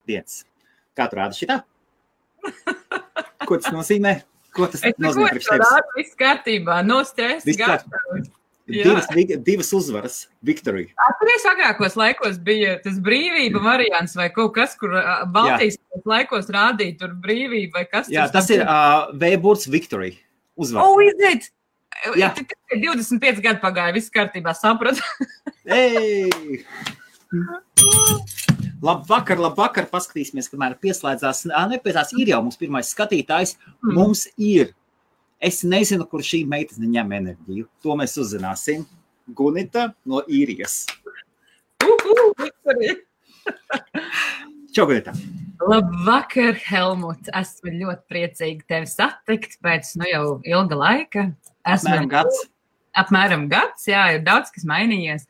dienas. Kā tu rādi šitā? Ko tas nozīmē? Ko tas nozīmē priekš tevis? Viss kārtībā, no stresa, gatavs. Divas uzvaras, victory. Atceries, agrākos laikos bija tas brīvība variants vai kaut kas, kur Baltijas laikos rādīja tur brīvība vai kas. Jā, tas ir V-burts victory. Uzvar. Oh, is it? Jā. 25 gadu pagāja, viss kārtībā, sapratu. Ei! Labvakar, paskatīsimies, kamēr pieslēdzās. Nepētās, ir jau mums pirmais skatītājs. Mums ir. Es nezinu, kur šī meitene ņem enerģiju. To mēs uzzināsim. Gunita no Īrijas. Čau, Gunita. Labvakar, Helmut. Esmu ļoti priecīgi tevi satikt pēc jau ilga laika. Apmēram gads, jā, ir daudz, kas mainījies.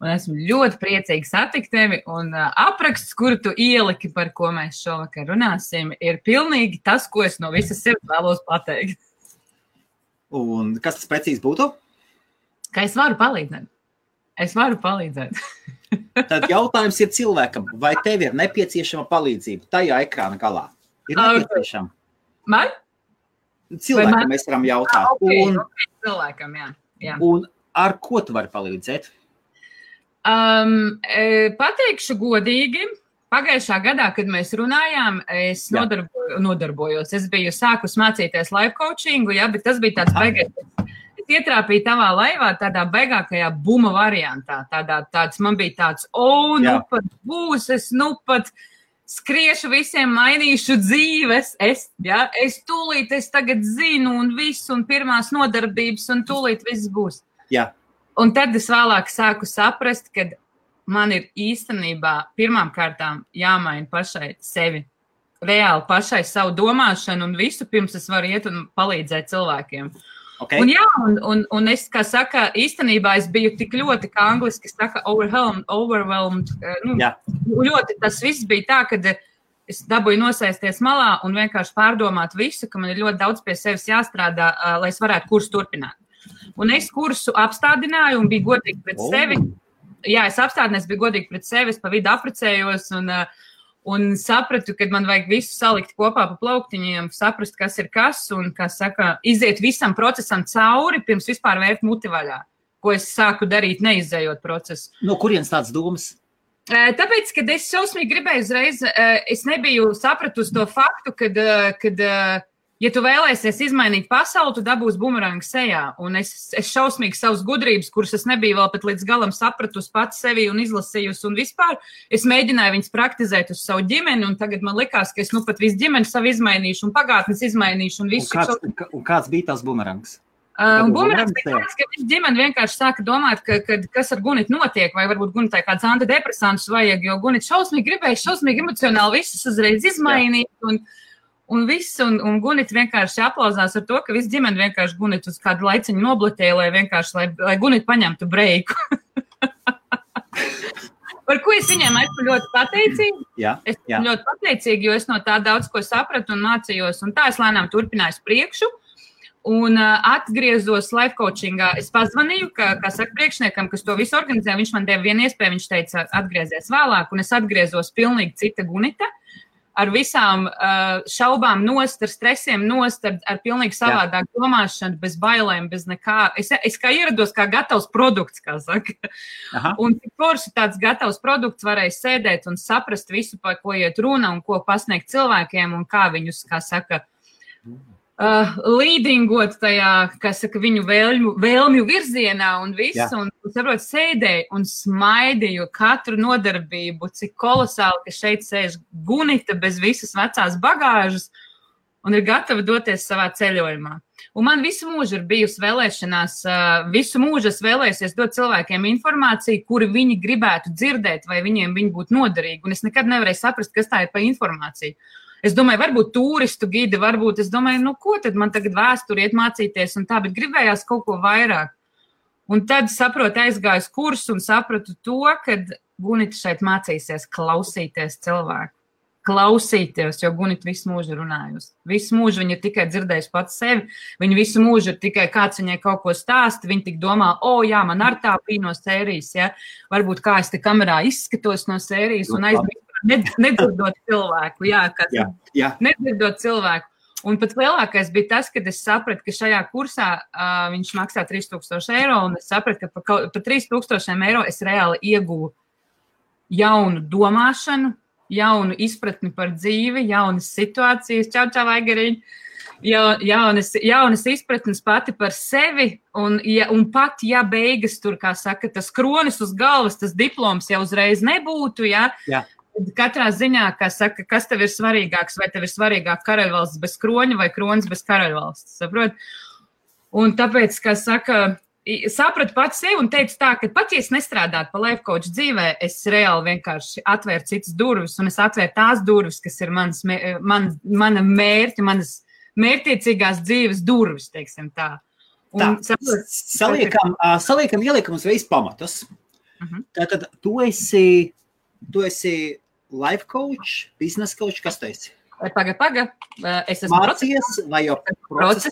Un esmu ļoti priecīgi satikt tevi. Un apraksts, kuru tu ieliki, par ko mēs šovakar runāsim, ir pilnīgi tas, ko es no visas sirds vēlos pateikt. Un kas tas precīzi būtu? Ka es varu palīdzēt. Tad jautājums ir cilvēkam, vai tev ir nepieciešama palīdzība tajā ekrāna galā? Ir nepieciešama? Man? Cilvēkam mēs varam jautāt. Okay, cilvēkam, jā. Un ar ko tu vari palīdzēt? Pateikšu godīgi. Pagājušā gadā, kad mēs runājām, es nodarbojos. Es biju sākus mācīties life coachingu, bet tas bija tāds beigais. Es ietrāpīju tavā laivā tādā beigākajā buma variantā. Man bija tāds, pat būs, es pat skriešu visiem, mainīšu dzīves. Es tūlīt, es tagad zinu un visu, un pirmās nodarbības, un tūlīt viss būs. Jā. Un tad es vēlāk sāku saprast, ka man ir īstenībā pirmām kārtām jāmaina pašai sevi. Reāli pašai savu domāšanu un visu pirms es varu iet un palīdzēt cilvēkiem. Okay. Un es, kā saka, īstenībā es biju tik ļoti, kā angliski saka, overwhelmed. Ļoti tas viss bija tā, kad es dabūju nosēsties malā un vienkārši pārdomāt visu, ka man ir ļoti daudz pie sevis jāstrādā, lai es varētu kursu turpināt. Un es kursu apstādināju un biju godīgi pret sevi. Jā, es apstādināju, biju godīgi pret sevi, es pa vidu aprecējos un sapratu, ka man vajag visu salikt kopā pa plauktiņiem, saprast, kas ir kas un, kā saka, iziet visam procesam cauri, pirms vispār vērt muti vaļā, ko es sāku darīt, neizējot procesu. No kurienes tāds domas? Tāpēc, kad es šausmīgi gribēju uzreiz, es nebiju sapratusi to faktu, kad ja tu vēlēsies izmainīt pasauli, tu dabūsi bumerangu sejā. Un es šausmīgi savas gudrības, kuras es nebiju vēl pat līdz galam sapratusi pats sevi un izlasījusi un vispār, es mēģināju viņas praktizēt uz savu ģimeni, un tagad man likās, ka es pat visu ģimeni savu izmainīšu un pagātnes izmainīšu un visu. Un kāds bija tās bumerangs? Bumerangs bija tāds, ka visu ģimeni vienkārši sāka domāt, kas ar Gunitu notiek, vai varbūt Gunitai kāds antidepresantus vajag, jo Gunita šausmīgi gribēja, šausmīgi emocionāli visus uzreiz izmainīt, un viss, un Gunita vienkārši aplauzās ar to, ka viss ģimeni vienkārši Gunitu uz kādu laiciņu noblatēja, lai Gunita paņemtu breiku. Par ko es viņiem esmu ļoti pateicīga. Esmu ļoti pateicīga, jo es no tā daudz ko sapratu un mācījos, un tā es lēnām turpināju priekšu. Un atgriezos life coachingā. Es pazvanīju, kā saka priekšniekam, kas to visu organizē, viņš man deva vienu iespēju, viņš teica, atgriezies vēlāk, un es atgriezos pilnīgi cita Gunita. Ar visām šaubām nost, ar stresiem nost, ar pilnīgi savādāk domāšanu, bez bailēm, bez nekā. Es kā ierados kā gatavs produkts, kā saka. Aha. Un tik forši tāds gatavs produkts varēja sēdēt un saprast visu, par ko iet runa un ko pasniegt cilvēkiem un kā viņus, kā saka, līdingot tajā, kā saka, viņu vēlmju virzienā un visu, un saprot, sēdēju un smaidīju katru nodarbību, cik kolosāli, ka šeit sēž Gunita bez visas vecās bagāžas un ir gatava doties savā ceļojumā. Un man visu mūžu ir bijusi vēlēšanās, visu mūžu es vēlēsies dot cilvēkiem informāciju, kuri viņi gribētu dzirdēt, vai viņiem viņi būtu noderīgi, un es nekad nevarēju saprast, kas tā ir pa informāciju. Es domāju, varbūt turistu gidi, varbūt es domāju, ko tad man tagad vēsturi iet mācīties un tā, bet gribējās kaut ko vairāk. Un tad saprotu, aizgāju kursu un sapratu to, ka Gunita šeit mācīsies klausīties cilvēku. Klausīties, jo Gunita visu mūžu runājusi. Visu mūžu viņa ir tikai dzirdējusi pats sevi, viņa visu mūžu ir tikai kāds viņai kaut ko stāsta, viņa tik domā, man ar tā bija no sērijas, ja? Varbūt kā es te kamerā izskatos no sērijas un aizmirst nedzirdot cilvēku. Jā. Nedzirdot cilvēku. Un pat lielākais bija tas, kad es sapratu, ka šajā kursā viņš maksā 3000 eiro, un es sapratu, ka par 3000 eiro es reāli ieguvu jaunu domāšanu, jaunu izpratni par dzīvi, jaunas situācijas, čau, Aigariņ, jaunas izpratnes pati par sevi, un pat, ja beigas tur, kā saka, tas kronis uz galvas, tas diploms jau uzreiz nebūtu, Jā. Katrā ziņā, kā saka, kas tev ir svarīgāks, vai tev ir svarīgāk karaļvalsts bez kroņa vai kronis bez karaļvalsts, saprot? Un tāpēc, kā saka, sapratu pats sevi un teicu tā, ka pat, ja es nestrādātu pa life coach dzīvē, es reāli vienkārši atvēru citas durvis, un es atvēru tās durvis, kas ir mana mērķa, manas mērķtiecīgās dzīves durvis, teiksim tā. Un, saliekam, ieliekam uzreiz pamatus. Tātad tu esi life coach, business coach, kas tu esi? Paga. Es esmu Mācies vai jau procesā?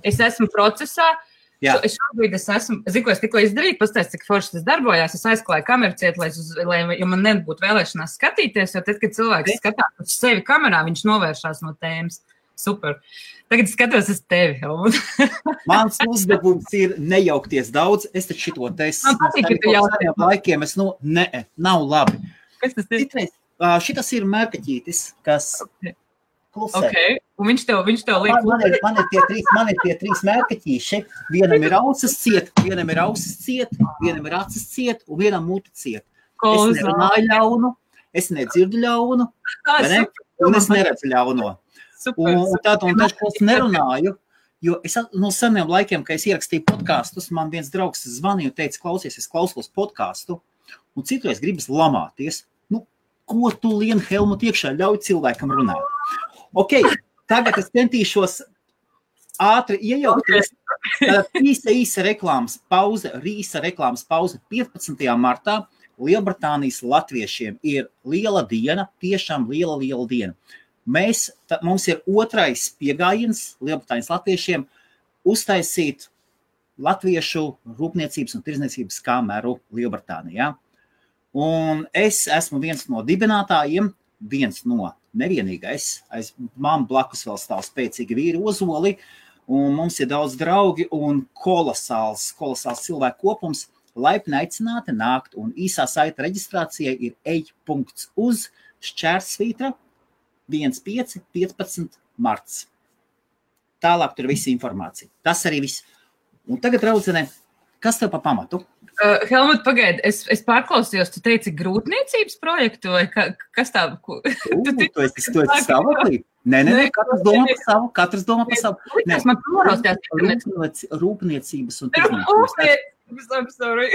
Es esmu procesā. Šobrīd es esmu, zinu, ko es tikko izdarīju, pastāst, cik forši tas darbojās. Es aizklāju kameru ciet, lai man nebūtu vēlēšanās skatīties, jo tad, kad cilvēks skatās uz sevi kamerā, viņš novēršās no tēmas. Super. Tagad skatos uz tevi. Mans uzdevums ir nejaukties daudz. Es taču šito teicu. Man patīk, ka tu jautā. Laikiem nav labi. Kas tas ir? Šitas ir mērkaķītis, kas klusē. Okay. Un viņš tev liek. Man ir tie trīs mērkaķīši. Vienam ir ausis ciet, vienam ir acis ciet, un vienam muti ciet. Es nerunāju ļaunu, es nedzirdu ļaunu, un es neredzu ļauno. Un tad, ko es nerunāju, jo es no seniem laikiem, kad es ierakstīju podkastus, man viens draugs zvanīja un teica, klausies, es klausos podkastu, un citreiz gribas lamāties. Ko tu lien Helmut iekšā, ļauj cilvēkam runāt? Ok, tagad es centīšos ātri iejaukties. Īsa reklāmas pauze, 15. martā Lielbritānijas latviešiem ir liela diena, tiešām liela diena. Mums ir otrais piegājiens Lielbritānijas latviešiem uztaisīt latviešu rūpniecības un tirdzniecības kameru Lielbritānijā. Un es esmu viens no dibinātājiem, nevienīgais. Man blakus vēl stāv spēcīgi vīri Ozoli, un mums ir daudz draugi un kolosāls cilvēku kopums. Laipni aicināti nākt, un īsā saita reģistrācijai ir ej.uz//svītra 15. marts. Tālāk tur visa informācija. Tas arī viss. Un tagad, draudzene, kas tev pa pamatu? Helmut, pagaidi, es pārklausījos, tu teici grūtniecības projektu, vai kas tā? Tu esi stāvoklī? Nē, katrs domā par savu. Man prorostās. Rūpniecības un tirdzniecības. I'm sorry.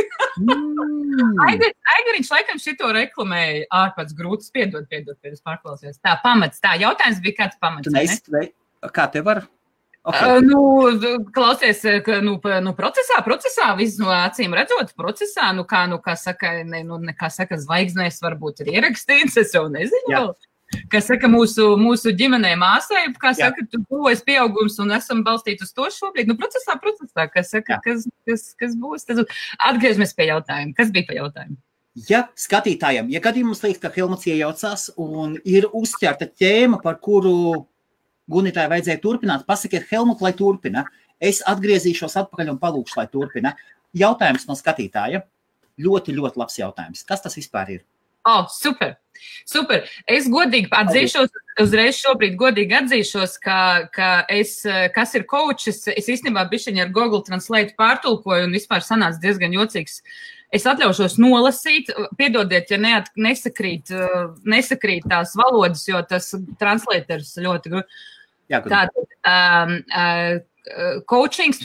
Aigariņš laikam šito reklamēja ārpēc grūtas, piedod, es pārklausījos. Tā, pamats, tā, jautājums bija kāds pamats, ne? Kā tev var? Okay. Klausies, procesā, viss no acīm redzot, procesā, kā saka, zvaigznēs varbūt ir ierakstīts, es jau nezinu vēl. Kā saka, mūsu ģimenē māsai, kā saka, tu būs pieaugums un esam balstīti uz to šobrīd. Procesā, kā saka, kas būs? Atgriežamies pie jautājuma. Kas bija pa jautājumu? Ja skatītājiem, ja gadījumā mums liekas, ka Helmuts iejaucās un ir uzķerta ķēma, par kuru Gunitai vajadzēja turpināt, pasakiet Helmut, lai turpina. Es atgriezīšos atpakaļ un palūkšu, lai turpina. Jautājums no skatītāja. Ļoti, ļoti labs jautājums. Kas tas vispār ir? Super. Es godīgi atzīšos, uzreiz šobrīd godīgi atzīšos, ka kas ir coaches, es īstenībā bišķiņi ar Google Translate pārtulkoju un vispār sanāca diezgan jocīgs. Es atļaušos nolasīt, piedodiet, ja nesakrīt tās valodas, jo tas translators ļoti grūti. Coachings,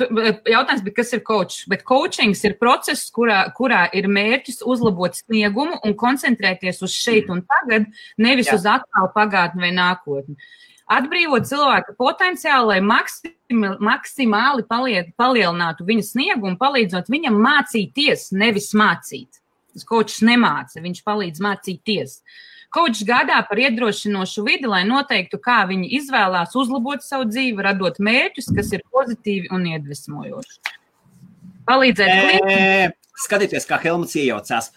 jautājums bija, kas ir coach, bet coachings ir process, kurā ir mērķis uzlabot sniegumu un koncentrēties uz šeit un tagad, nevis uz attālu pagātni vai nākotni. Atbrīvot cilvēka potenciālu, lai maksimāli palielinātu viņa sniegumu, palīdzot viņam mācīties, nevis mācīt. Coachs nemāca, viņš palīdz mācīties. Coachs gādā par iedrošinošu vidi, lai noteiktu, kā viņi izvēlās uzlabot savu dzīvi, radot mērķus, kas ir pozitīvi un iedvesmojoši. Palīdzēt klientam. Skatieties, kā Helmuts iejaucās.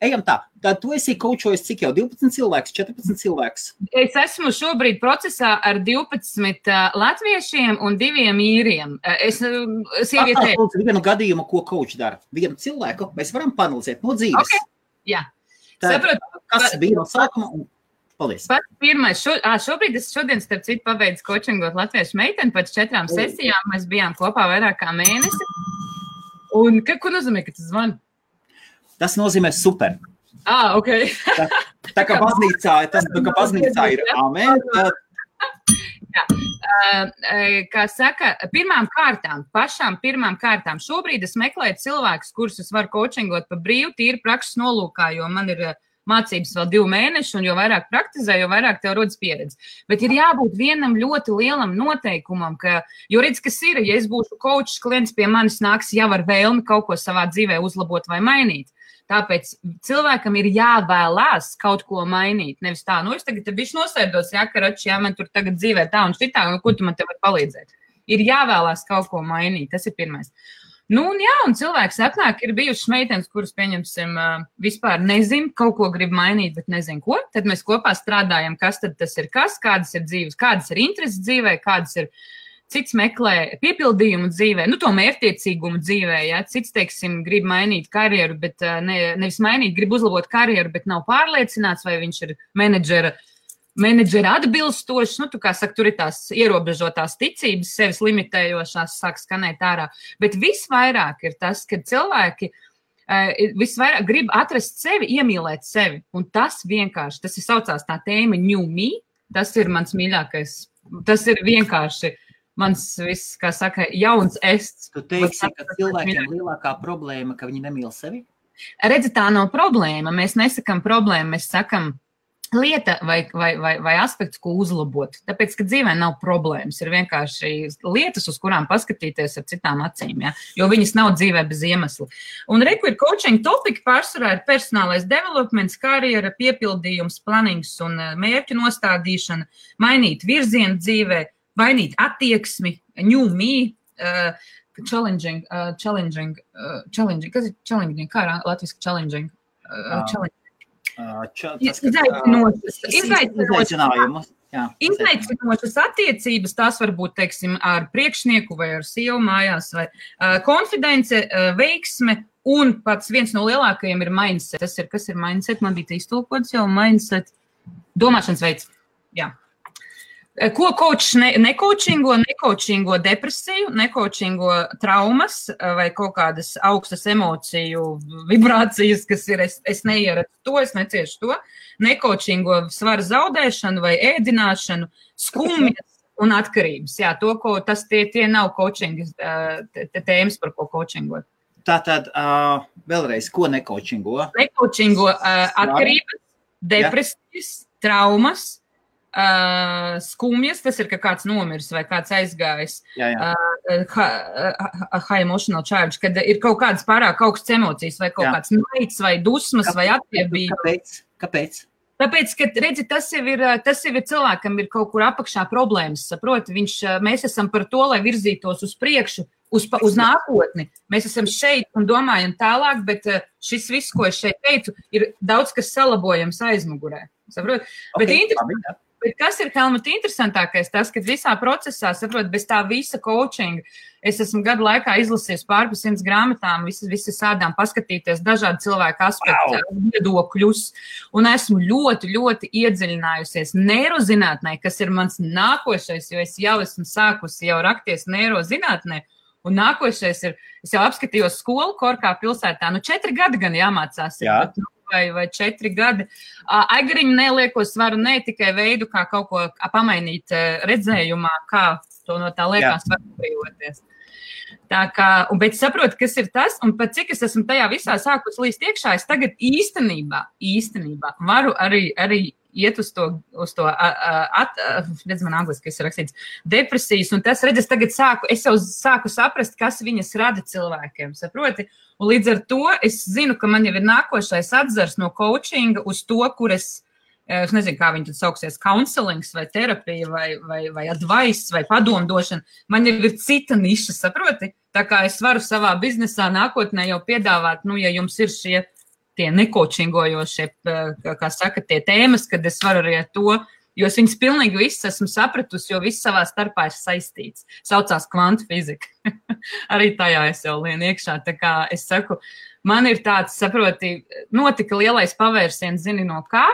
ejam tā. Tad tu esi kaučojis cik jau 12 cilvēks, 14 cilvēks? Es esmu šobrīd procesā ar 12 latviešiem un 2 īriem. Sievietē... Vienu gadījumu, ko kauč dara. Vienu cilvēku mēs varam panalizēt no dzīves. Okay. Jā. Saprotu, kas bija no sākuma un paldies. Pats pirmais, šodien starp citu pabeidzu kočingot latviešu meiteni, pēc 4 sesijām mēs bijām kopā vairāk kā mēnesi. Un ko nozīmē, ka tas zvana? Tas nozīmē super. Ok. tā kā baznīcā ir amen. Jā. Kā saka, pašām pirmām kārtām. Šobrīd es meklēju cilvēkus, kurus es varu kočingot pa brīvu, tīri prakses nolūkā, jo man ir mācības vēl 2 mēneši, un jo vairāk praktizē, jo vairāk tev rodas pieredze. Bet ir jābūt vienam ļoti lielam noteikumam, jo redz, kas ir, ja es būšu kočs, klients pie manis nāks jau ar vēlmi kaut ko savā dzīvē uzlabot vai mainīt. Tāpēc cilvēkam ir jāvēlās kaut ko mainīt. Nevis tā, es tagad bišķi nosēdos, karači, man tur tagad dzīvē tā un šitā, un ko tu man te var palīdzēt. Ir jāvēlās kaut ko mainīt, tas ir pirmais. Un cilvēks atnāk, ir bijušas meitenes, kuras, pieņemsim, vispār nezin, kaut ko grib mainīt, bet nezin ko. Tad mēs kopā strādājam, kas tad tas ir kādas ir dzīves, kādas ir intereses dzīvē, kādas ir cits meklē piepildījumu dzīvē, to mērķtiecīgumu dzīvē, cits, teiksim, grib mainīt karjeru, bet nevis mainīt, grib uzlabot karjeru, bet nav pārliecināts, vai viņš ir menedžera atbilstošs, kā saka, tur ir tās ierobežotās ticības, sevis limitējošās, sāk skanēt ārā, bet visvairāk ir tas, ka cilvēki visvairāk grib atrast sevi, iemīlēt sevi, un tas vienkārši, tas ir saucās tā tēma New Me, tas ir mans mīļākais, tas ir vienkārši mans viss, kā saka, jauns ests. Tu teiksi, ka cilvēkiem lielākā problēma, ka viņi nemīl sevi? Redzi, tā nav problēma. Mēs nesakam problēmu, mēs sakam lieta vai aspekts, ko uzlabot. Tāpēc, ka dzīvē nav problēmas, ir vienkārši lietas, uz kurām paskatīties ar citām acīm, jo viņas nav dzīvē bez iemesla. Un reku ir coaching topiki, pārsvarā ir personālais developments, karjera, piepildījums, planings un mērķu nostādīšana, mainīt virzienu dzīvē, mainīt attieksmi, new me, challenging, kas ir challenging, kā latviski challenging? Izaicinošas attiecības, tās var būt, teiksim, ar priekšnieku vai ar sievu mājās, vai konfidence, veiksme, un pats viens no lielākajiem ir mindset. Tas ir, kas ir mindset? Man bija iztulkots jau mindset. Domāšanas veids, jā. Ko kočs nekoučingo depresiju, nekoučingo traumas vai kaut kādas augstas emociju vibrācijas, kas ir, es neieredzu to, es neciešu to, nekoučingo svara zaudēšanu vai ēdināšanu, skumjas un atkarības. Jā, tie nav coachingas tēmas, par ko coachingot. Tātad, vēlreiz, ko nekoučingo? Nekoučingo atkarības, depresijas, traumas, skumjas, tas ir, ka kāds nomirs vai kāds aizgājis, high emotional charge, kad ir kaut kādas pārāk augstas emocijas vai kaut kāds naids vai dusmas vai attiebība. Kāpēc? Tāpēc, ka, redzi, tas jau ir cilvēkam ir kaut kur apakšā problēmas, saproti, mēs esam par to, lai virzītos uz priekšu, uz nākotni. Mēs esam šeit un domājam tālāk, bet šis viss, ko es šeit teicu, ir daudz, kas salabojams aizmugurē, saproti? Bet kas ir, Helmut, interesantākais, tas, ka visā procesā, saprot, bez tā visa coachinga, es esmu gadu laikā izlasījis pār 100 grāmatām, visas sādām paskatīties dažādu cilvēku aspektu, viedokļus, un esmu ļoti, ļoti iedziļinājusies neirozinātnē, kas ir mans nākošais, jo es jau esmu sākusi jau rakties neirozinātnē, un nākošais ir, es jau apskatījos skolu Korkā pilsētā, 4 gadi gan jāmācās. Jā. Vai 4 gadi. Aigariņu nelieko svaru, ne tikai veidu, kā kaut ko pamainīt redzējumā, kā to no tā liekas var brīvoties. Tā kā, bet saprotu, kas ir tas, un pat cik es esmu tajā visā sākus līst iekšā, es tagad īstenībā varu arī iet uz to redz man angliski, kas ir rakstīts, depresijas, un tas, redz, es jau sāku saprast, kas viņas rada cilvēkiem, saproti? Un līdz ar to es zinu, ka man jau ir nākošais atzars no coachinga uz to, kur es nezinu, kā viņi tad sauksies, counselings vai terapija vai advice vai padomdošana. Man jau ir cita niša, saproti? Tā kā es varu savā biznesā nākotnē jau piedāvāt, ja jums ir tie nekočingojošie, kā saka, tie tēmas, kad es varu arī ar to, jo es viņas pilnīgi visas esmu sapratusi, jo viss savā starpā ir saistīts. Saucās kvantu fizika. Arī tajā es jau lienu iekšā. Tā kā es saku, man ir tāds, saproti, notika lielais pavērsiens, zini no kā.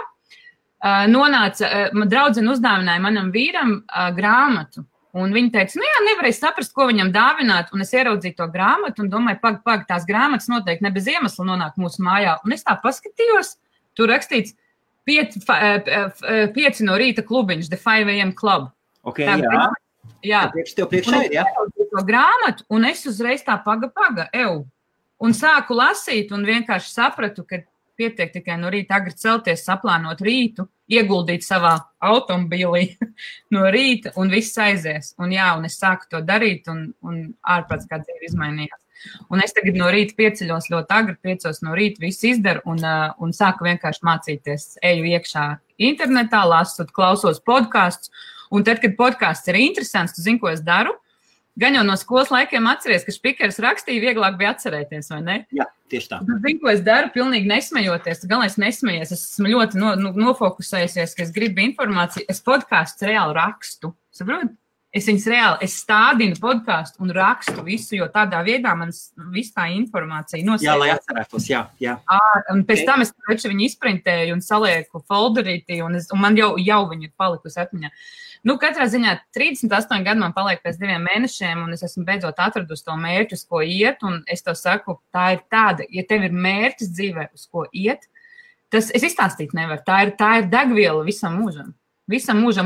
Nonāca, draudzene uzdāvināja manam vīram grāmatu. Un viņa teica, nu jā, nevarēja saprast, ko viņam dāvināt. Un es ieraudzīju to grāmatu un domāju, pag, tās grāmatas noteikti ne bez iemesla nonāk mūsu mājā. Un es tā paskatījos, tur rakstīts 5 no rīta klubiņš, The 5 AM Club. Ok, tā, jā. Tev priekšā ir, jā? Un es to grāmatu, un es uzreiz tā paga, un sāku lasīt, un vienkārši sapratu, ka pietiek tikai no rīta agri celties, saplānot rītu, ieguldīt savā automobīlī no rīta, un viss aizies. Un jā, un es sāku to darīt, un ārprāts kā dzīve izmainījās. Un es tagad no rīta pieceļos ļoti agri, 5 no rīta visu izdaru, un sāku vienkārši mācīties. Eju iekšā internetā, lasot, klausos podkastus, un tad, kad podkasts ir interesants, tu zini, ko es daru? Gan jau no skolas laikiem atceries, ka Špikers rakstīja, vieglāk bija atcerēties, vai ne? Jā, tieši tā. Zinu, ko es daru, pilnīgi nesmejoties. Galvenais nesmejies. Es esmu ļoti nofokusējusies, ka es gribu informāciju. Es podkāstus reāli rakstu. Saprot? Es viņus reāli, stādinu podkāstu un rakstu visu, jo tādā veidā man viss tā informācija nosēž. Jā, lai atcerētos, jā. Un pēc tam es viņu izprintēju un salieku folderītī, un man jau viņa ir palikusi atmiņā. Nu, katrā ziņā 38 gadi man paliek pēc 2 mēnešiem, un es esmu beidzot atradusi to mērķi, uz ko iet, un es to saku, tā ir tāda, ja tev ir mērķis dzīvē, uz ko iet, tas es izstāstīt nevaru, tā ir degviela visam mūžam,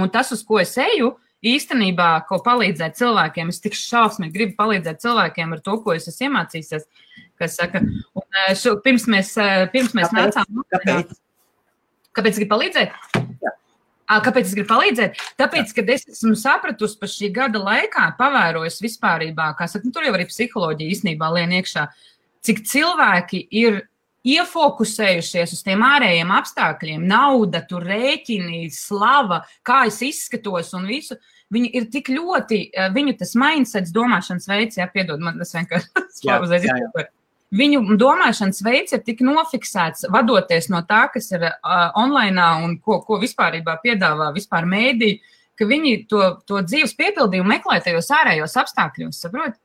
un tas, uz ko es eju, īstenībā, ko palīdzēt cilvēkiem, es tik šausmīgi gribu palīdzēt cilvēkiem ar to, ko es esmu iemācījusies, kas saka, un pirms mēs nācām. Kāpēc gribu palīdzēt? Jā. Kāpēc es gribu palīdzēt? Tāpēc, kad es esmu sapratusi par šī gada laikā, pavērojis vispārībā, kā saka, tur jau arī psiholoģija īstenībā lien iekšā, cik cilvēki ir iefokusējušies uz tiem ārējiem apstākļiem, nauda, tur rēķini, slava, kā es izskatos un visu, viņi ir tik ļoti, viņu tas mindsets, domāšanas veids, piedod, man tas vienkārši Viņu domāšanas veids ir tik nofiksēts, vadoties no tā, kas ir online un ko vispārībā piedāvā vispār mēdī, ka viņi to dzīves piepildījumu meklē tajos ārējos apstākļos, saprot?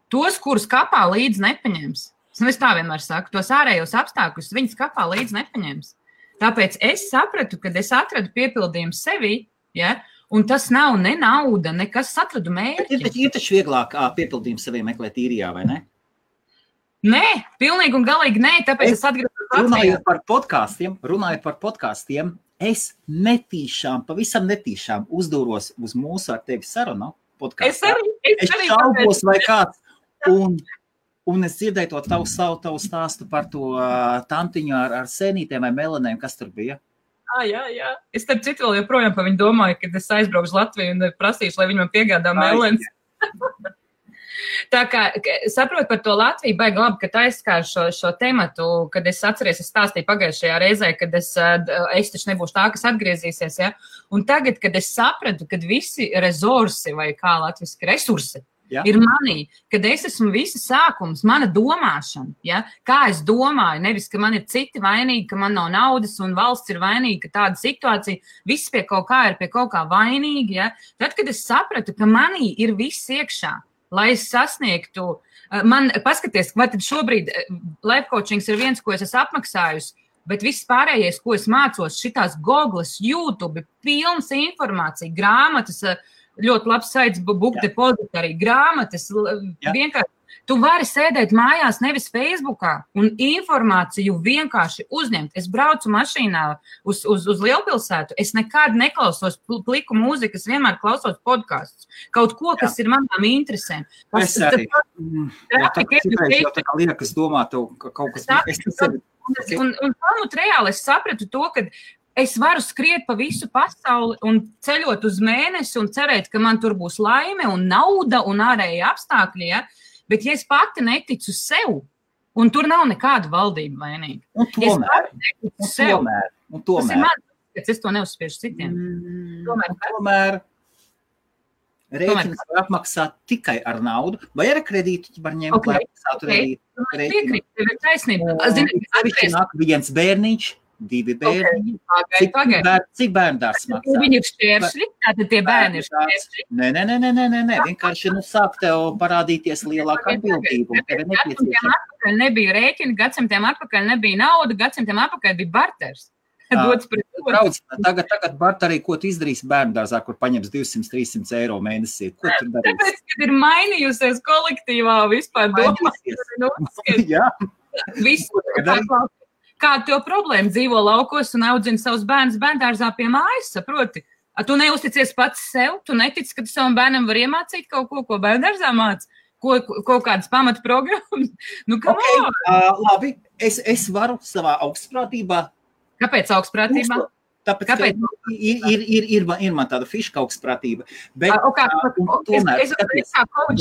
Tos, kurus kapā līdz nepaņems. Es tā vienmēr saku, tos ārējos apstākļus viņas kapā līdz nepaņems. Tāpēc es sapratu, kad es atradu piepildījumu sevi, ja, un tas nav ne nauda, nekas atradu mērķi. Ir taču vieglāk piepildījumu sevi meklēt īrijā, vai ne? Nē, pilnīgi un galīgi nē, tāpēc es atgriežos Latvijā. Runājot par podkāstiem, es pavisam netīšām uzdūros uz mūsu ar tevi sarunu podkāstā. Es šaubos vai kāds, un es dzirdēju to tavu stāstu par to tantiņu ar sēnītēm vai melanēm, kas tur bija. Jā. Es starp citu vēl joprojām par viņu domāju, kad es aizbraukšu Latviju un prasīšu, lai viņi man piegādā melens. Tā kā saprotu par to Latviju, baigi labi, ka aizskāru šo tematu, kad es atceries, es stāstīju pagājušajā reizē, kad es taču nebūšu tā, kas atgriezīsies, ja? Un tagad, kad es sapratu, kad visi resursi vai kā latviski resursi ir manī, kad es esmu visi sākums, mana domāšana, ja? Kā es domāju, nevis, ka man ir citi vainīgi, ka man nav naudas un valsts ir vainīga, ka tāda situācija, viss pie kaut kā ir pie kaut kā vainīgi, ja? Tad, kad es sapratu, ka manī ir viss iekšā, lai es sasniegtu, man paskaties, vai tad šobrīd life coachings ir viens, ko es esmu apmaksājusi, bet viss pārējais, ko es mācos, šitās Googles, YouTube, pilns informācija, grāmatas, ļoti labs saits book depository, grāmatas, vienkārši. Tu vari sēdēt mājās, nevis Facebookā, un informāciju vienkārši uzņemt. Es braucu mašīnā uz lielpilsētu, es nekad neklausos pliku mūziku, es vienmēr klausos podkastus. Kaut ko, kas ir manām interesēm. Es arī. Jau tā kā liekas domāt, kaut kas... Un pamut reāli es sapratu to, ka es varu skriet pa visu pasauli un ceļot uz mēnesi un cerēt, ka man tur būs laime un nauda un ārēji apstākļi, ja? Bet ja es pati neticu sev, un tur nav nekāda valdība vainīga. Un tomēr. Tas ir man, ka es to neuzspiežu citiem. Tomēr. Rēķinas var apmaksāt tikai ar naudu, vai ar kredītu var ņemt, lai apmaksātu rēķinu. Tev ir taisnība. Sevišķi nāk viens bērniņš, 2 bērniņi. Cik bērndārs maksā? Viņi ir šķēršļi, tātad tie bērni ir šķēršļi. Nē, vienkārši sāk tev parādīties lielāka atbildība. Tev ir nepieciešama. Atpakaļ nebija rēķini, gadsimtiem atpakaļ nebija nauda, gadsimtiem atpakaļ bija barters. Brauc, tagad barterī, ko tu izdarīsi bērndārzā, kur paņems 200-300 eiro mēnesī? Ko tu darīsi? Tāpēc, kad ir mainījusies kolektīvā vispār domās. Jā. Visu, kāda tev problēma dzīvo laukos un audzina savus bērnus bērndārzā pie mājas, saproti? Tu neusticies pats sev, tu netici, ka tu savam bērnam var iemācīt kaut ko bērndārzā māc? Kaut kādas pamata programmas? Labi, es varu savā augstprātībā. Kāpēc augstprātībā? Tāpēc, ir man tāda fiška augstprātība. Bet,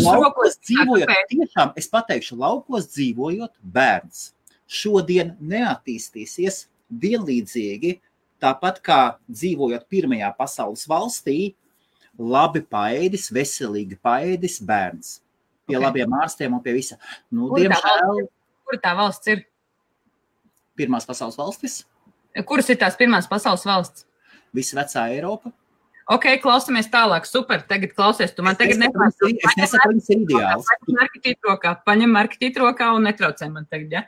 laukos dzīvojot, tiešām, es pateikšu, laukos dzīvojot, bērns šodien neattīstīsies vienlīdzīgi, tāpat kā dzīvojot pirmajā pasaules valstī, labi paēdis, veselīgi paēdis bērns. Pie labiem ārstiem un pie visa. Diemžēl. Kur tā valsts ir? Pirmās pasaules valstis. Kuras ir tās pirmās pasaules valsts? Visa vecā Eiropa. Ok, klausamies tālāk. Super, tagad klausies. Tu man tagad nepārspēj. Es nesaku, viņas ir ideāls. Paņem marketīti rokā un netraucē man tagad, ja?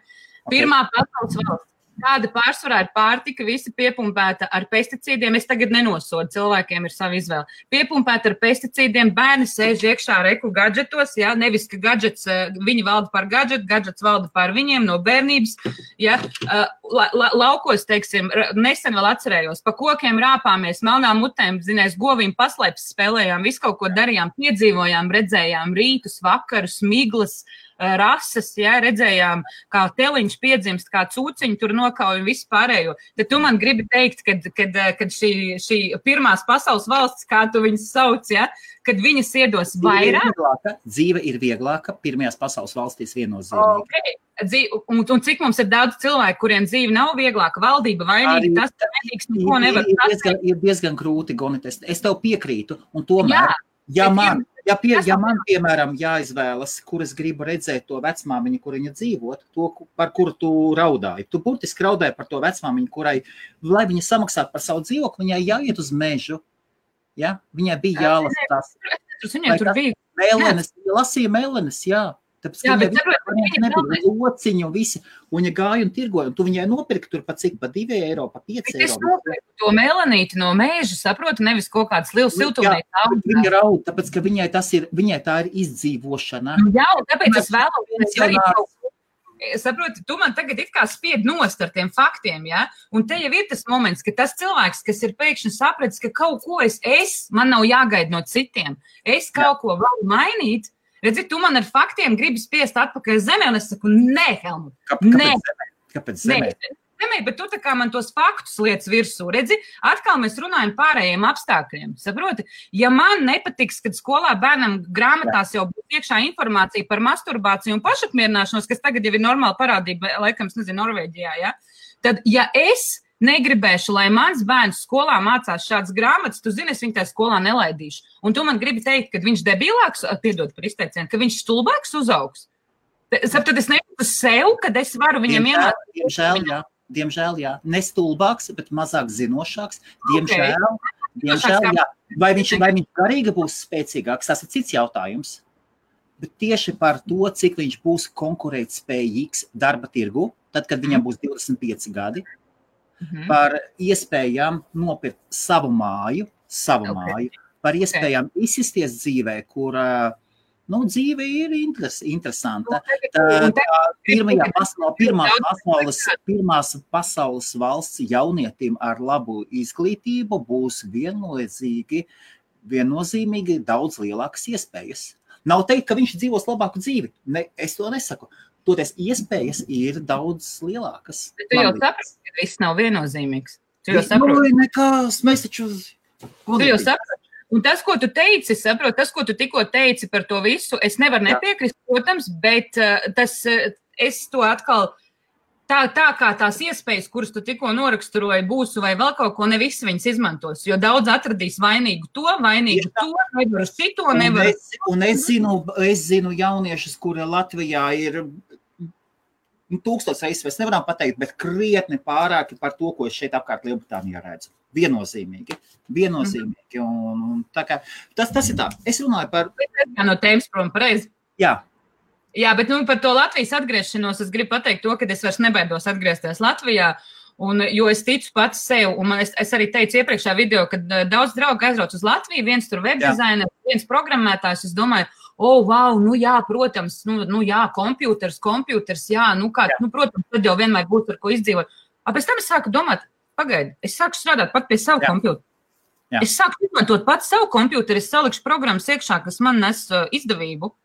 Pirmā pasaules valsts. Kāda pārsvarā ir pārtika, visi piepumpēta ar pesticīdiem. Es tagad nenosodu, cilvēkiem ir sava izvēle. Piepumpēta ar pesticīdiem, bērni sēž iekšā reku gadžetos, ja? Nevis, ka gadžets, viņi valda par gadžetu, gadžets valda par viņiem no bērnības. Ja? Laukos, teiksim, nesen vēl atcerējos, pa kokiem rāpāmies, melnām mutēm, zinās, govīm paslēpes spēlējām, visu kaut ko darījām, piedzīvojām, redzējām rītus, vakarus, miglas, rases, ja, redzējām, kā teliņš piedzimst, kā cūciņi tur nokauj un visu pārējo. Tad tu man gribi teikt, kad šī pirmās pasaules valsts, kā tu viņas sauc, ja, kad viņas iedos vairāk. Dzīve ir vieglāka pirmajās pasaules valstīs viennozīmīgi. Okay. Un cik mums ir daudz cilvēku, kuriem dzīve nav vieglāka, valdība vainīga, tas nedīgs neko nevar. Ir diezgan grūti, Gonit, es tev piekrītu, un tomēr, ja man, piemēram, jāizvēlas, kur es gribu redzēt to vecmāmiņu, kur viņa dzīvot, to, par kuru tu raudāji. Tu burtiski raudāji par to vecmāmiņu, kurai, lai viņa samaksātu par savu dzīvokli, viņai jāiet uz mežu. Ja? Viņai bija jālasa tās. Viņai tur bija. Mēlenes, lasīja mēlenes, jā. Tāpēc, ka viņa nebija lociņu un visi, un viņa gāja un tirgoja, un tu viņai nopirki tur pa cik, pa 2 eiro, pa 5 eiro. Es nopirku to melanīti no mēža, saprotu, nevis kaut kāds liels siltumnīca. Viņa raud, tāpēc, ka viņai tā ir izdzīvošana. Jā, un tāpēc es vēlos, saproti, tu man tagad it kā spied nost ar tiem faktiem, ja? Un te jau ir tas moments, ka tas cilvēks, kas ir pēkšņi sapratis, ka kaut ko man nav jāgaida no citiem, es kaut ko varu mainīt, redzi, tu man ar faktiem gribi spiest atpakaļ zemē, un es saku, nē, Helmut, Kāpēc zemē? Zemē, bet tu tā kā man tos faktus lietas virsū, redzi, atkal mēs runājam pārējiem apstākļiem, saproti? Ja man nepatiks, kad skolā bērnam grāmatās jau būs iekšā informācija par masturbāciju un pašapmierināšanos, kas tagad jau ir normāla parādība, laikam, es nezinu, Norvēģijā, ja? Tad, ja es negribēšu, lai mans bērns skolā mācās šādas grāmatas, tu zini, es viņu tajā skolā nelaidīšu. Un tu man gribi teikt, ka viņš debilāks, piedod par izteicienu, ka viņš stulbāks uzaugs. Tad es nejūtu sev, kad es varu viņam iemācīt. Diemžēl, jā. Ne stulbāks, bet mazāk zinošāks. Diemžēl, jā. Vai viņš garīgi būs spēcīgāks, tas ir cits jautājums. Bet tieši par to, cik viņš būs konkurētspējīgs darba tirgu, tad, kad viņam būs 25 gadi, par iespējām nopirkt savu māju, par iespējām izsisties dzīvē, kur dzīve ir interesanta. Pirmās pasaules valsts jaunietim ar labu izglītību būs viennozīmīgi daudz lielākas iespējas. Nav teikt, ka viņš dzīvos labāku dzīvi. Es to nesaku. Toties iespējas ir daudz lielākas. Bet tu jau saprati, ka viss nav viennozīmīgs. Tu jau saproti. Nekās, mēs taču... Tu jau saprati. Un tas, ko tu teici, saprot, tas, ko tu tikko teici par to visu, es nevaru nepiekrist, protams, bet es to atkal tā kā tās iespējas, kuras tu tikko noraksturoji, būs vai vēl kaut ko, ne visi viņas izmantos, jo daudz atradīs vainīgu to, nevar šito, nevar. Un es zinu jauniešus, kuri Latvijā ir 1000 reizes, mēs nevaram pateikt, bet krietni pārāki par to, ko es šeit apkārt Lielbritānijā redzu. Viennozīmīgi. Un tā kā, tas ir tā. Es runāju par... No tēmas prom pareizi. Jā, bet par to Latvijas atgriešanos es gribu pateikt to, ka es vairs nebaidos atgriezties Latvijā, jo es ticu pats sev, un es arī teicu iepriekšā video, ka daudz draugu aizbrauc uz Latviju, viens tur webdizaineris, viens programmētājs, es domāju, wow, protams, kompjūters, protams, tad jau vienmēr būs ar ko izdzīvot. Pēc tam es sāku domāt, pagaidi, es sāku strādāt pat pie savu kompjūteru. Es sāku izmantot pat savu kompjūteru, es salikšu programmas iekšā, kas man nes izdevību.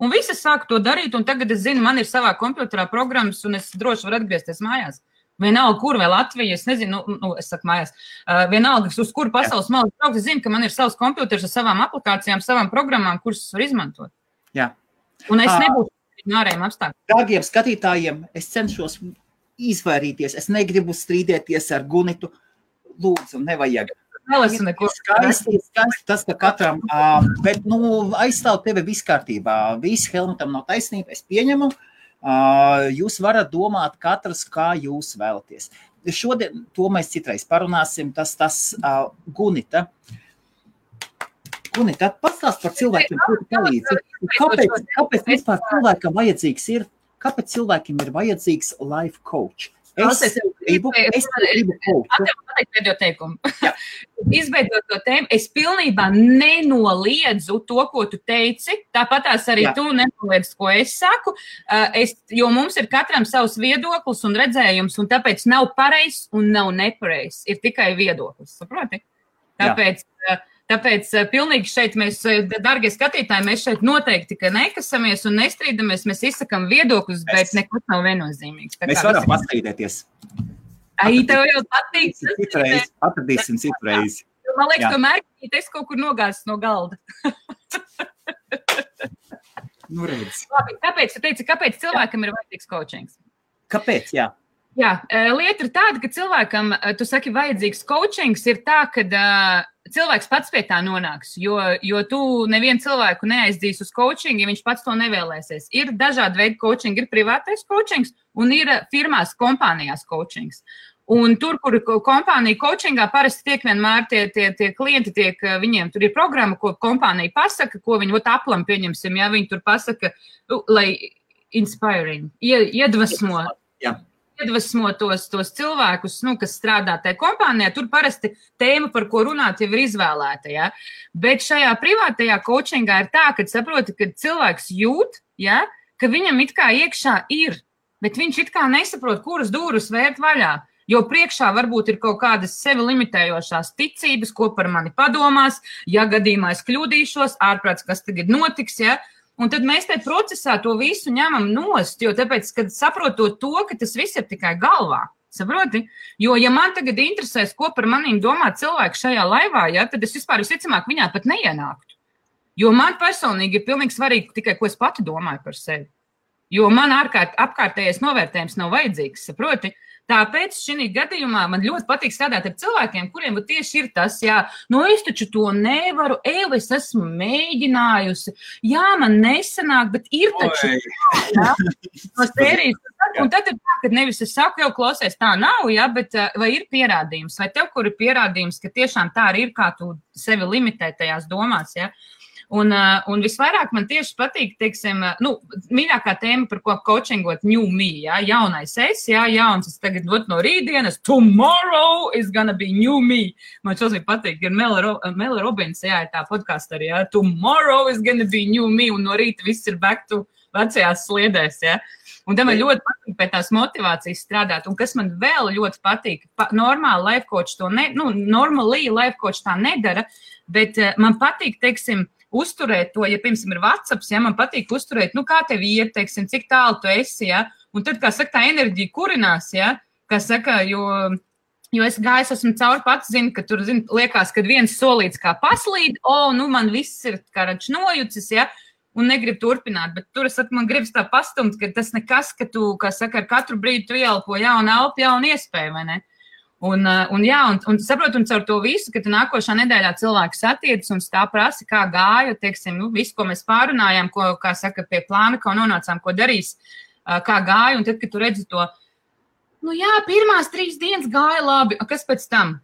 Un visi sāku to darīt, un tagad es zinu, man ir savā kompjuterā programmas, un es droši varu atgriezties mājās. Vienalga, kur vai Latvija, es nezinu, es saku mājās, vienalga, uz kuru pasaules malu braukt, es zinu, ka man ir savs kompjuters ar savām aplikācijām, savām programmām, kuras var izmantot. Jā. Un es nebūtu ārējiem apstākļiem. Dārgiem skatītājiem, es cenšos izvairīties, es negribu strīdēties ar Gunitu, lūdzu, nevajag. Skaisti tas, ka katram, bet, aizstāv tevi viss kārtībā. Viss Helmutam nav taisnība, es pieņemu. Jūs varat domāt katrs, kā jūs vēlaties. Šodien to mēs citreiz parunāsim, tas Gunita. Gunita, pastāst par cilvēkiem, kuri palīdzi. Kāpēc vispār cilvēkam vajadzīgs ir, kāpēc cilvēkiem ir vajadzīgs life coach? Es gribu coachu. Pēdējo teikumu. Izveidot to tēmu, es pilnībā nenoliedzu to, ko tu teici, tāpatās arī tu nenoliedz, ko es saku, jo mums ir katram savs viedoklis un redzējums, un tāpēc nav pareizs un nav nepareizs, ir tikai viedoklis, saproti? Tāpēc pilnīgi šeit mēs, dargie skatītāji, mēs šeit noteikti, ka nekasamies un nestrīdamies, mēs izsakam viedokļus, bet nekas nav viennozīmīgs. Mēs varam pastrīdēties. Tev jau patīk. Atradīsim citreiz. Man liekas, tomēr, es kaut kur nogāzes no galda. Redz. Labi, kāpēc tu teici, kāpēc cilvēkam ir vajadzīgs coachings? Kāpēc, jā? Jā, lieta ir tāda, ka cilvēkam, tu saki, vajadzīgs coachings ir tā, ka cilvēks pats pie tā nonāks, jo tu nevienu cilvēku neaizdīs uz coaching, ja viņš pats to nevēlēsies. Ir dažādi veidi coaching, ir privātais coachings un ir firmās, kompānijās coachings. Un tur, kur kompānija coachingā parasti tiek vienmēr tie klienti, viņiem tur ir programma, ko kompānija pasaka, ko viņi aplam pieņemsim, ja viņi tur pasaka, lai inspiring, iedvesmo. Jā. Iedvesmo tos cilvēkus, kas strādā tajā kompānijā, tur parasti tēma, par ko runāt, jau ir izvēlēta. Ja? Bet šajā privātajā coachingā ir tā, ka saproti, ka cilvēks jūt, ja, ka viņam it kā iekšā ir, bet viņš it kā nesaprot, kuras dūrus vērt vaļā. Jo priekšā varbūt ir kaut kādas sevi limitējošās ticības, ko par mani padomās, ja gadījumā es kļūdīšos, ārprāts, kas tagad notiks, ja. Un tad mēs tajā procesā to visu ņemam nost, jo tāpēc, kad saprotot to, ka tas viss ir tikai galvā, saproti? Jo, ja man tagad interesēs, ko par manīm domā cilvēki šajā laivā, ja, tad es vispār visticamāk viņā pat neienāktu. Jo man personīgi ir pilnīgi svarīgi tikai, ko es pati domāju par sevi. Jo man apkārtējais novērtējums nav vajadzīgs, saproti? Tāpēc šī gadījumā man ļoti patīk strādāt ar cilvēkiem, kuriem tieši ir tas, es taču to nevaru, es esmu mēģinājusi, man nesanāk, bet ir taču tā, no sērijas. Un tad ir tā, ka nevis es saku, jau klausies, tā nav, bet vai ir pierādījums, vai tev, kur ir pierādījums, ka tiešām tā arī ir, kā tu sevi limitē tajās domās, Un visvairāk man tieši patīk, teiksim, mīļākā tēma, par ko coachingot new me, jaunais es, jauns es tagad no rītdienas, tomorrow is gonna be new me. Man šodien patīk, ir Mela Robins, ir tā podkāsta arī, tomorrow is gonna be new me, un no rīta viss ir back to vecajās sliedēs, Un tam man ļoti patīk pēc tās motivācijas strādāt, un kas man vēl ļoti patīk, normāli life coach to normāli life coach tā nedara, bet man patīk, teiksim, uzturēt to, ja, piemēram, ir WhatsApps, man patīk uzturēt, kā tev iet, teiksim, cik tālu tu esi, un tad, kā saka, tā enerģija kurinās, kā saka, jo es esmu cauri pats, zinu, ka tur, liekas, kad viens solīts kā paslīd, man viss ir kā rač nojucis, un negrib turpināt, bet tur man gribas tā pastumt, ka tas nekas, ka tu, kā saka, ar katru brīdi tu ieelpo jaunu elpu, jaunu iespēju, vai ne? Un saprotu, un caur to visu, ka tu nākošā nedēļā cilvēku satiec un tā prasa, kā gāja, teiksim, visu, ko mēs pārunājām, ko, kā saka, pie plāna, ko nonācām, ko darīs, kā gāja, un tad, kad tu redzi to, pirmās 3 dienas gāja labi, kas pēc tam?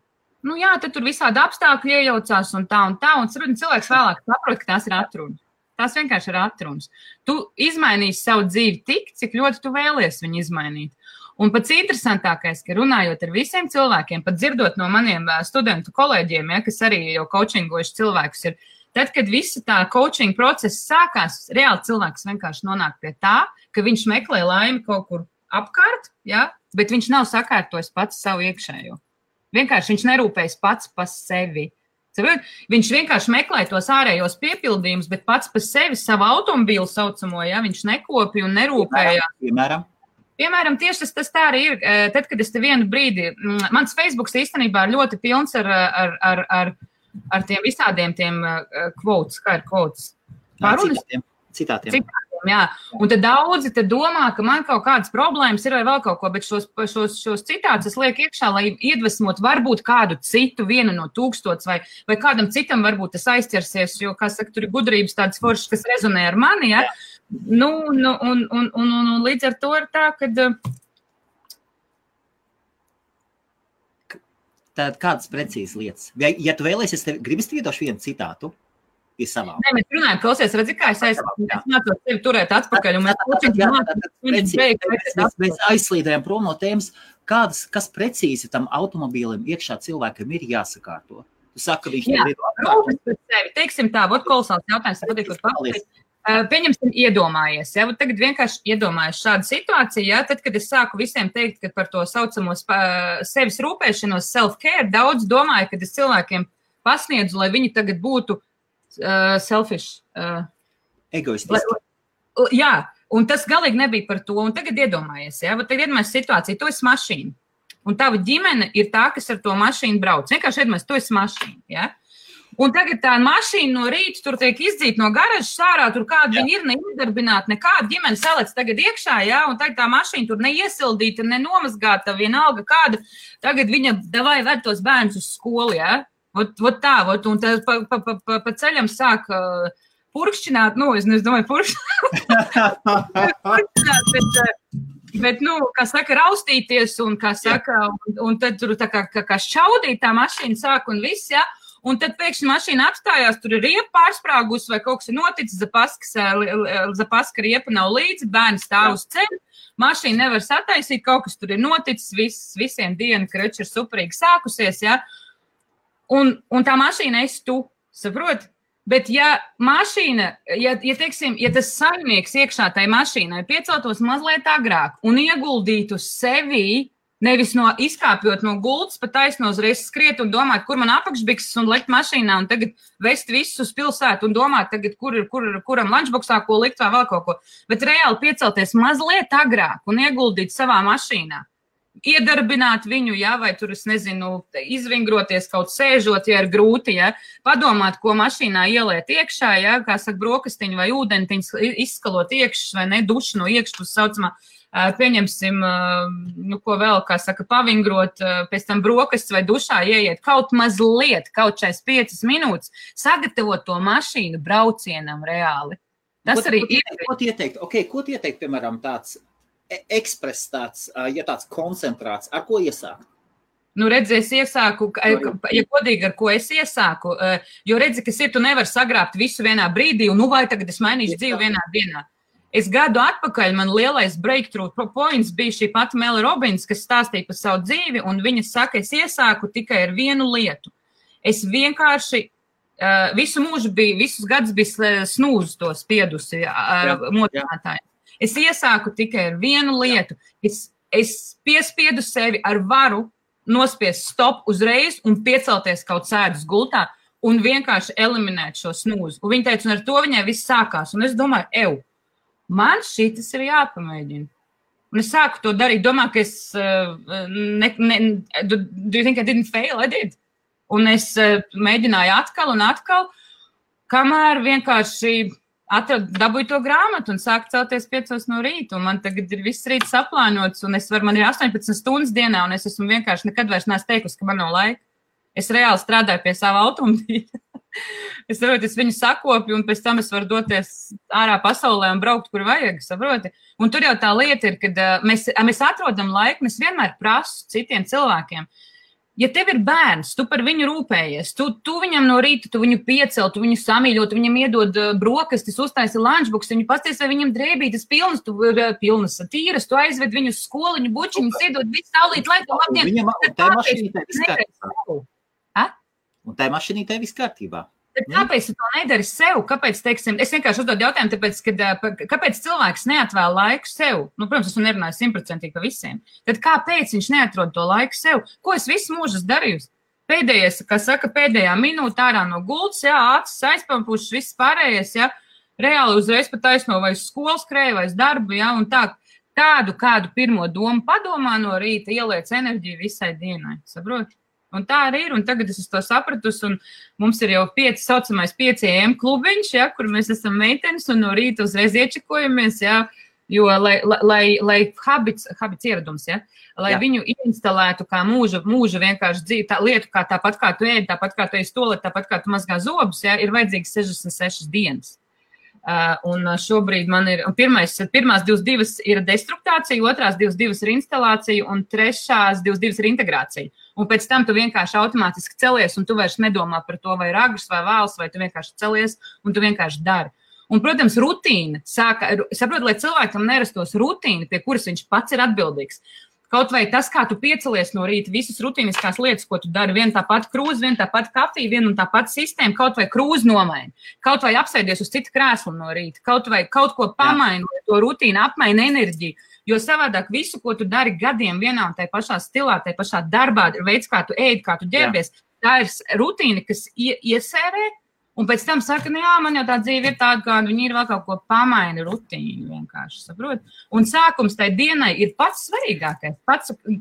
Tad tur visādi apstākļi iejaucās un tā, un cilvēks vēlāk saprot, ka tās ir atrunas. Tās vienkārši ir atrunas. Tu izmainīsi savu dzīvi tik, cik ļoti tu vēlies viņu izmainīt. Un pats interesantākais, ka runājot ar visiem cilvēkiem, pat dzirdot no maniem studentu kolēģiem, kas arī jau coachingojuši cilvēkus ir, tad, kad visa tā coaching procesa sākās, reāli cilvēks vienkārši nonāk pie tā, ka viņš meklē laimi kaut kur apkārt, bet viņš nav sakārtojis pats savu iekšējo. Vienkārši viņš nerūpējas pats par sevi. Viņš vienkārši meklē tos ārējos piepildījumus, bet pats par sevi savu automobīlu saucamo, viņš nekopja un nerūpējās. Piemēram, tieši tas tā arī ir. Tad, kad es te vienu brīdi, mans Facebooks īstenībā ļoti pilns ar tiem visādiem tiem quotes, kā ir quotes? Citātiem. Jā. Un tad daudzi domā, ka man kaut kādas problēmas ir vai vēl kaut ko, bet šos citātus es lieku iekšā, lai iedvesmot varbūt kādu citu, 1 no 1000 vai kādam citam varbūt tas aizķersies, jo, kā saka, tur ir gudrības tādas foršas, kas rezonē ar mani, un līdz ar to ir tā, kad... Tad kādas precīzas lietas? Ja tu vēlies, gribas iedošu vienu citātu? Nē, mēs runājam, klausies, redzi, kā es mācos tevi turēt atpakaļ. Mēs aizslīdējam prom no tēmas, kas precīzi tam automobīlim iekšā cilvēkam ir jāsakārto. Tu saki, ka viņš nevar atkārtot. Teiksim tā, kolosāls jautājums, patīkot papildīt. Pieņemsim, iedomājies. Tagad vienkārši iedomājies šādu situāciju. Tad, kad es sāku visiem teikt, ka par to saucamo sevis rūpēšanos, self-care, daudz domāju, kad es cilvēkiem pasniedzu, lai viņi tagad būtu selfish. Egoistiski. Jā, un tas galīgi nebija par to. Un tagad iedomājies, tagad iedomājies situāciju, tu esi mašīna. Un tava ģimene ir tā, kas ar to mašīnu brauc. Vienkārši iedomājies, tu esi mašīna, Un tagad tā mašīna no rīta tur tiek izdzīta no garažas ārā, tur kāda viņa ir neiedarbināta, nekāda ģimene salec tagad iekšā, un tagad tā mašīna tur neiesildīta, nenomazgāta, vienalga kāda. Tagad viņa davai ved tos bērnus uz skolu, Vot tā, un tad pa ceļam sāk purkšķināt, es domāju, purkšķināt, bet, kā saka, raustīties, un, kā saka, un tad tur tā kā šķaudīt tā mašīna sāk un viss, un tad pēkšņi mašīna apstājās, tur ir riepa pārsprāgus vai kaut kas ir noticis, zapaska riepa nav līdzi, bērni stāv uz ceļu, mašīna nevar sataisīt, kaut kas tur ir noticis, visiem diena, krača ir superīgi sākusies, Un tā mašīna esi tu, saproti? Bet ja mašīna, teiksim, tas saimnieks iekšā tai mašīnai pieceltos mazliet agrāk un ieguldītu sevi, nevis izkāpjot no gultas, pa taisno uzreiz skriet un domāt, kur man apakšbikses un lekt mašīnā un tagad vest visus uz pilsētu un domāt tagad, kuram lunchboxā ko likt vai vēl kaut ko. Bet reāli piecelties mazliet agrāk un ieguldīt savā mašīnā. Iedarbināt viņu, vai tur, es nezinu, izvingroties kaut sēžot, ir grūti, padomāt, ko mašīnā ieliet iekšā, kā saka, brokastiņu vai ūdentiņus izskalot iekšas vai ne, dušu no iekšas, saucamā, pieņemsim, ko vēl, kā saka, pavingrot, pēc tam brokastis vai dušā ieiet kaut mazliet, kaut 5 minūtes, sagatavot to mašīnu braucienam reāli. Tas arī ir. Ko tu ieteikt, piemēram, tāds ekspress tāds koncentrāts, ar ko iesākt? Redzi, es iesāku, ja godīgi, ar ko es iesāku, jo redzi, kas ir, tu nevar sagrābt visu vienā brīdī, un vai tagad es mainīšu dzīvi vienā dienā. Es gadu atpakaļ, man lielais breakthrough points bija šī pati Mela Robins, kas stāstīja par savu dzīvi, un viņa saka, es iesāku tikai ar vienu lietu. Es vienkārši visu mūžu visus gadus bija snūzu to spiedusi motinātāji. Es iesāku tikai ar vienu lietu. Es piespiedu sevi ar varu nospiest stop uzreiz un piecelties kaut sēdus gultā un vienkārši eliminēt šo snūzu. Un viņa teica, un ar to viņai viss sākās. Un es domāju, man šitas ir jāpamēģina. Un es sāku to darīt. Domāju, ka es do you think I didn't fail? I did. Un es mēģināju atkal un atkal, kamēr vienkārši dabūju to grāmatu un sāku celties 5 no rīta, un man tagad ir viss rīts saplānots, un man ir 18 stundas dienā, un es esmu vienkārši nekad vairs neesmu teikusi, ka man nav laika. Es reāli strādāju pie sava automobīļa. Es viņu sakopju, un pēc tam es varu doties ārā pasaulē un braukt, kur vajag, saproti. Un tur jau tā lieta ir, kad mēs atrodam laiku, un es vienmēr prasu citiem cilvēkiem. Ja tev ir bērns, tu par viņu rūpējies, tu viņam no rīta, tu viņu piecel, tu viņu samīļo, tu viņam iedod brokastis, uztaisi lunchbox, viņu pasties, vai viņam drēbītas pilnas tīras, tu aizved viņu uz skoliņu, bučiņus, iedod visu saulīt, lai tu labdien. Un tā mašīnītē viss kārtībā. Kāpēc tu to nedari sev? Kāpēc, teiksim, es vienkārši uzdodu jautājumu, tāpēc, kāpēc cilvēks neatvēl laiku sev? Protams, es nerunāju 100% pa visiem. Tad kāpēc viņš neatrod to laiku sev? Ko es visu mūžu darījusi? Pēdējais, kā saka, pēdējā minūte ārā no gultas, acis aizpampušas, viss pārējais, reāli uzreiz pat taisno vai uz skolas skrēju, vai uz darbu, un tā, kādu pirmo domu padomā no rīta, ieliec enerģiju visai dienai, saproti? Un tā arī ir, un tagad es to sapratusi, un mums ir jau saucamais 5 AM klubiņš, kur mēs esam meitenes, un no rīta uzreiz iečekojamies, jo, lai habits ieradums, lai viņu instalētu kā mūža vienkārši dzīvi, tā lietu, kā tāpat kā tu ēdi, tāpat kā tu ej stolēt, tāpat kā tu mazgā zobus, ir vajadzīgs 66 dienas. Un šobrīd man ir, pirmās 22 ir destruktācija, otrās 22 ir instalācija, un trešās 22 ir integrācija. Un pēc tam tu vienkārši automātiski celies, un tu vairs nedomā par to, vai ir agrs vai vēls, vai tu vienkārši celies, un tu vienkārši dari. Un, protams, rutīna saprot, lai cilvēkam nerastos rutīna, pie kuras viņš pats ir atbildīgs. Kaut vai tas, kā tu piecelies no rīta, visas rutīniskās lietas, ko tu dari, viena tāpat krūze, viena tāpat kafija, viena un tāpat sistēma, kaut vai krūze nomaini, kaut vai apsēdies uz citu krēslu no rīta, kaut vai kaut ko pamaini, lai to rutīnu apmaini enerģiju, jo savādāk visu, ko tu dari gadiem vienā un tai pašā stilā, tai pašā darbā, veids, kā tu ēd, kā tu ģērbies, tā ir rutīna, kas iesērē, un pēc tam saka, man jau tā dzīve ir tāda, kāda viņi ir vēl kaut ko pamaini rutīnu vienkārši, saprot? Un sākums tai dienai ir pats svarīgākais,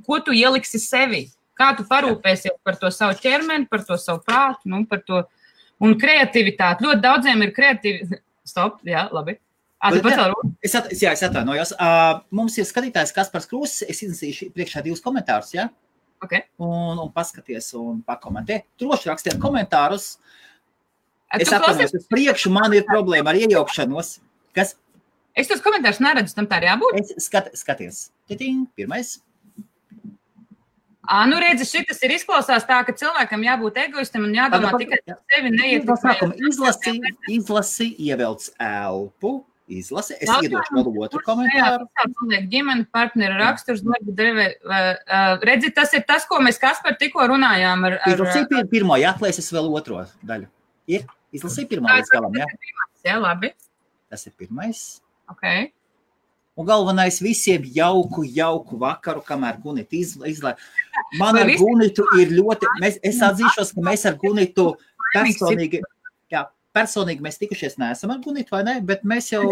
ko tu ieliksi sevi, kā tu parūpēsies par to savu ķermeni, par to savu prātu, par to, un kreativitāti. Ļoti daudziem ir kreativitāti. Stop, labi. Es atvainojos. Mums ir skatītājs Kaspars Krūzes, es izlasīšu priekšā 2 komentārus, Okay. Un paskaties un pakomentē. Droši rakstiet komentārus. Es atvainojos, uz priekšu man ir problēma ar iejaukšanos. Kas? Es tos komentārus neredzu, tam tā arī jābūt? Skaties. Pirmais. Redzi, šitas ir izklausās tā, ka cilvēkam jābūt egoistam un jādomā tikai par sevi neiet. Izlasi, ievelc elpu. Izlasi. Es iedošu vēl otru komentāru. Ģimene, partneri, raksturs, darba devē. Redzi, tas ir tas, ko mēs Kaspar tikko runājām. Izlasīju pirmo, atklāsies vēl otro daļu. Izlasīju pirmo līdz galam, Jā, labi. Tas ir pirmais. Okay. Un galvenais visiem jauku vakaru, kamēr Gunita izlaiž. Man ar Gunitu ir ļoti, es atzīšos, ka mēs ar Gunitu personīgi mēs tikušies neesam ar Gunitu, vai ne? Bet mēs jau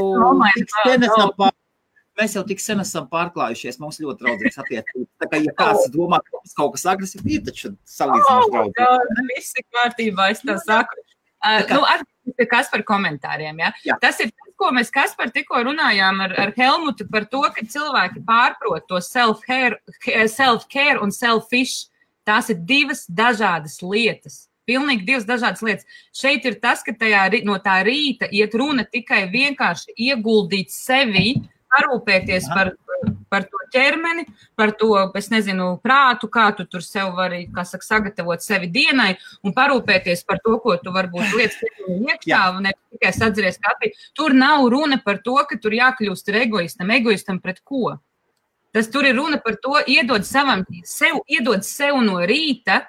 tik sen esam pārklājušies, mums ļoti draudzīgs attiecības. Tā kā, ja kāds domā, ka mums kaut kas agresīvi, ir taču salīdzinoši draudzīgi. Visi kārtībā, es tā saku. Atgriezīsimies Kaspar komentāriem, Tas ir tas, ko mēs Kaspar tikko runājām ar Helmutu par to, ka cilvēki pārprot to self-care un selfish. Tās ir 2 dažādas lietas. Pilnīgi 2 dažādas lietas. Šeit ir tas, ka no tā rīta iet runa tikai vienkārši ieguldīt sevi, parūpēties par to ķermeni, par to, es nezinu, prātu, kā tu tur sev vari, sagatavot sevi dienai un parūpēties par to, ko tu varbūt lietas iekšā un ne tikai sadzeries kafiju. Tur nav runa par to, ka tur jākļūst ir egoistam pret ko. Tas tur ir runa par to, iedod sev no rīta,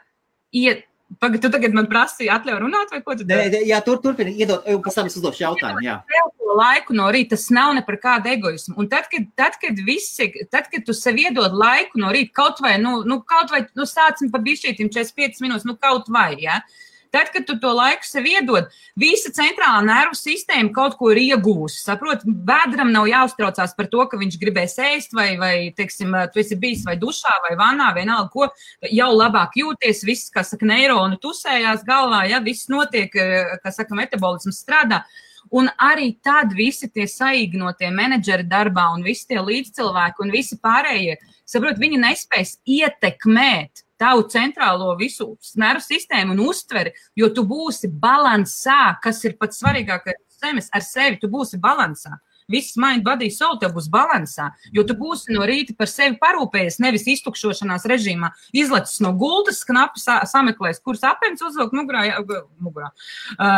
Pagad, tu tagad man prasīji atļauj runāt, vai ko tu dari? Jā, turpini, iedod, pēc tam es uzdošu jautājumu, Tev to laiku no rīta, tas nav ne par kādu egoismu. Un tad, kad tu sev iedod laiku no rīta, kaut vai sācim pa bišķītim 45 minūtes, kaut vai, Tad, kad tu to laiku sev iedod, visa centrālā nervu sistēma kaut ko ir iegūsi. Saprot, bēdram nav jāuztraucās par to, ka viņš gribēs ēst vai teiksim, tu esi bijis vai dušā vai vanā, vienalga ko, jau labāk jūties, viss, neironi tusējās galvā, viss notiek, metabolisms strādā. Un arī tad visi tie saīgnotie menedžeri darbā un visi tie līdzcilvēki un visi pārējie, saprot, viņi nespēs ietekmēt tavu centrālo visu nervu sistēmu un uztveri, jo tu būsi balansā, kas ir pats svarīgākais ar sevi, tu būsi balansā. Viss mind, body, soul tev būs balansā, jo tu būsi no rīta par sevi parūpējies, nevis iztukšošanās režīmā, izlecis no gultas, knapi sameklēs, kuras apens uzvilkt mugurā.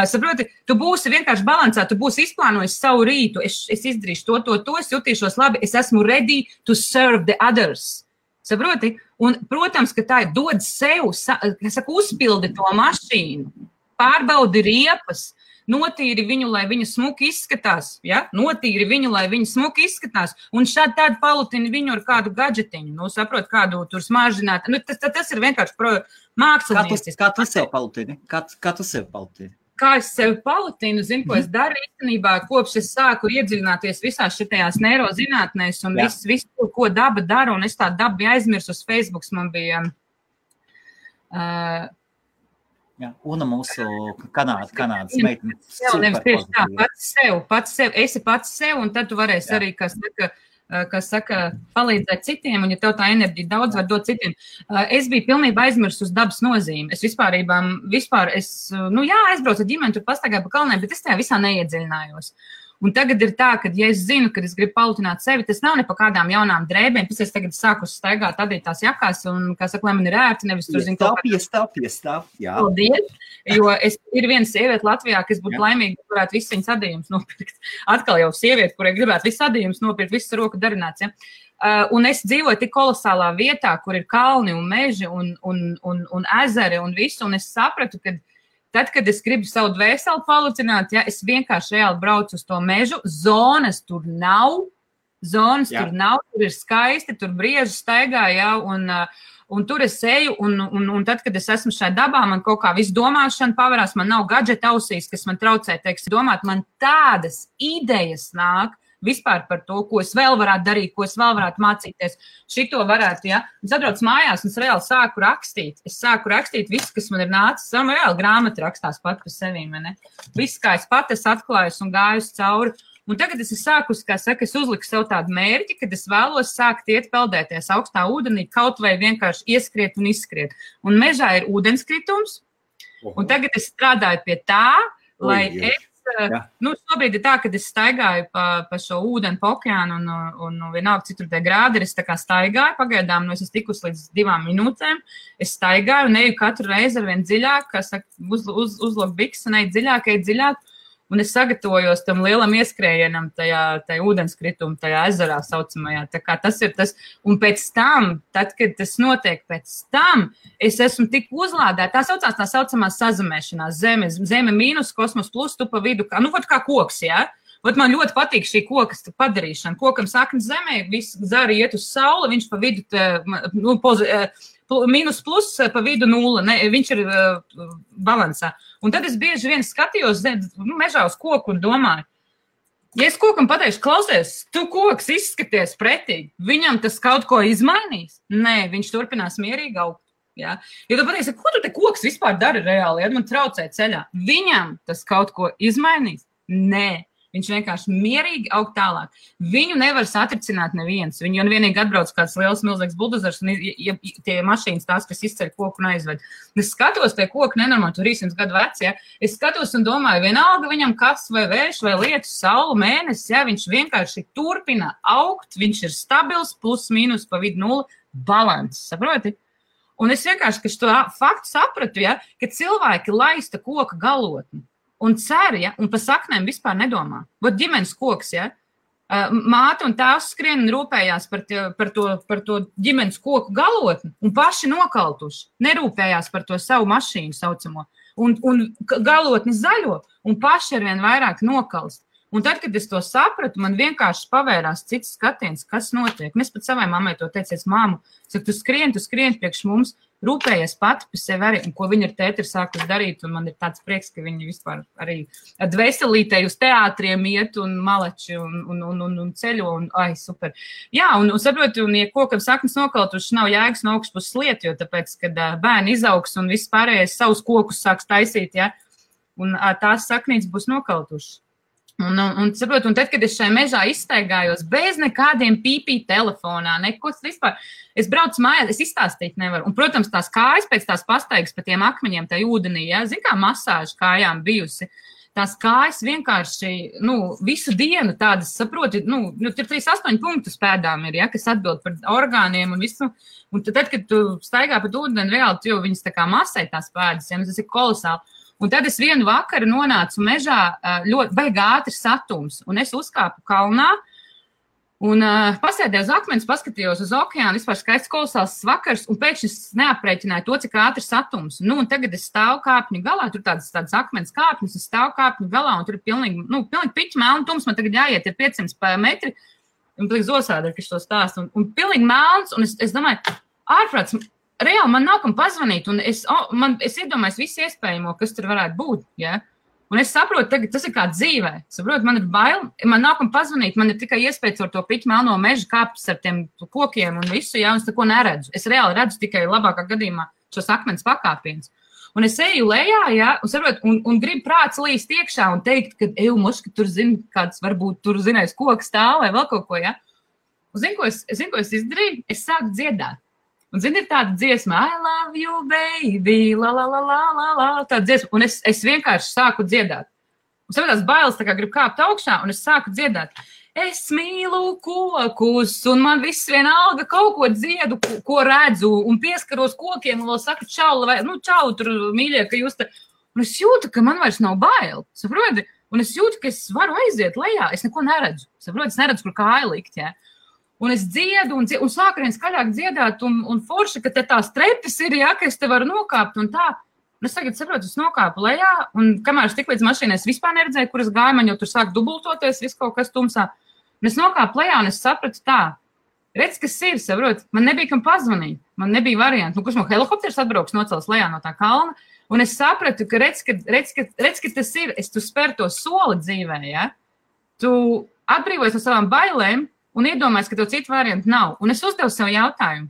Saproti, tu būsi vienkārši balansā, tu būsi izplānojis savu rītu, es izdarīšu to, es jutīšos labi, es esmu ready to serve the others. Saproti? Un, protams, ka tā ir dod sev, uzpildi to mašīnu, pārbaudi riepas, notīri viņu, lai viņa smuki izskatās, ja? Notīri viņu, lai viņa smuki izskatās, un šādi tādi palutini viņu ar kādu gadžetiņu, saprot, kādu tur smaržināt. Tas ir vienkārši mākslinieks. Kā tu sev palutini? Kā tu sev palutini? Kā es sevi palutinu, zinu, ko es daru īstenībā, kopš es sāku iedziļināties visās šitajās neirozinātnēs un visu, ko daba dara, un es tā dabu biju aizmirsu uz Facebooks, man bija... Una mūsu Kanādas meitene. Nevis tieši tā, pats sev, esi pats sev, un tad tu varēsi arī, kas saka, palīdzēt citiem, un ja tev tā enerģija daudz var dot citiem. Es biju pilnībā aizmirsus uz dabas nozīmi. Es vispār, aizbraucu ar ģimeni, tur pastaigāju pa kalnēm, bet es tajā visā neiedziļinājos. Un tagad ir tā, ka, ja es zinu, ka es gribu palutināt sevi, tas nav ne pa kādām jaunām drēbēm, pēc es tagad sāku staigāt adītās jakās, un, kā saka, lai man ir ērti, nevis tur zinu kaut kā. Piestāv, jā. Paldies, jo ir viena sieviete Latvijā, kas būtu laimīga, varētu visu viņas adījumus nopirkt. Atkal jau sieviete, kurai gribētu visu adījumus nopirkt, visu roku darināts, ja. Un es dzīvoju tik kolosālā vietā, kur ir kalni un meži un ezeri un visu, un es sapratu, ka tad, kad es gribu savu dvēseli palutināt, ja, es vienkārši reāli braucu uz to mežu, zonas tur nav, tur ir skaisti, tur brieži staigā, ja, un tur es eju, un tad, kad es esmu šai dabā, man kaut kā visu domāšana pavarās, man nav gadžeta ausīs, kas man traucē, teiksim, domāt, man tādas idejas nāk, vispār par to, ko es vēl varētu darīt, ko es vēl varētu mācīties. Šito varētu, ja. Es atbraucu mājās, un es reāli sāku rakstīt. Es sāku rakstīt visu, kas man ir nācis. Man reāli grāmata rakstās pat par sevīm, ne? Viss, kā es pat atklājus un gājus cauri. Un tagad es sākus, kā saka, es uzliku sev tādu mērķi, kad es vēlos sākt iet peldēties augstā ūdenī, kaut vai vienkārši ieskriet un izskriet. Un mežā ir ūdenskritums, un tagad es strādāju pie tā, lai šobrīd ir tā, kad es staigāju pa šo ūdeni, pa okeānu un vienalga citur tie grādi, es tā kā staigāju, pagaidām, es esmu tikus līdz 2 minūtēm, es staigāju un eju katru reizi ar vien dziļāk, kā saka, uzlok biks un eju dziļāk, un es sagatavojos tam lielam ieskrējienam tajā ūdenskritumu, tajā ezerā saucamajā, tā kā tas ir tas, un pēc tam, tad, kad tas notiek pēc tam, es esmu tik uzlādēta, tā saucamā sazemēšanās, zeme mīnus, kosmos plus, tu pa vidu, kā koks, jā? Vat man ļoti patīk šī kokas padarīšana, kokam saknes zemē, viss zari iet uz sauli, viņš pa vidu, mīnus plus pa vidu 0, viņš ir balansā. Un tad es bieži vien skatījos mežā uz koku un domāju, ja es kokam pateikšu, klausies, tu koks izskaties pretīgi, viņam tas kaut ko izmainīs? Nē, viņš turpinās mierīgi augt. Ja? Ja tu pateiksi, ko tu te koks vispār dari reāli, ja man traucē ceļā? Viņam tas kaut ko izmainīs? Nē. Viņš vienkārši mierīgi aug tālāk. Viņu nevar satricināt neviens. Viņu vienīgi atbrauc kāds liels, milzīgs buldozers un tie mašīnas tās, kas izceļ koku un aizved. Es skatos tie koku nenormāli, 300 gadu veci, ja. Es skatos un domāju, vienalga viņam kas vai vējš vai lietus, saule, mēnesis, ja, viņš vienkārši turpina augt, viņš ir stabils, plus, mīnus, pa vidu 0, balans, saproti? Un es vienkārši, ka šo faktu sapratu, ja, ka cilvēki laista koka galotni. Un cer, ja, un pa saknēm vispār nedomā. Vat ģimenes koks, ja, māte un tēvs skrien un rūpējās par to ģimenes koku galotni un paši nokaltuši. Nerūpējās par to savu mašīnu saucamo. Un galotni zaļo un paši arvien vairāk nokalst. Un tad, kad es to sapratu, man vienkārši pavērās cits skatiens, kas notiek. Un es pat savai mammai to teicu, māmu, saku, tu skrien priekš mums, rūpējies pati par sevi arī, un ko viņa ar tēti ir sākus darīt, un man ir tāds prieks, ka viņi vispār arī dvēselītei uz teātriem iet un maleči un ceļo, un ai, super. Jā, un saprotu, un ja kokam saknes nokaltuši, nav jēgas no augšpuses liet, jo tāpēc, kad bērni izaugs un viss pārējais savus kokus sāks taisīt, ja, un tās saknītes būs nokaltuši. Un tad, kad es šajā mežā izstaigājos bez nekādiem pīpī telefonā, neko vispār, es braucu mājās, es izstāstīt nevaru. Un, protams, tās kājas pēc tās pastaigas pa tiem akmeņiem, tā ūdenī, ja, zin kā masāža kājām bijusi, tās kājas vienkārši, visu dienu tādas, saproti, tur 38 punktu pēdām ir, ja, kas atbild par orgāniem un visu. Un tad, kad tu staigā pa ūdeni, reāli, tu jau viņas tā kā masē tās pēdas, ja, tas ir kolosāli. Un tad es vienu vakaru nonācu mežā ļoti baigi ātrs satums, un es uzkāpu kalnā un pasēdēju uz akmens, paskatījos uz okeānu, vispār skaists kolosāls vakars, un pēkšņi es neaprēķināju to, cik ātrs satums. Un tagad es stāvu kāpņu galā, tur tādas akmens kāpņas, es stāvu kāpņu galā, un tur ir pilnīgi piķi melni tums, man tagad jāiet ir 500 metri, un pilnīgi zosādi, ka es to stāstu, un pilnīgi melns, un es domāju, ārprāts, reāli man nav kam pazvanīt, un es iedomājos visu iespējamo, kas tur varētu būt, ja? Un es saprotu, tagad tas ir kā dzīvē, saprotu, man ir bail, man nav kam pazvanīt, man ir tikai iespējas ar to piķu melno mežu kāpt ar tiem kokiem un visu, ja, un es neko neredzu. Es reāli redzu tikai labākā gadījumā šos akmens pakāpienus. Un es eju lejā, ja, un saprotu, un gribu prāts līst iekšā un teikt, ka, moška, tur zini, kāds varbūt tur zinājis koks stāv vai vēl kaut ko, ja. Un zini, ko es izdarīju? Es sāku dziedāt. Un, zini, ir tāda dziesma, I love you, baby, la, la, la, la, la, la, tāda dziesma, un es vienkārši sāku dziedāt. Un saprotās bailes, tā kā gribu kāpt augšā, un es sāku dziedāt. Es mīlu kokus, un man viss vienalga kaut ko dziedu, ko redzu, un pieskaros kokiem, un vēl saku čau, čau, tur mīļie, ka jūs te... Un es jūtu, ka man vairs nav bail, saproti? Un es jūtu, ka es varu aiziet lejā, es neko neredzu, saproti? Es neredzu, kur kāja likt, jā. Un es dziedu, un sāku vien skaļāk dziedāt, un forši, ka te tās trepes ir, ja, ka es te varu nokāpt, un tā. Un es tagad saprotu, es nokāpu lejā, un kamēr es tik līdz mašīnai, es vispār neredzēju, kur es gāju, man jau tur sāk dubultoties, viss kaut kas tumsā. Un es nokāpu lejā, un es sapratu tā, redz, kas ir, saprot, man nebija kam pazvanīt, man nebija varianti. Kurš man helikopters atbrauks nocels lejā no tā kalna, un es sapratu, ka redz, ka tas ir, tu spēr to soli dzīvē, ja, tu atbrīvojies no savām bailēm, un iedomājies, ka tev citu variantu nav. Un es uzdevu sev jautājumu,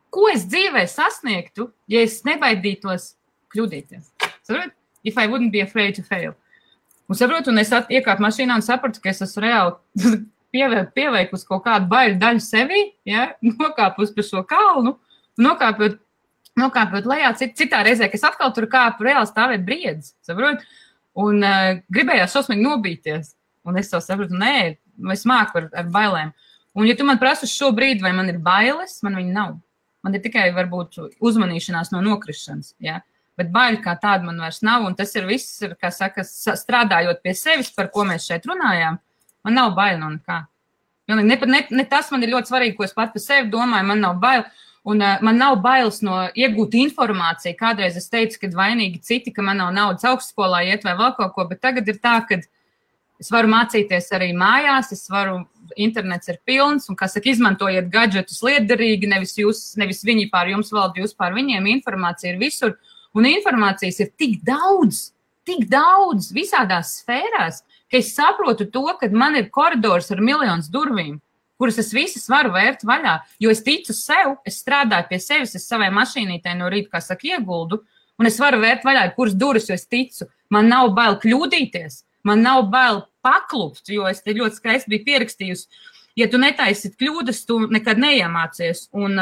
ko es dzīvē sasniegtu, ja es nebaidītos kļūdīties? Saprot? If I wouldn't be afraid to fail. Un saprotu, un es iekāpu mašīnā un sapratu, ka es esmu reāli pieveikusi kaut kādu baiļu daļu sevī, ja? Nokāpus pa šo kalnu, nokāpot lejā citā reizē, ka es atkal tur kāpu reāli stāvēt briedzi, saprot? Un gribējās šausmīgi nobīties. Un es to sapratu, nē, es māku ar bailēm. Un ja tu man prasi šo brīdi, vai man ir bailes, man viņa nav. Man ir tikai varbūt uzmanīšanās no nokrišanas, ja? Bet baili kā tāda man vairs nav, un tas ir viss, kā saka, strādājot pie sevis, par ko mēs šeit runājām, man nav baili no nekā. Ne tas man ir ļoti svarīgi, ko es pat par sevi domāju, man nav baili, un man nav bailes no iegūt informāciju. Kādreiz es teicu, ka vainīgi citi, ka man nav naudas augstskolā iet vai vēl kaut ko, bet tagad ir tā, ka es varu mācīties arī mājās, internets ir pilns, un, kā saka, izmantojiet gadžetus lietderīgi, nevis viņi pār jums valda, jūs pār viņiem, informācija ir visur, un informācijas ir tik daudz visādās sfērās, ka es saprotu to, ka man ir koridors ar miljonus durvīm, kuras es visas varu vērt vaļā, jo es ticu sev, es strādāju pie sevis, es savai mašīnītei no rīta, kā saka, ieguldu, un es varu vērt vaļā, kuras durvis, jo es ticu, man nav bail kļūdīties. Man nav bail paklupt, jo es te ļoti skaisti biju pierakstījusi. Ja tu netaisit kļūdas, tu nekad neiemācies. Un,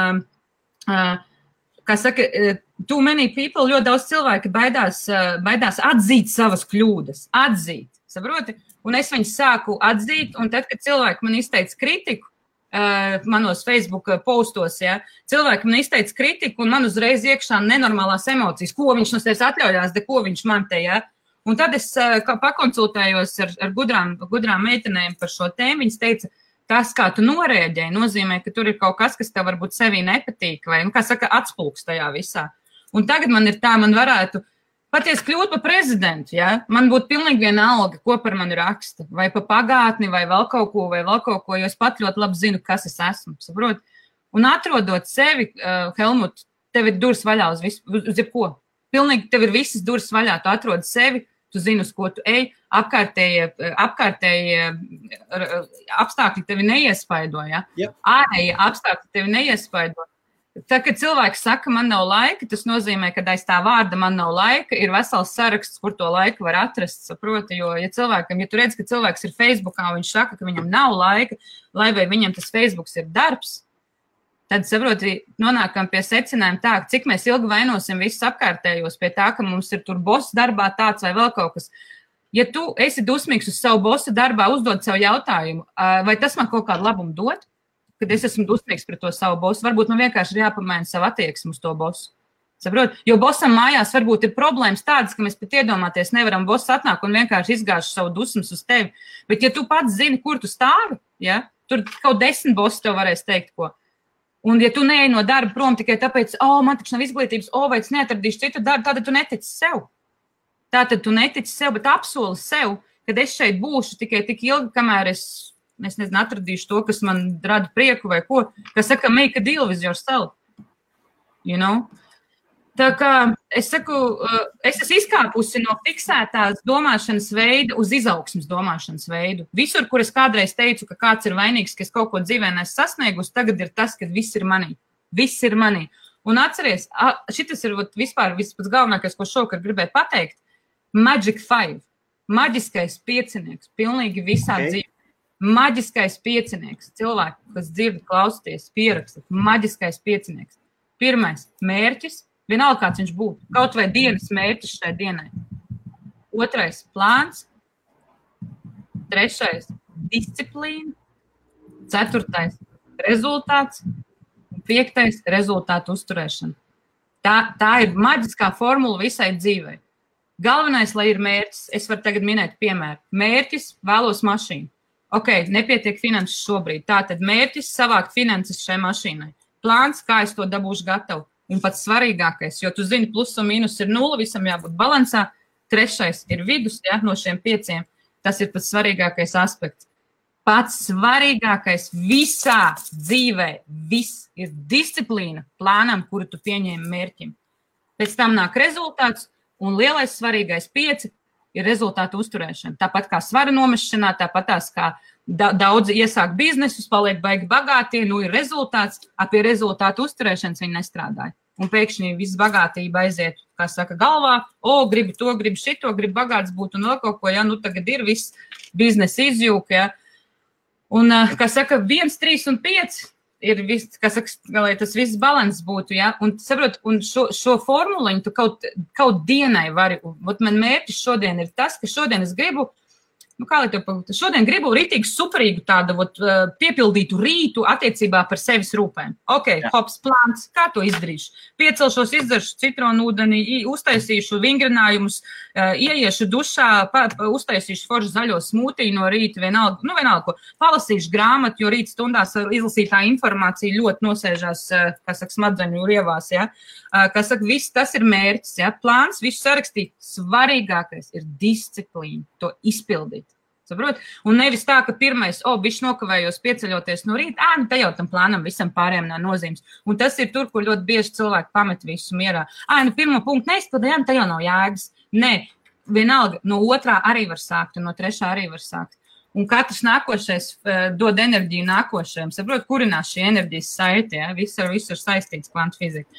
kā saka, too many people, ļoti daudz cilvēki baidās atzīt savas kļūdas. Atzīt, saproti? Un es viņus sāku atzīt, un tad, kad cilvēki man izteica kritiku, manos Facebook postos, ja, cilvēki man izteica kritiku, un man uzreiz iekšā nenormālās emocijas, ko viņš no sevis atļaujās, ko viņš man te, ja. Un tad es pakonsultējos ar gudrām meitenēm par šo tēmu. Viņas teica, tas, kā tu norēģēji, nozīmē, ka tur ir kaut kas, kas tev varbūt sevī nepatīk, vai, kā saka, atspulks tajā visā. Un tagad man ir tā, man varētu patiesi kļūt par prezidentu, ja? Man būtu pilnīgi vienalga, ko par mani raksta, vai pa pagātni, vai vēl kaut ko, jo es pat ļoti labi zinu, kas es esmu, saprot? Un atrodot sevi, Helmut, tev ir durvis vaļā uz jebko. Pilnīgi tev ir visas durvis vaļā, tu atrodi sevi, tu zini, uz ko tu ej, apkārtējie apstākļi tevi neiespaido, ja? Yep. Ārējie apstākļi tevi neiespaido. tā, kad cilvēks saka, man nav laika, tas nozīmē, ka aiz tā vārda man nav laika, ir vesels saraksts, kur to laiku var atrast, saproti, jo, ja tu redz, ka cilvēks ir Facebookā, un viņš saka, ka viņam nav laika, lai vai viņam tas Facebooks ir darbs, tad, saproti, nonākam pie secinājuma tā, cik mēs ilgi vainosim visus apkārtējos pie tā, ka mums ir tur boss darbā tāds vai vēl kaut kas. Ja tu esi dusmīgs uz savu bosu darbā, uzdod savu jautājumu, vai tas man kaut kādu labumu dod? Kad es esmu dusmīgs pret to savu bosu, varbūt man vienkārši ir jāpamaina savu attieksmi uz to bosu. Saprot? Jo bosam mājās varbūt ir problēmas tādas, ka mēs pat iedomāties nevaram, boss atnāk un vienkārši izgāž savu dusmas uz tevi. Bet ja tu pats zini, kur tu stāvi, ja, tur kaut 10 bosi tev varēs teikt, ko. Un ja tu neej no darba prom tikai tāpēc, man taču nav izglītības, vai es neatradīšu citu darbu, tātad tu netici sev. Tātad tu netici sev, bet apsoli sev, kad es šeit būšu tikai tik ilgi, kamēr es nezinu, atradīšu to, kas man rada prieku vai ko, kas saka, make a deal with yourself. You know? Tā kā es saku, es esmu izkāpusi no fiksētās domāšanas veida uz izaugsmes domāšanas veidu. Visur, kur es kādreiz teicu, ka kāds ir vainīgs, ka es kaut ko dzīvē neesmu sasniegusi, tagad ir tas, ka viss ir manī. Viss ir manī. Un atceries, šitas ir vispār vispār galvenākais, ko šokar gribēju pateikt. Magic 5. Maģiskais piecinieks. Pilnīgi visā dzīvē. Maģiskais piecinieks. Cilvēki, kas dzird, klausties, pieraksta. Maģiskais piecinieks. Pirmais – mērķis. Vienalga, kāds viņš būtu. Kaut vai dienas mērķis šai dienai. Otrais – plāns. Trešais – disciplīna. Ceturtais – rezultāts. Piektais – rezultātu uzturēšana. Tā ir maģiskā formula visai dzīvei. Galvenais, lai ir mērķis. Es varu tagad minēt piemēru. Mērķis – vēlos mašīnu. Nepietiek finanses šobrīd. Tātad mērķis savākt finanses šai mašīnai. Plāns, kā es to dabūšu gatavu. Un pats svarīgākais, jo tu zini, plus un mīnus ir 0, visam jābūt balansā. Trešais ir vidus, ja, no šiem 5. Tas ir pats svarīgākais aspekts. Pats svarīgākais visā dzīvē, viss ir disciplīna plānam, kuru tu pieņēmi mērķim. Pēc tam nāk rezultāts un lielais svarīgais 5 ir rezultātu uzturēšana. Tāpat kā svara nomešanā, tāpat tās kā daudzi iesāk biznesus, paliek baigi bagātie, ir rezultāts, pie rezultātu uzturēšanas viņi nestrādāja. Un pēkšņi viss bagātība aiziet, kā saka, galvā, gribu to, gribu šito, gribu bagāts būt un vēl kaut ko, ja, tagad ir viss biznesa izjūka, ja. Un, kā saka, 1, 3 un 5 ir viss, kā saka, lai tas viss balans būtu, ja, un saprot, un šo formuliņu tu kaut dienai vari, man mērķis šodien ir tas, ka šodien es gribu, šodien gribu ritīgi superīgu tādu piepildītu rītu attiecībā par sevis rūpēm. Hops plāns, kā to izdarīšu? Piecelšos, izdaršu citronu ūdeni, uztaisīšu vingrinājumus, ieiešu dušā, uztaisīšu foršu zaļo smūtiju no rīta, vienalga ko. Palasīšu grāmatu, jo rīt stundās izlasītā informācija ļoti nosēžās, kā saka, smadzeņu rievās, ja. Kā saka, viss tas ir mērķis, ja. Plāns, visu sarakstīt. Svarīgākais ir disciplīna, to izpildīt. Saprot? Un nevis tā, ka pirmais, bišķi nokavējos pieceļoties no rīta, te jau tam plānam visam pārējiem nav nozīmes. Un tas ir tur, kur ļoti bieži cilvēki pamet visu mierā. Pirmo punktu neizpildējām, te jau nav jēgas. Nē, vienalga, no 2. arī var sākt, un no 3. arī var sākt. Un katrs nākošais dod enerģiju nākošajam. Saprot, kurinās šī enerģijas saite, ja? Viss ar visu ir saistīts kvantu fizika.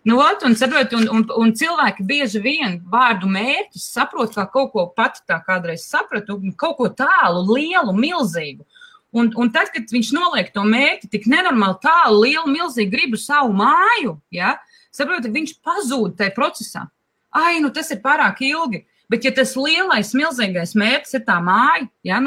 Un, saprot, un cilvēki bieži vien vārdu mērķis saprot, kā kaut ko pati tā kādreiz sapratu, kaut ko tālu, lielu, milzīgu. Un tad, kad viņš noliek to mērķi tik nenormāli tālu, lielu, milzīgu, gribu savu māju, ja, saprot, viņš pazūd tajā procesā. Tas ir pārāk ilgi. Bet, ja tas lielais, milzīgais mērķis ir tā māja, ja,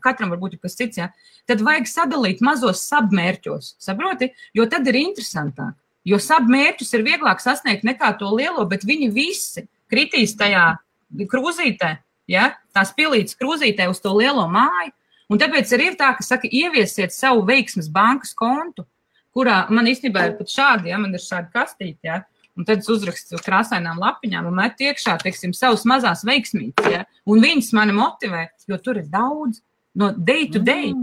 katram varbūt ir kas cits, ja, tad vajag sadalīt mazos sabmērķos, saproti, jo tad ir interesantāk. Jo sabmērķus ir vieglāk sasniegt nekā to lielo, bet viņi visi kritīs tajā krūzītē, ja, tās pilītas krūzītē uz to lielo māju. Un tāpēc arī ir tā, ka saka, ieviesiet savu veiksmes bankas kontu, kurā man īstenībā ir pat šādi, ja, man ir šādi kastīti, ja, un tad es uzrakstu krāsainām lapiņām un metu iekšā, teiksim, savus mazās veiksmītes, ja, un viņas mani motivē, jo tur ir daudz no day to day.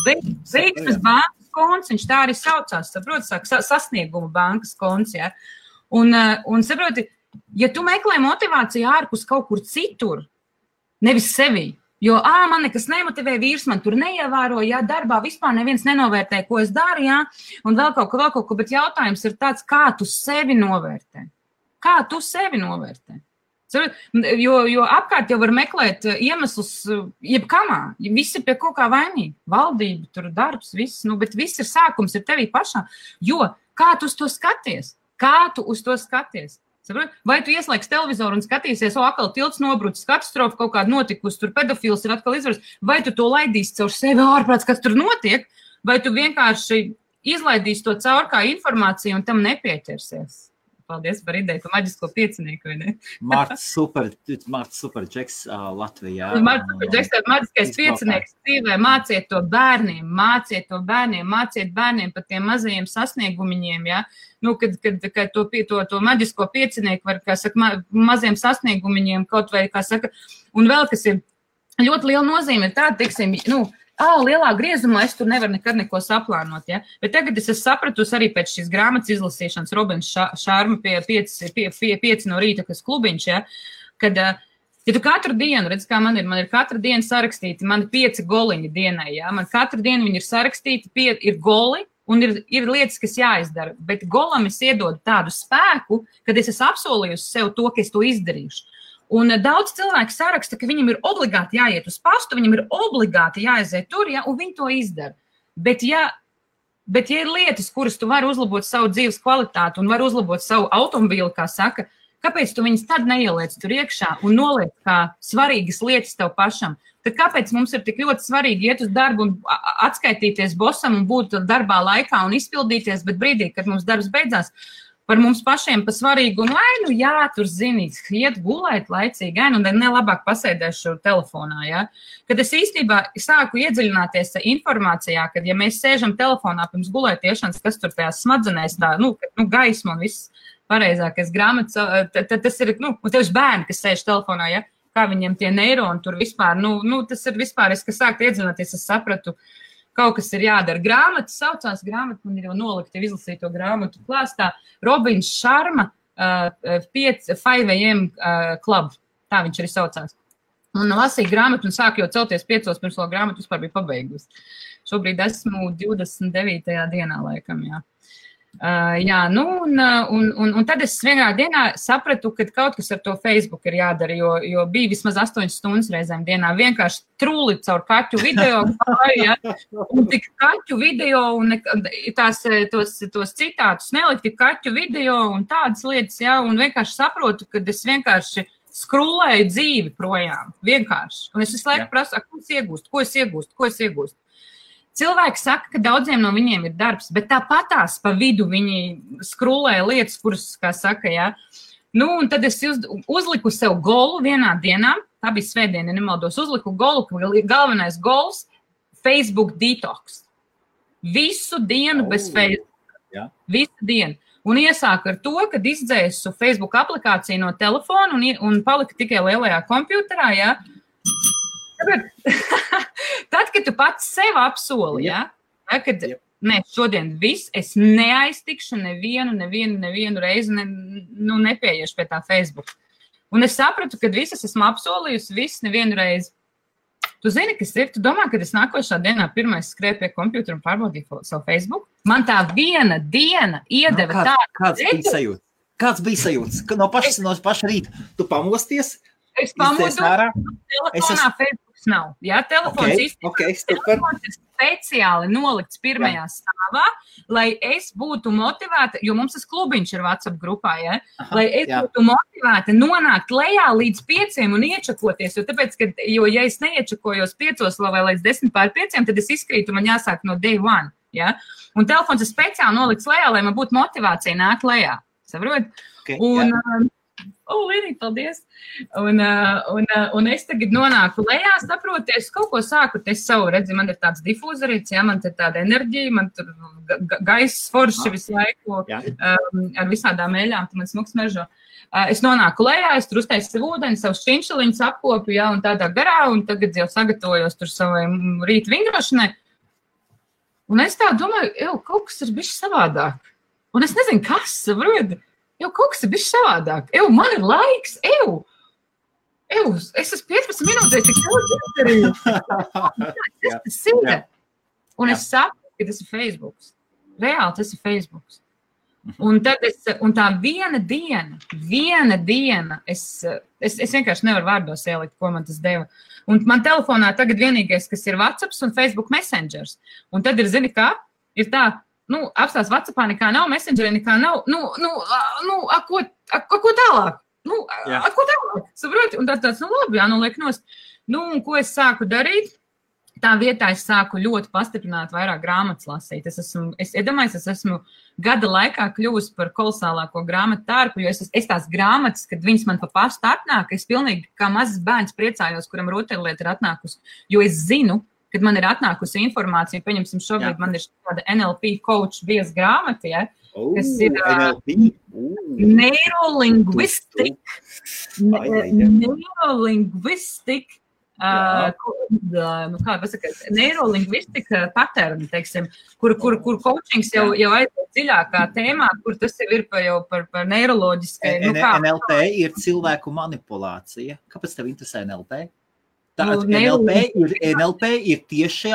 Veiksmes bankas konts, viņš tā arī saucās, saproti, sasnieguma bankas konts, ja. Un saproti, ja tu meklē motivāciju ārpus kaut kur citur, nevis sevī, Jo, man nekas nemotivē, vīrs man tur neievēro, jā, darbā vispār neviens nenovērtē, ko es daru, jā, un vēl kaut ko, bet jautājums ir tāds, kā tu sevi novērtē? Kā tu sevi novērtē? Jo apkārt jau var meklēt iemeslus jebkamā, visi pie kaut kā vainīgi, valdība, tur darbs, viss, bet viss ir sākums, ir tevī pašā, jo kā tu uz to skaties? Kā tu uz to skaties? Vai tu ieslēgs televizoru un skatīsies, atkal tilts nobrucis, katastrofa kaut kāda notikusi, tur pedofils ir atkal izvaras, vai tu to laidīsi caur sevi ārprāts, kas tur notiek, vai tu vienkārši izlaidīsi to caur kā informāciju un tam nepieķersies? Paldies par ideju, par maģisko piecinieku, vai ne? Mārts super džeks Latvijā. Mārts super džeks, tā maģiskais piecinieks dzīvē, māciet to bērniem, māciet bērniem par tiem mazajiem sasniegumiņiem, ja? Kad to maģisko piecinieku var, kā saka, maziem sasniegumiņiem kaut vai, kā saka, un vēl, kas ir ļoti liela nozīme, ir tāda, teiksim, lielā griezumā es tur nevaru nekad neko saplānot, ja? Bet tagad es sapratusi arī pēc šīs grāmatas izlasīšanas Robins Šarma pie 5 no rīta, kas klubiņš, ja? Kad, ja tu katru dienu, redz, kā man ir katru dienu sarakstīti, man 5 goliņi dienai, ja? Man katru dienu viņi ir sarakstīti, ir goli, un ir lietas, kas jāizdara, bet golam es iedodu tādu spēku, kad es esmu apsolījusi sev to, ka es to izdarīšu. Un daudz cilvēku saraksta, ka viņam ir obligāti jāiet uz pastu, viņam ir obligāti jāaiziet tur, ja, un viņi to izdara. Bet ja ir lietas, kuras tu vari uzlabot savu dzīves kvalitāti un vari uzlabot savu automobīli, kā saka, kāpēc tu viņas tad neieliec tur iekšā un noliec kā svarīgas lietas tev pašam? Tad kāpēc mums ir tik ļoti svarīgi iet uz darbu un atskaitīties bosam un būt darbā laikā un izpildīties, bet brīdī, kad mums darbs beidzās, par mums pašiem pa svarīgu, un jā, tur zinīt, iet gulēt laicīgi, un nelabāk pasēdēšu telefonā, ja. Kad es īstenībā sāku iedziļināties informācijā, kad ja mēs sēžam telefonā pirms gulētiešanas, kas tur tajās smadzenēs tā, gaisma un viss pareizākais grāmatas, tad tas ir, un tieši bērni, kas sēž telefonā, ja, kā viņiem tie neironi tur vispār, tas ir vispār, es, kas sāku iedziļināties, es sapratu, kaut kas ir jādara. Grāmata saucās, man ir jau nolikta izlasīto grāmatu klāstā, Robins Šarma 5 AM Club, tā viņš arī saucās. Un lasīju grāmatu un sāku jau celties 5 pirms vēl grāmatu vispār bija pabeigusi. Šobrīd esmu 29. dienā laikam, jā. Un tad es vienā dienā sapratu, ka kaut kas ar to Facebook ir jādara, jo bija vismaz 8 stundas reizēm dienā, vienkārši trūli caur kaķu video, ja, un tik kaķu video, un tos citātus nelikti kaķu video un tādas lietas, ja, un vienkārši saprotu, ka es vienkārši skrūlēju dzīvi projām, vienkārši, un es visu laiku prasu, ko es iegūstu. Cilvēki saka, ka daudziem no viņiem ir darbs, bet tāpatās pa vidu viņi skrūlēja lietas, kuras, kā saka, jā. Un tad es uzliku sev golu vienā dienā, tā bija svētdiena, nemaldos, uzliku golu, ka galvenais gols – Facebook detox. Visu dienu bez Facebook. Jā. Visu dienu. Un iesāku ar to, kad izdzēsu Facebook aplikāciju no telefona un palika tikai lielajā kompjuterā, jā. Tad, kad tu pats sev apsoli, ja? Kad, šodien viss, es neaiztikšu nevienu reizi, nepieiešu pie tā Facebook. Un es sapratu, kad visas esmu apsolījusi, nevienu reizi. Tu zini, kas ir? Tu domā, kad es nākošā dienā pirmais skrēju pie kompjutera un pārbaudīju savu Facebook? Man tā viena diena iedeva tādu. Kāds bija sajūts? No paša rīta tu pamosties? Es pamodu, telefonā Facebooks nav. Jā, telefons telefons ir speciāli nolikts pirmajā stāvā, lai es būtu motivēta, jo mums tas klubiņš ir WhatsApp grupā, ja? Lai es būtu motivēta nonākt lejā līdz 5 un iečakoties, jo ja es neiečakojos 5 vai līdz 10:05, tad es izkrītu, man jāsāk no day one. Ja? Un telefons ir speciāli nolikts lejā, lai man būtu motivācija nākt lejā. Saprot? Līdīgi, paldies. Un es tagad nonāku lejā, saproties, kaut ko sāku te savu, redzi, man ir tāds difūzerīts, ja, man te tāda enerģija, man tur gaiss forši visu laiku ar visādām eļām, tu man smuks mežo. Es nonāku lejā, es tur uztaisu savu ūdeni, savu šķinšaliņus apkopu, ja, un tādā garā, un tagad jau sagatavojos tur savai rīta vingrošanai. Un es tā domāju, kaut kas ir bišķi savādāk. Un es nezinu, kas, saproti. Kaut kas ir bijis savādāk. Man ir laiks, Es esmu 15 minūtēs tik ļoti izdarīju. Tas ir. Un es saprotu, ka tas ir Facebooks. Reāli tas ir Facebooks. Un tad un tā viena diena, es vienkārši nevaru vārdos ielikt, ko man tas deva. Un man telefonā tagad vienīgais, kas ir WhatsApps un Facebook Messengers. Un tad ir, zini kā, ir tā, apstās WhatsAppā nekā nav, Messengerī nekā nav, ko tālāk? Ko tālāk? Saproti? Un tāds, labi, liek nost. Un ko es sāku darīt? Tā vietā es sāku ļoti pastiprināt vairāk grāmatas lasīt. Es esmu gada laikā kļuvusi par kolosālāko grāmatu tārpu, jo es tās grāmatas, kad viņas man pa pastu atnāk, es pilnīgi kā mazs bērns priecājos, kuram rotaļlieta ir atnākusi, jo es zinu, kad man ir atnākusi informācija, pieņemsim šobrīd man ir šāda NLP coach bies grāmata, ja, kas ir neirolingvistika, neirolingvistika paterni, teiksim, kur coachings jau aiziet dziļākā tēmā, kur tas jau ir par neiroloģiskai. NLP ir cilvēku manipulācija. Kāpēc tev interesē NLP? NLP ir tieši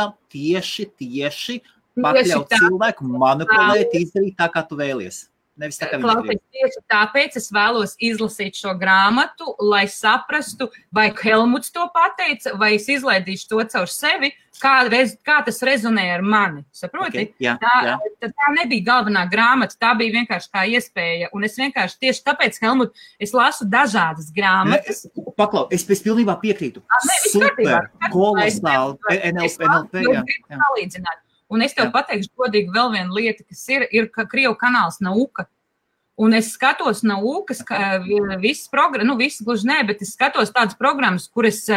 pakļaut cilvēku, manipulēt, izdarīt tā, kā tu vēlies. Klausies, tieši tāpēc es vēlos izlasīt šo grāmatu, lai saprastu, vai Helmuts to pateica, vai es izlaidīšu to caur sevi, kā tas rezonē ar mani. Saproti? Okay, tā nebija galvenā grāmata, tā bija vienkārši kā iespēja. Un es vienkārši tieši tāpēc, Helmut, es lasu dažādas grāmatas. Paklau, es pilnībā piekrītu. Super, kolosāli, NLP, salīdzināt. Un es tev pateikšu godīgi vēl viena lieta, kas ir Krievu kanāls Nauka. Un es skatos Naukas, visas programmas, visas gluži nē, bet es skatos tādas programmas, kuras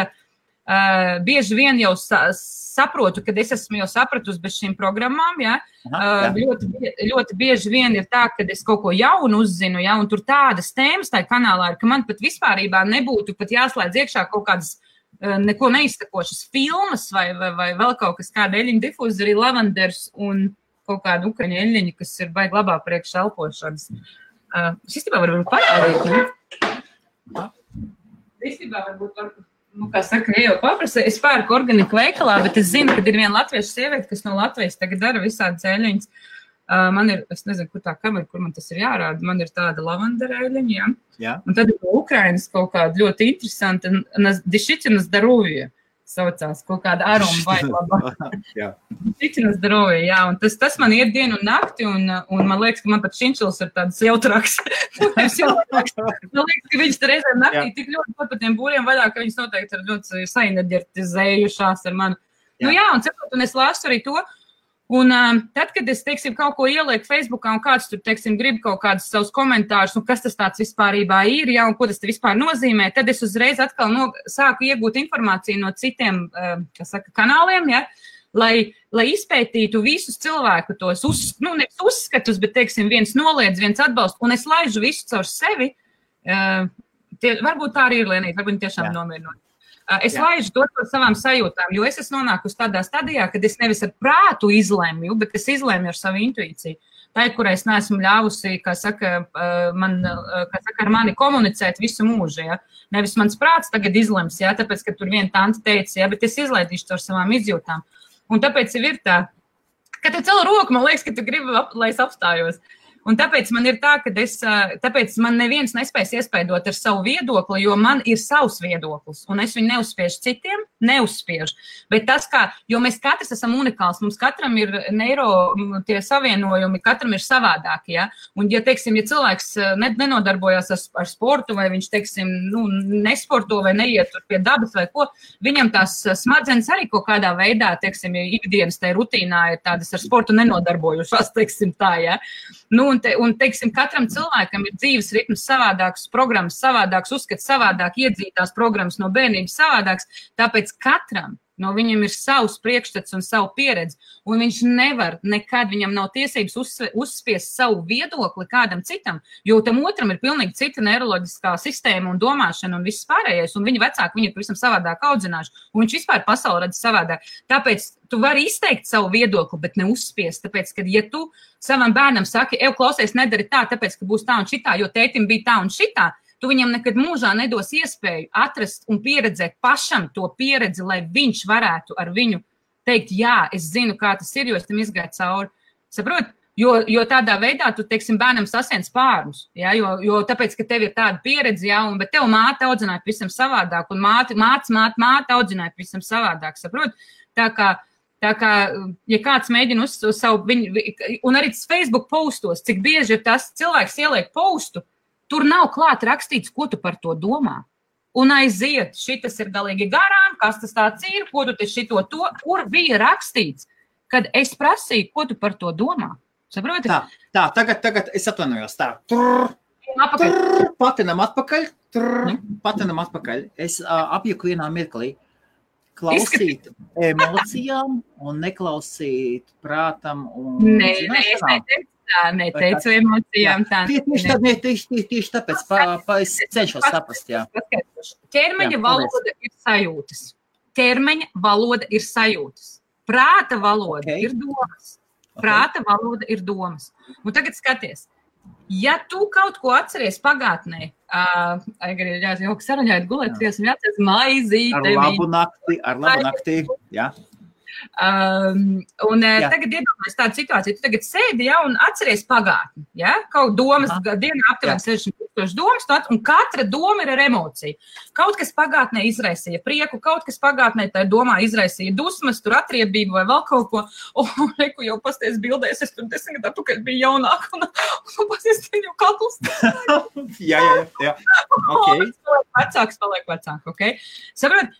bieži vien jau saprotu, kad es esmu jau sapratusi bez šīm programmām, ja. Ļoti bieži vien ir tā, kad es kaut ko jaunu uzzinu, ja, un tur tādas tēmas tajā kanālā ir, ka man pat vispārībā nebūtu pat jāslēdz iekšā kaut kādas neko neizsakošas filmas vai vēl kaut kas kāda eļļiņa difūzeri, lavanders un kaut kāda ukraņa eļļiņa, kas ir baigi labā priekš elpošanas. Es īstenībā varbūt parādīt, ne? Īstenībā varbūt, kā saka, jau paprasa, es pērku organiku veikalā, bet es zinu, ka ir viena latviešu sieviete, kas no Latvijas tagad dara visādas eļļiņas. Man ir, es nezinu, kur tā kamera, kur man tas ir jārāda, man ir tāda lavandera eļļiņa, ja? Un tad ir Ukrainas kaut kāda ļoti interesanta, Dišiķina Zdarovija saucās, kaut kāda aroma vai labā. Dišiķina Zdarovija, jā, un tas man iet dienu un nakti, un man liekas, ka man pat šinčils ir tāds jautrāks. Man liekas, ka viņas reizēm naktī tik ļoti pat pa tiem būriem vaļā, ka viņas noteikti ir ļoti saenerģetizējušās ar mani. Un es lasu arī to. Un tad, kad es, teiksim, kaut ko ielieku Facebookā un kāds tur, teiksim, grib kaut kādus savus komentārus, un kas tas tāds vispārībā ir, ja, un ko tas te vispār nozīmē, tad es uzreiz atkal sāku iegūt informāciju no citiem, kanāliem, ja, lai izpētītu visus cilvēku tos, nevis uzskatus, bet, teiksim, viens noliedz, viens atbalst, un es laižu visu caur sevi. Varbūt tā arī ir Lienīte, varbūt tiešām nomierinot. Es laižu to par savām sajūtām, jo es esmu nonākusi tādā stadijā, kad es nevis ar prātu izlemju, bet es izlemju ar savu intuīciju. Tā ir, kurai es neesmu ļāvusi, kā saka, ar mani komunicēt visu mūžu, ja. Nevis mans prāts tagad izlems, ja, tāpēc, ka tur viena tante teica, ja, bet es izlaidīšu to ar savām izjūtām. Un tāpēc ir tā, ka te cela roku, man liekas, ka tu gribi, lai es apstājos. Un tāpēc man ir tā, ka tāpēc man neviens nespēs iespaidot ar savu viedokli, jo man ir savs viedoklis, un es viņu neuzspiežu citiem, neuzspiežu. Bet tas, jo mēs katrs esam unikāls, mums katram ir tie savienojumi, katram ir savādāki, ja? Un, ja cilvēks nenodarbojās ar sportu, vai viņš, teiksim, nesporto vai neiet tur pie dabas vai ko, viņam tās smadzenes arī kaut kādā veidā, teiksim, ikdienas tai rutīnā ir tādas ar sportu nenodarbojušās, teiksim tā, ja? Un, teiksim, katram cilvēkam ir dzīves ritms savādāks, programmas savādāks, uzskats savādāk, iedzītās programmas no bērnības savādāks, tāpēc katram no viņam ir savs priekšstats un savu pieredzi, un viņš nevar nekad, viņam nav tiesības uzspiest savu viedokli kādam citam, jo tam otram ir pilnīgi cita neiroloģiskā sistēma un domāšana un viss pārējais, un viņa vecāki viņu pavisam savādāk audzināšu, un viņš vispār pasauli redz savādāk. Tāpēc tu vari izteikt savu viedokli, bet neuzspiest, tāpēc, ka, ja tu savam bērnam saki, klausies, nedari tā, tāpēc, ka būs tā un šitā, jo tētim bija tā un šitā, tu viņam nekad mūžā nedos iespēju atrast un pieredzēt pašam to pieredzi, lai viņš varētu ar viņu teikt, jā, es zinu, kā tas ir, jo es tam izgāju cauri. Saprot? Jo tādā veidā tu, teiksim, bērnam sasien spārnus, ja? Jo tāpēc, ka tev ir tāda pieredze, ja? Bet tev māte audzināja pavisam savādāk, un māte audzināja pavisam savādāk, saprot? Tā kā, ja kāds mēģina uz savu, un arī Facebook postos, cik bieži ir tas cilvēks ieliek postu, tur nav klāt rakstīts, ko tu par to domā. Un aiziet, šitas ir galīgi garām, kas tas tāds ir, ko tu te šito to, kur bija rakstīts, kad es prasīju, ko tu par to domā. Saproti? Tā, tagad es atvainojos. Tā. Patinam atpakaļ. Es apjuku vienā mirklī. Klausīt emocijām un neklausīt prātam. Es neteicu emocijām. Tieši tāpēc es cenšos saprast. Jā. Ķermeņa valoda ir sajūtas. Prāta valoda ir domas. Prāta valoda ir domas. Un tagad skaties, ja tu kaut ko atceries pagātnē, saraņājot gulēt, jāatceries maizīte. Ar labu nakti, jā. Tagad iedomājies tādu situāciju, tu tagad sēdi, ja, un atceries pagātni, ja, kaut domas, dienā aptuveni 60,000 domas, un katra doma ir ar emociju. Kaut kas pagātnē izraisīja prieku, kaut kas pagātnē tā domā izraisīja dusmas, tur atriebību vai vēl kaut ko, un reku jau pasties bildēs, es tur 10 gadu atpakaļ biju jaunāka, un pasties tev jau kakls. Jā. Okay. Paliek vecāk, ok? Saprot,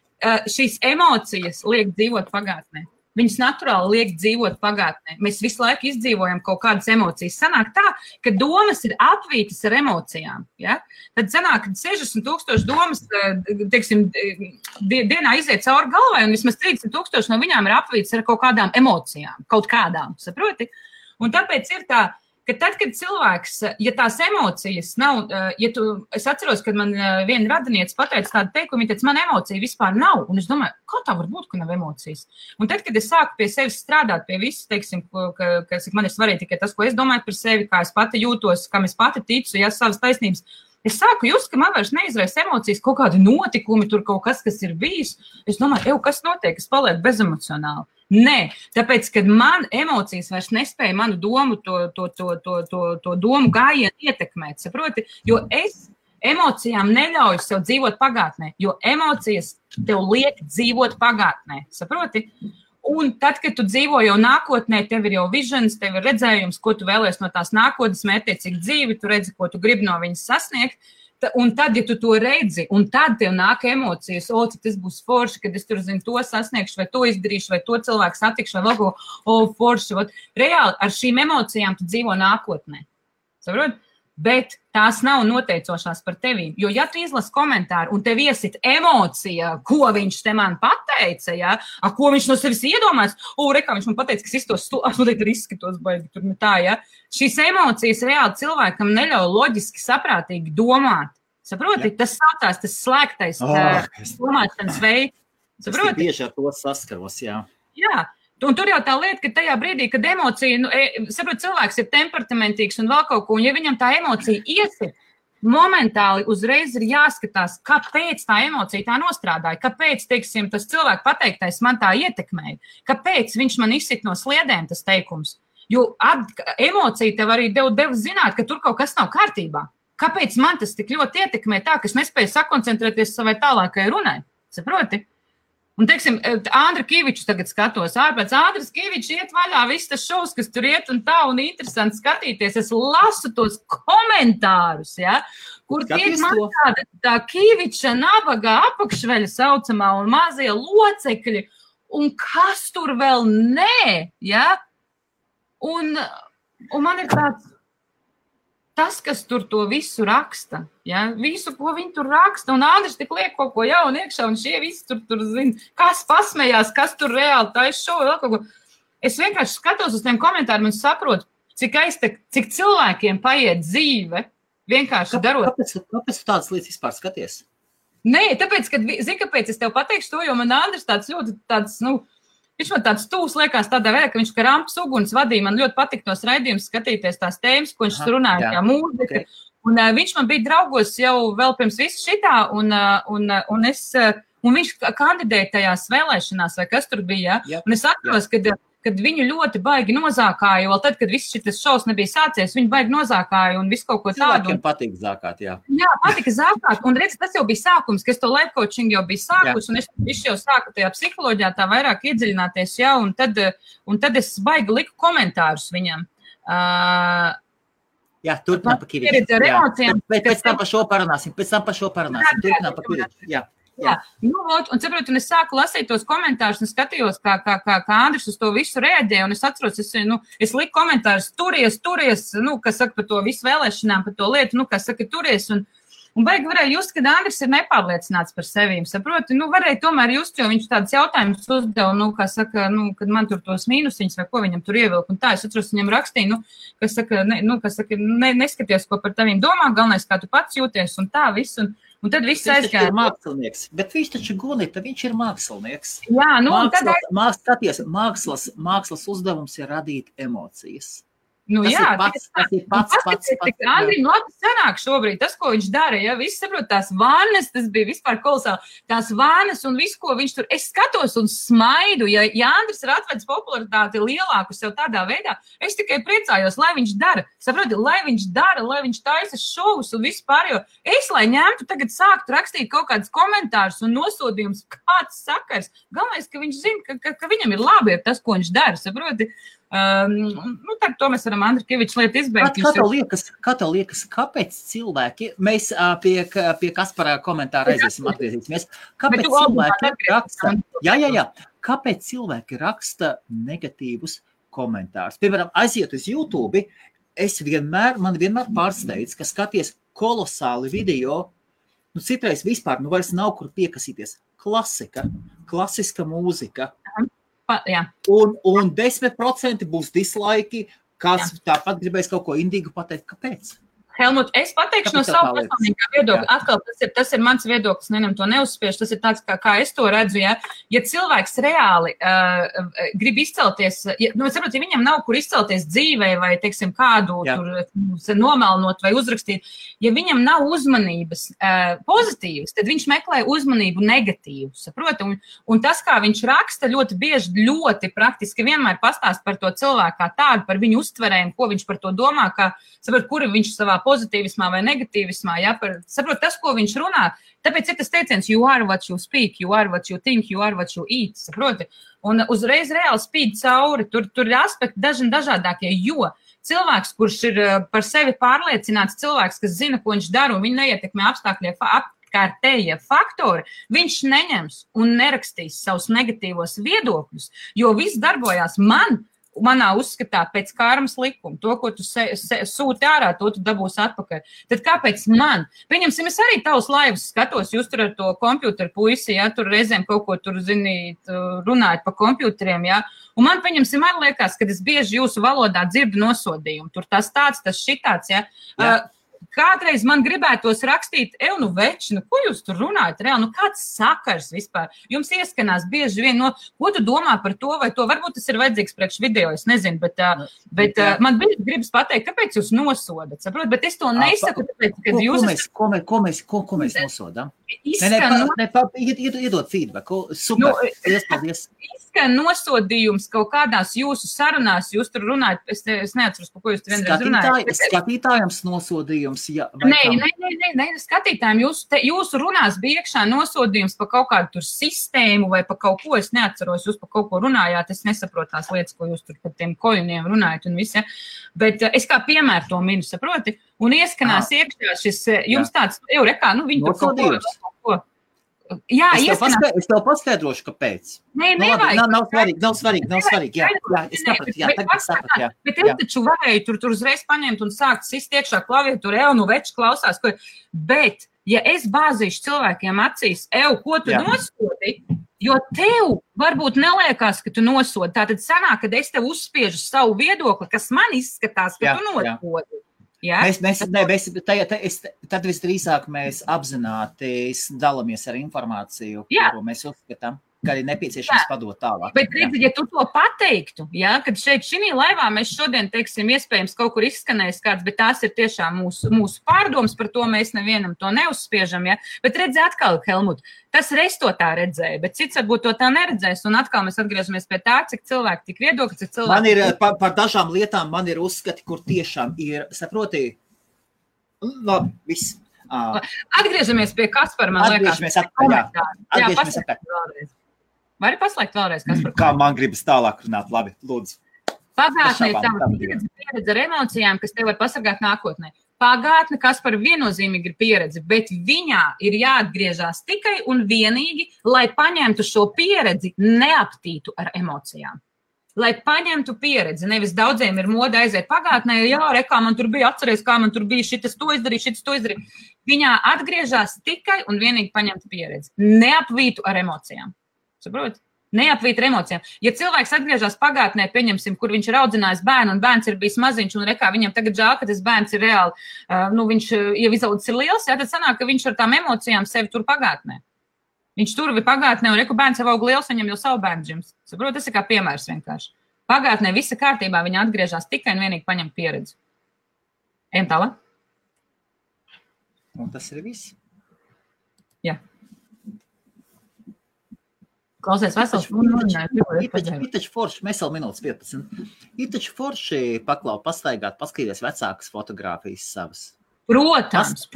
šīs emocijas liek dzīvot pagātnē. Viņas naturāli liek dzīvot pagātnē. Mēs visu laiku izdzīvojam kaut kādas emocijas. Sanāk tā, ka domas ir apvītas ar emocijām. Ja? Tad sanāk, ka 60,000 domas, teiksim, dienā iziet cauri galvai, un vismaz 30,000 no viņām ir apvītas ar kaut kādām emocijām. Kaut kādām, saproti? Un tāpēc ir tā, ka tad, kad cilvēks, ja tās emocijas nav, es atceros, kad man viena radiniece pateica tādu teikumu, viņa teica, man emocija vispār nav, un es domāju, kā tā var būt, ka nav emocijas? Un tad, kad es sāku pie sevis strādāt, pie visu, teiksim, ka man ir svarīgi tikai tas, ko es domāju par sevi, kā es pati jūtos, kam es pati ticu, ja savas taisnības, es sāku just, ka man vairs neizraisa emocijas, kaut kādi notikumi, tur kaut kas ir bijis, es domāju, kas notiek, es palieku bezemocionāli. Nē, tāpēc, kad man emocijas vairs nespēja manu domu, to domu gājienu ietekmēt, saproti, jo es emocijām neļauju sev dzīvot pagātnē, jo emocijas tev liek dzīvot pagātnē, saproti? Un tad, kad tu dzīvo jau nākotnē, tev ir jau visions, tev ir redzējums, ko tu vēlies no tās nākotnes, mērķiecīgi dzīvi, tu redzi, ko tu gribi no viņas sasniegt. Un tad, ja tu to redzi, un tad tev nāk emocijas, cik tas būs forši, kad es tur zinu, to sasniegšu, vai to izdarīšu, vai to cilvēku satikšu, vai vēl ko, forši. Reāli ar šīm emocijām tu dzīvo nākotnē. Saprot? Bet tās nav noteicošās par tevīm. Jo, ja tu izlasi komentāru un tev iesit emocija, ko viņš te man pateica, ja? Ko viņš no sevis iedomājas, rekā viņš man pateica, ka iztos noteikti ir izskatos baigi, tur tā, ja? Šīs emocijas reāli cilvēkam neļauj loģiski saprātīgi domāt. Saproti? Ja. Tas saucās, tas slēgtais domāšanas veids. Saproti? Es bieži ar to saskaros, jā. Jā. Un tur jau tā lieta, ka tajā brīdī, kad emocija, saprot, cilvēks ir temperamentīgs un vēl kaut ko, un ja viņam tā emocija iesit, momentāli uzreiz ir jāskatās, kāpēc tā emocija tā nostrādāja, kāpēc, teiksim, tas cilvēku pateiktais man tā ietekmēja, kāpēc viņš man izsit no sliedēm tas teikums. Jo emocija tev arī deva zināt, ka tur kaut kas nav kārtībā. Kāpēc man tas tik ļoti ietekmē tā, ka es nespēju sakoncentrēties savai tālākai runai? Saproti? Un, teiksim, Andra Kīviču tagad skatos ārpēc. Andras Kīviču iet vaļā viss tas šovs, kas tur iet un tā, un interesanti skatīties. Es lasu tos komentārus, ja, kur tiek man tā Kīviča nabaga apakšveļa saucamā un mazie locekļi, un kas tur vēl nē, ja? Un man ir tāds... Tas, kas tur to visu raksta, ja? Visu, ko viņi tur raksta, un Andris tik liek kaut ko jaunu iekšā, un šie visi tur zina, kas pasmējās, kas tur reāli taisa šovu, vēl kaut ko. Es vienkārši skatos uz tiem komentāriem un saprotu, cik cilvēkiem paiet dzīve, vienkārši darot. Kāpēc tu tādas lietas vispār skaties? Nē, tāpēc, kāpēc es tev pateikšu to, jo man Andris tāds, viņš man tāds tūs liekas tādā veidā, ka viņš Karampas uguns vadīja. Man ļoti patīk tos raidījumus skatīties tās tēmas, ko viņš runāja, kā mūzika. Un viņš man bija draugos jau vēl pirms visu šitā, un viņš kandidēja tajās vēlēšanās, vai kas tur bija, ja? Un es atceros, kad viņu ļoti baigi nozākāja, vēl tad, kad viss šis šovs nebija sācies, viņu baigi nozākāja un visu kaut ko tādu. Cilvēkiem patīk zākāt, jā. Jā, patika zākāt, un redz, tas jau bija sākums, ka es to life coaching jau biju sākus, un es jau sāku tajā psiholoģijā tā vairāk iedziļināties, jā, un tad es baigi liku komentārus viņam. Jā, turpinām pa Kiriču. Pēc tam par šo parunāsim, turpinām pa Kiriču, jā. Jā, un saprotu, un es sāku lasīt tos komentārus un skatījos, kā Andris uz to visu reaģēja, un es atceros, es liku komentārus, turies, kas saka par to visu vēlēšanām, par to lietu, kas saka turies, un baigi varēja just, kad Andris ir nepārliecināts par sevīm, saproti, varēja tomēr just, jo viņš tādas jautājumus uzdeva, kā saka, kad man tur tos mīnusiņus vai ko viņam tur ievilk, un tā, es atceros, viņam rakstīju, kas saka, neskaties, ko par taviem domā, galvenais, kā tu pats jūties, un tā viss, un tad viss aizgāja. Viņš ir mākslinieks, bet viņš taču Gunita, viņš ir mākslinieks. Jā, mākslas uzdevums ir radīt emocijas. Tas ir pats. Andrim labi sanāk šobrīd, tas, ko viņš dara, ja viss saprot, tās vannas, tas bija vispār kolosāli, tās vannas un visu, ko viņš tur, es skatos un smaidu, ja Andris ir atvedis popularitāti lielāku sev tādā veidā, es tikai priecājos, lai viņš dara, saproti, lai viņš taisa šovus un vispār, jo es, lai ņemtu tagad sāktu rakstīt kaut kādus komentārus un nosodījumus, kāds sakars, galvenais, ka viņš zina, ka viņam ir labi ar tas, ko viņš dara, saproti, tad to mēs varam Andri Kiviča lietu izbeigt. Kā tev liekas, kāpēc cilvēki, mēs pie Kaspara komentāra atgriezīsimies, kāpēc cilvēki raksta, kāpēc cilvēki raksta negatīvus komentārus? Piemēram, aiziet uz YouTube, man vienmēr pārsteidz, ka skaties kolosāli video, citreiz vispār, vairs nav kur piekasīties. Klasiska mūzika. Jā. Un 10% būs dislaiki, kas tāpat gribēs kaut ko indīgu pateikt. Kāpēc? Helmut, es pateikšu no savu personīgā viedokļa. Atkal, tas ir mans viedoklis, to neuzspiež, tas ir tāds, kā es to redzu, ja cilvēks reāli grib izcelties, saprot, ja viņam nav kur izcelties dzīvē vai, teiksim, kādu tur nomelnot vai uzrakstīt, ja viņam nav uzmanības pozitīvas, tad viņš meklē uzmanību negatīvu, saprot, un tas, kā viņš raksta, ļoti bieži, ļoti praktiski vienmēr pastāst par to cilvēku kā tādu, par viņu uztverēm, ko viņš par to domā, kā, saprot, kuri viņš savā pozitīvismā vai negatīvismā, saprot, tas, ko viņš runā, tāpēc ir tas teiciens, you are what you speak, you are what you think, you are what you eat, saproti, un uzreiz reāli spīd cauri, tur ir aspekti dažādākie, jo cilvēks, kurš ir par sevi pārliecināts, cilvēks, kas zina, ko viņš dara, un viņa neietekmē apkārtējie faktori, viņš neņems un nerakstīs savus negatīvos viedokļus, jo viss darbojās manā uzskatā pēc karmas likuma, to, ko tu sūti ārā, to tu dabūsi atpakaļ. Tad kāpēc man? Pieņemsim, es arī tavus laivus skatos, jūs tur ar to kompjuteru puisi, tur reizēm kaut ko tur, runājat pa kompjuteriem, un man, pieņemsim, arī liekas, kad es bieži jūsu valodā dzirdu nosodījumu, tur tas tāds, tas šitāds, Kādreiz man gribētos rakstīt, veči, ko jūs tur runājat, reāli, kāds sakars vispār? Jums ieskanās bieži vien, ko tu domā par to vai to? Varbūt tas ir vajadzīgs priekš video, es nezinu, bet man bieži gribas pateikt, kāpēc jūs nosodat, saprot? Bet es to nesaku, tāpēc, kad jūs... Ko mēs nosodam? Iedod feedback, super, paldies. Izskan nosodījums kaut kādās jūsu sarunās, jūs tur runājat, es neatceros, par ko jūs tur vienreiz runājat. Skatītājums nosodījums, Nē, skatītājiem jūsu runās bija iekšā nosodījums par kaut kādu tur sistēmu vai par kaut ko, es neatceros, jūs par kaut ko runājāt, es nesaprotu tās lietas, ko jūs tur par tiem koļuniem runājat un viss, bet es kā piemēru to minu, saproti, un ieskanās iekšā šis, jums tāds, viņi tur kaut ko. Jā, es tev paskaidrošu, kāpēc. Nē, nevajag. Nav svarīgi. Jā, es sapratu, jā. Bet es taču varēju tur uzreiz paņemt un sākt sist iekšā klaviatūru, veči klausās, bet, ja es bāzīšu cilvēkiem acīs, ko tu nosodi, jo tev varbūt neliekās, ka tu nosodi, tātad sanāk, kad es tev uzspiežu savu viedokli, kas man izskatās, ka tu nosodi. Tad visdrīzāk mēs apzināti dalamies ar informāciju, kuru mēs uzskatām. ka arī nepieciešams padot tālāk. Bet, redzi, ja tu to pateiktu, kad šeit šī laivā mēs šodien, teiksim, iespējams kaut kur izskanējis kāds, bet tās ir tiešām mūsu pārdomas, par to mēs nevienam to neuzspiežam, Bet, redzi, atkal, Helmut, tas reiz to tā redzēja, bet cits varbūt to tā neredzēs, un atkal mēs atgriežamies pie tā, cik cilvēki tik viedokļi, cik cilvēki... Man ir, par dažām lietām man ir uzskati, kur tiešām ir, saproti, labi, viss. Atgriežamies pie Kaspara, man liekas. Atgriežamies atpakaļ. Vēlreiz. Vari paslēgt vēlreiz, Kaspar? Kā man gribas tālāk runāt, labi, lūdzu. Pagātnē ir tava pieredze ar emocijām, kas tev var pasargāt nākotnē. Pagātne, Kaspar, viennozīmīgi ir pieredze, bet viņā ir jāatgriežās tikai un vienīgi, lai paņemtu šo pieredzi, neaptītu ar emocijām. Lai paņemtu pieredzi, nevis daudziem ir moda aiziet pagātnē, kā man tur bija, atceries, kā man tur bija, šitas to izdarīja. Viņā atgriežās tikai un vienīgi paņemtu pieredzi, neapvītu ar emocijām. Saprot? Neapvīt ar emocijām. Ja cilvēks atgriežas pagātnē, pieņemsim, kur viņš ir audzinājis bērnu, un bērns ir bijis maziņš, un viņam tagad žēl, ka tas bērns ir reāli, viņš jau izaudzis ir liels, tad sanāk, ka viņš ar tām emocijām sevi tur pagātnē. Viņš tur bija pagātnē, un bērns jau aug liels, viņam jau savu bērnu džims. Saprot, tas ir kā piemērs vienkārši. Pagātnē visa kārtībā viņa atgriežas tikai un vienīgi paņem pieredzi. Ejam tālāk? Un tas ir viss. Jā. Klausies, vesels. Ir taču forši, mēs vēl minūtes 15. Ir taču forši pastaigāt, paskatīties vecākas fotogrāfijas savas. Protams.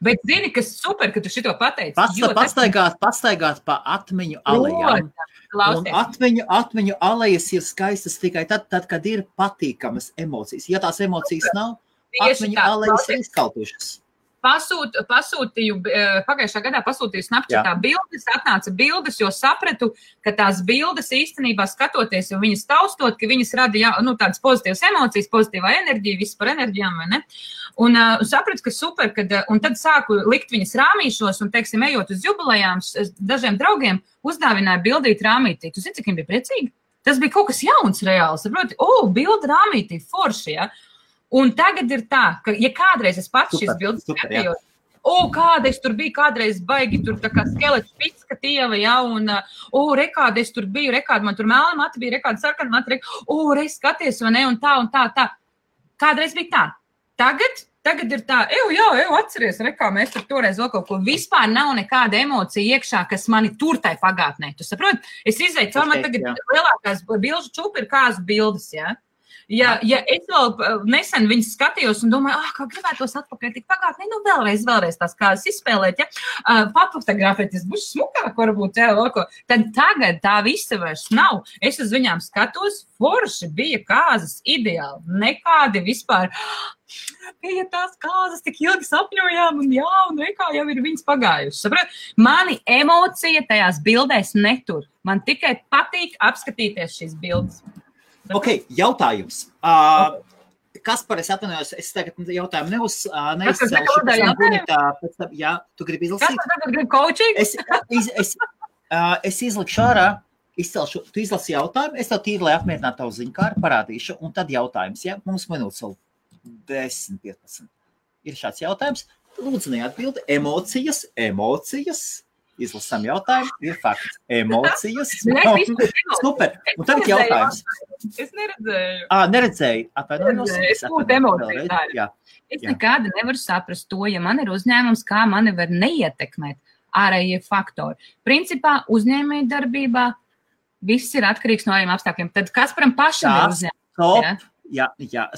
Bet zini, kas super, ka tu šito pateici. Pastaigāt pa atmiņu alejām. Un atmiņu alejas ir skaistas tikai tad, kad ir patīkamas emocijas. Ja tās emocijas nav, atmiņu alejas ir izkaltušas. Pasūtīju, pagājušā gadā pasūtīju Snapchatā bildes, atnāca bildes, jo sapratu, ka tās bildes īstenībā skatoties, jo viņas taustot, ka viņas rada tādas pozitīvas emocijas, pozitīvā enerģija, viss par enerģijām, vai ne? Un sapratu, ka super, un tad sāku likt viņas rāmīšos un, teiksim, ejot uz jubilejām, dažiem draugiem uzdāvināju bildīt rāmītī. Tu zini, cik viņi bija priecīgi? Tas bija kaut kas jauns reāli, saproti? Bilda rāmītī, forši, Un tagad ir tā, ka, ja kādreiz es pats šīs bildes skatījos, kādreiz tur bija, kādreiz baigi tur tā kā skelets pitska tieva, un, rekādi es tur biju, rekādi man tur melna mati bija, rekādi sarkana mati, reiz skaties, vai ne, un tā. Kādreiz bija tā. Tagad ir tā, atceries, rekā, mēs tur toreiz vēl kaut ko, vispār nav nekāda emocija iekšā, kas mani tur tai pagātnē. Tu saproti? Es izēju, caur man tagad lielākās bilžu čupi ir kāzu bildes, Ja es vēl nesen viņas skatījos un domāju, kā gribētos atpakaļ tik pagātnē, vēlreiz tās kādas izspēlēt, papotografēties, būs smukāk varbūt, tad tagad tā visa vairs nav. Es uz viņām skatos, forši bija kāzas ideāli, nekādi vispār. Bija tās kāzas, tik ilgi sapņojām, un rekā jau ir viņas pagājušas. Mani emocija tajās bildēs netur. Man tikai patīk apskatīties šīs bildes. Ok, jautājums. Kaspar, es atvainojos, es tagad jautājumu neizcelšu. Tu gribi izlasīt? Kaspar tagad grib coaching? Es izlikšu ārā, tu izlasi jautājumu, es tev tīri, lai apmierinātu tavu ziņkāru, parādīšu, un tad jautājums, Mums minūtes vēl 10-15. Ir šāds jautājums. Lūdzu, neatbildi. Emocijas. Izlasām jautājumu, ir fakts. Emocijas. Super. Un tagad jautājums. Es neredzēju. Neredzēju. Atvainojos. Es būtu emociju. Es nekāda nevaru saprast to, ja man ir uzņēmums, kā mani var neietekmēt ārējie faktori. Principā uzņēmēja darbībā viss ir atkarīgs no ārējiem apstākļiem. Tad Kasparam pašam ir uzņēmums.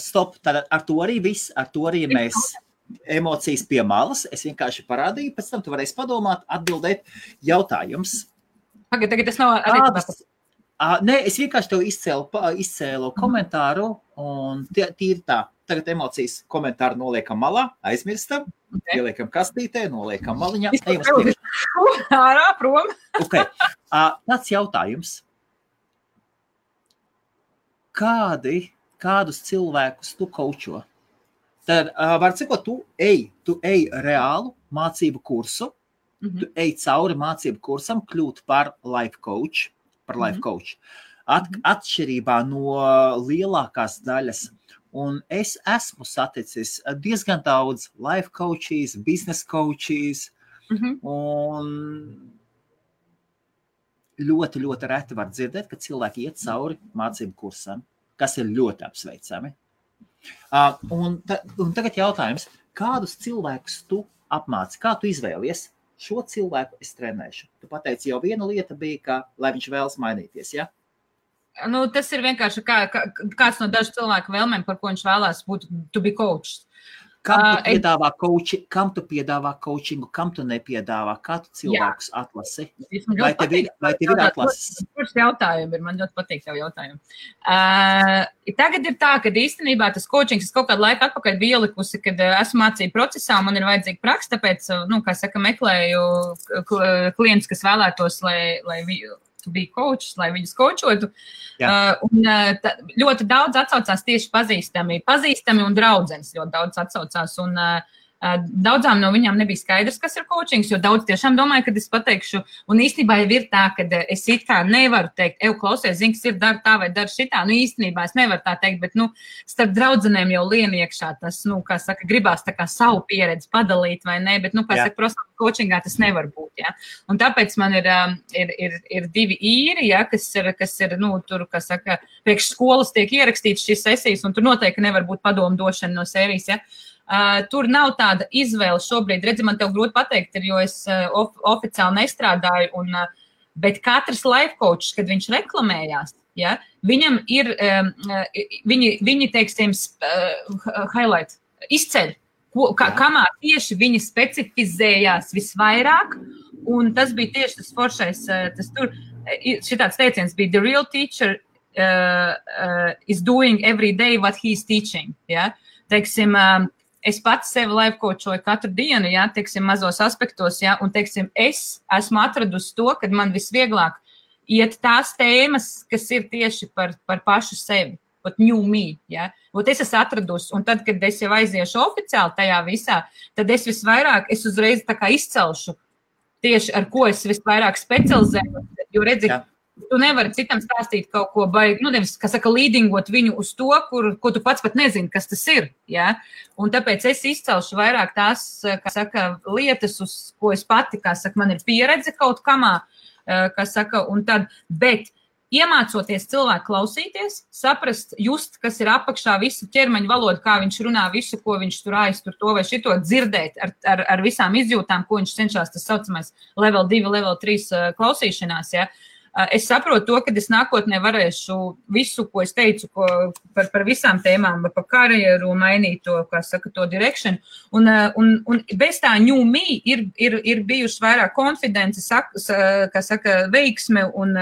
Stop. Tad ar to arī viss, ar to arī mēs emocijas pie malas. Es vienkārši parādīju, pēc tam tu varēsi padomāt, atbildēt jautājums. Tagad tas nav attiecībā. Nē, es vienkārši tev izcēlu komentāru, un tīri tā. Tagad emocijas komentāru noliekam malā, aizmirstam, ieliekam kastītē, noliekam maliņā. Ārā, prom. Tāds jautājums. Kādus cilvēkus tu kaučo? Tad, var cikot, tu ej reālu mācību kursu, tu ej cauri mācību kursam, kļūt par life coach. Atšķirībā no lielākās daļas. Un es esmu saticis diezgan daudz life coaches, business coaches, un ļoti, ļoti reti var dzirdēt, ka cilvēki iet cauri mācību kursam, kas ir ļoti apsveicami. Un tagad jautājums, kādus cilvēkus tu apmāci, kā tu izvēlies? Šo cilvēku es trenēšu. Tu pateici, jau viena lieta bija, ka, lai viņš vēlas mainīties, ja? Nu, tas ir vienkārši kāds no dažu cilvēku vēlmēm, par ko viņš vēlās būt to be coached. Kam tu piedāvā coachingu, kam tu nepiedāvā, kā tu cilvēkus atlasi? Vai tev ir atlases? Kurš jautājumi ir? Man ļoti patīk tev jautājumi. Tagad ir tā, ka īstenībā tas coachings es kaut kādu laiku atpakaļ biju ielikusi, kad esmu mācību procesā, man ir vajadzīga praksa, tāpēc, kā saka, meklēju klientus, kas vēlētos, lai to be coach, lai viņus coachotu. Ļoti daudz atsaucās tieši pazīstami un draudzenes ļoti daudz atsaucās. Un daudzām no viņām nebija skaidrs, kas ir coachings, jo daudz tiešām domāju, kad es pateikšu. Un īstenībā jau ir tā, ka es it kā nevaru teikt, klausies, zini, kas ir dar tā vai dar šitā. Nu, īstenībā es nevaru tā teikt, bet, starp draudzenēm jau lien iekšā tas, kā saka, gribās tā kā savu pieredzi padalīt vai ne, bet, kā saka, profesionālā coachingā tas nevar būt, ja. Un tāpēc man ir divi īri, ja, kas ir, tur, kā saka, priekš skolas tiek ierakstīts šīs sesijas, un tur noteikti nevar būt padomu došana no sērijas, ja. Tur nav tāda izvēle šobrīd. Redzi, man tev grūti pateikt, jo es oficiāli nestrādāju, bet katrs life coach, kad viņš reklamējās, ja, viņam ir, viņi teiksim, highlight, izceļ, kamā tieši viņi specifizējās visvairāk, un tas bija tieši tas foršais, šitāds teiciens bija, the real teacher is doing every day what he's teaching, ja, teiksim, es pats sevi life coachoju katru dienu, ja, teiksim, mazos aspektos, ja, un, teiksim, es esmu atradusi to, kad man visvieglāk iet tās tēmas, kas ir tieši par pašu sevi, pat new me, ja. Es esmu atradusi, un tad, kad es jau aiziešu oficiāli tajā visā, tad es uzreiz tā kā izcelšu tieši, ar ko es visvairāk specializēju, jo redzi, tu nevari citam stāstīt kaut ko baigi, nevis, kā saka, līdingot viņu uz to, ko tu pats pat nezini, kas tas ir, ja? Un tāpēc es izcelšu vairāk tās, kā saka, lietas, uz ko es pati, kā saka, man ir pieredze kaut kamā, kā saka, un tad, bet iemācoties cilvēku klausīties, saprast, just, kas ir apakšā, visu ķermeņa valodu, kā viņš runā, visu, ko viņš tur aiztur to vai šito, dzirdēt ar visām izjūtām, ko viņš cenšas, tas saucamais level 2, level 3 klausīšanās, ja? Es saprotu to, ka es nākotnē varēšu visu, ko es teicu, par visām tēmām, par karjeru, mainīt to, kā saka, to direction. Un bez tā new me ir bijuši vairāk konfidences, kā saka, veiksme un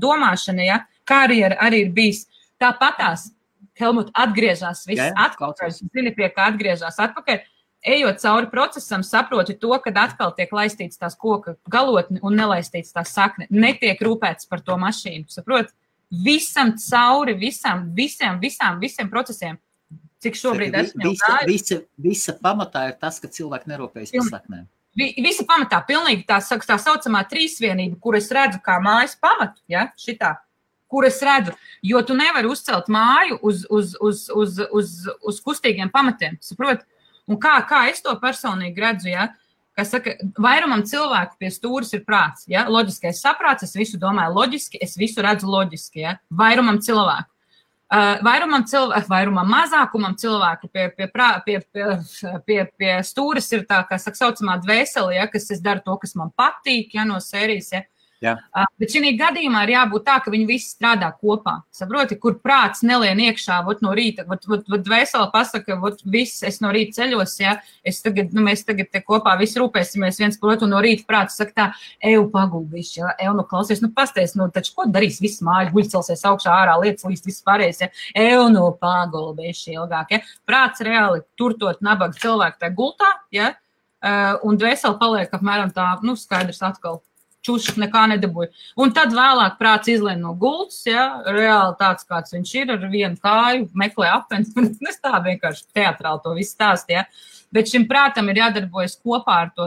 domāšana, ja? Karjera arī ir bijis tāpatās. Helmut atgriežās viss atpakaļ, zini, pie kā atgriežās atpakaļ. Ejot cauri procesam, saproti to, kad atkal tiek laistīts tās koka galotni un nelaistīts tās sakne. Netiek rūpēts par to mašīnu, saproti? Visam cauri, visiem procesiem, cik šobrīd esmu jau gājusi. Visa pamatā ir tas, ka cilvēki nerūpējas par saknēm. Visa pamatā, pilnīgi tā saucamā trīsvienība, kur es redzu kā mājas pamatu, ja, šitā, kur es redzu, jo tu nevari uzcelt māju uz kustīgiem pamatiem, saproti? Un kā es to personīgi redzu, ja? Kā saka, vairumam cilvēku pie stūris ir prāts, ja? Loģiskais saprāts, es visu domāju loģiski, es visu redzu loģiski, ja? Vairumam cilvēku. Vairumam mazākumam cilvēku pie stūris ir tā, kā saka, saucamā dvēsele, ja? Kas es daru to, kas man patīk, ja? No sērijas, ja? Jā. Bet šī gadījumā ir jābūt tā, ka viņi visi strādā kopā. Saproti, kur prāts nelien iekšā, no rīta, dvēsele pasaka, viss, es no rīta ceļos, ja, mēs tagad te kopā visi rūpēsimies viens par otru, un no rīta prāts saka tā, paguldīši, ja, klausies, pasties, taču ko darīs viss māja, guļcelsies augšā ārā, lietas līdz viss pārējais, ja, paguldīši ilgāk, ja. Prāts reāli turtot nabaga cilvēku tajā gultā, ja, un dvēsele paliek apmēram tā, skaidrs atkal. Čušs nekā nedabūja. Un tad vēlāk prāts izlien no gultas, ja, reāli tāds, kāds viņš ir, ar vienu kāju, meklē apens, es tā vienkārši teatrāli to visu stāstu, ja. Bet šim prātam ir jādarbojas kopā ar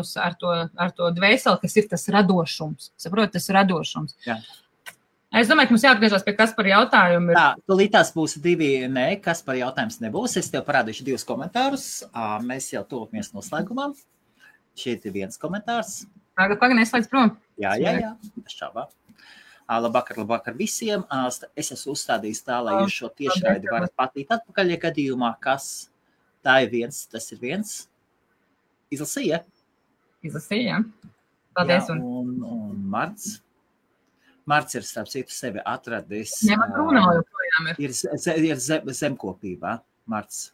to dvēseli, kas ir tas radošums. Saprot, tas radošums. Jā. Es domāju, ka mums jāatgriežas pie Kaspara jautājumu. Tā, tūlītās būs divi, Kaspara jautājums nebūs. Es tev parādīšu 2 komentārus. Mēs jau tuvamies noslēgumam. Šeit ir viens komentārs. Pagaid, neslēdz prom. Jā, bez šaubām. Labvakar visiem. Es esmu uzstādījis tā, lai jūs šo tiešraidi varat patīt atpakaļ, ja gadījumā, kas tā ir viens, tas ir viens. Izlasīja? Izlasīja. Paldies. Un Marts. Marts ir starp citu sevi atradis. Nevar runāt joprojām ir zemkopībā, Marts.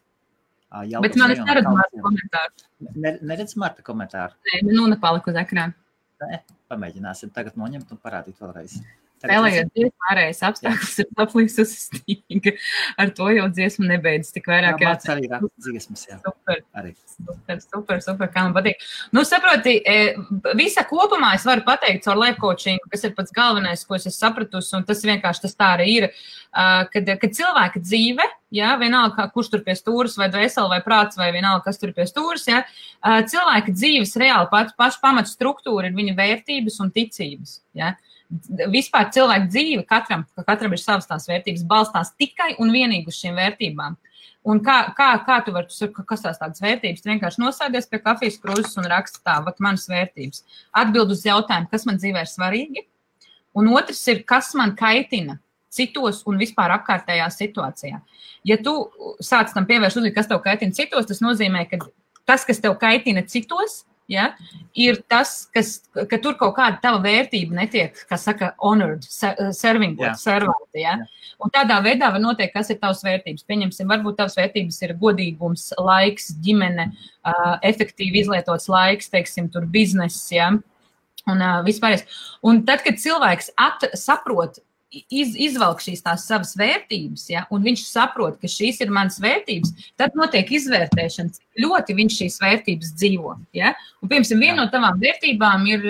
Bet man es neredzu Marta komentāru. Neredz Marta komentāru? Nē, nu nepalika uz ekrāna. Nē, pamēģināsim tagad noņemt un parādīt vēlreiz. Spēlējot dziesmu ārējais apstākļus ir aplīsus stīga. Ar to jau dziesmu nebeidz tik vairāk. Jā, Marts arī raksta dziesmas, jā. Super, kā man patīk. Nu, saproti, visa kopumā es varu pateikt caur life coachingu, kas ir pats galvenais, ko es sapratusi, un tas vienkārši tas tā arī ir, kad cilvēka dzīve, jā, vienalga, kurš tur pie stūras, vai dvēseli, vai prāts, vai vienalga, kas tur pie stūras, jā, cilvēka dzīves reāli paša pamata struktūra ir viņa vērtības un ticības, jā. Vispār cilvēka dzīve, katram ir savas tās vērtības, balstās tikai un vienīgi uz šīm vērtībām. Un kā tu vari, kas tās tādas vērtības, tu vienkārši nosēdies pie kafijas krūzes un raksti tā, vat manas vērtības. Atbild uz jautājumu, kas man dzīvē ir svarīgi, un otrs ir, kas man kaitina citos un vispār apkārtējā situācijā. Ja tu sāc tam pievērst uzmanību, kas tev kaitina citos, tas nozīmē, ka tas, kas tev kaitina citos, ja, ir tas, ka tur kaut kāda tava vērtība netiek, kā saka, honored, servāta. Ja? Un tādā veidā var noteikt, kas ir tavas vērtības. Pieņemsim, varbūt tavas vērtības ir godīgums, laiks, ģimene, efektīvi izlietots laiks, teiksim, tur bizness, ja? Un vispārējais. Un tad, kad cilvēks saprot, izvelk šīs tās savas vērtības, ja, un viņš saprot, ka šīs ir manas vērtības, tad notiek izvērtēšana, cik ļoti viņš šīs vērtības dzīvo. Ja. Un, piemēram, viena no tavām vērtībām ir,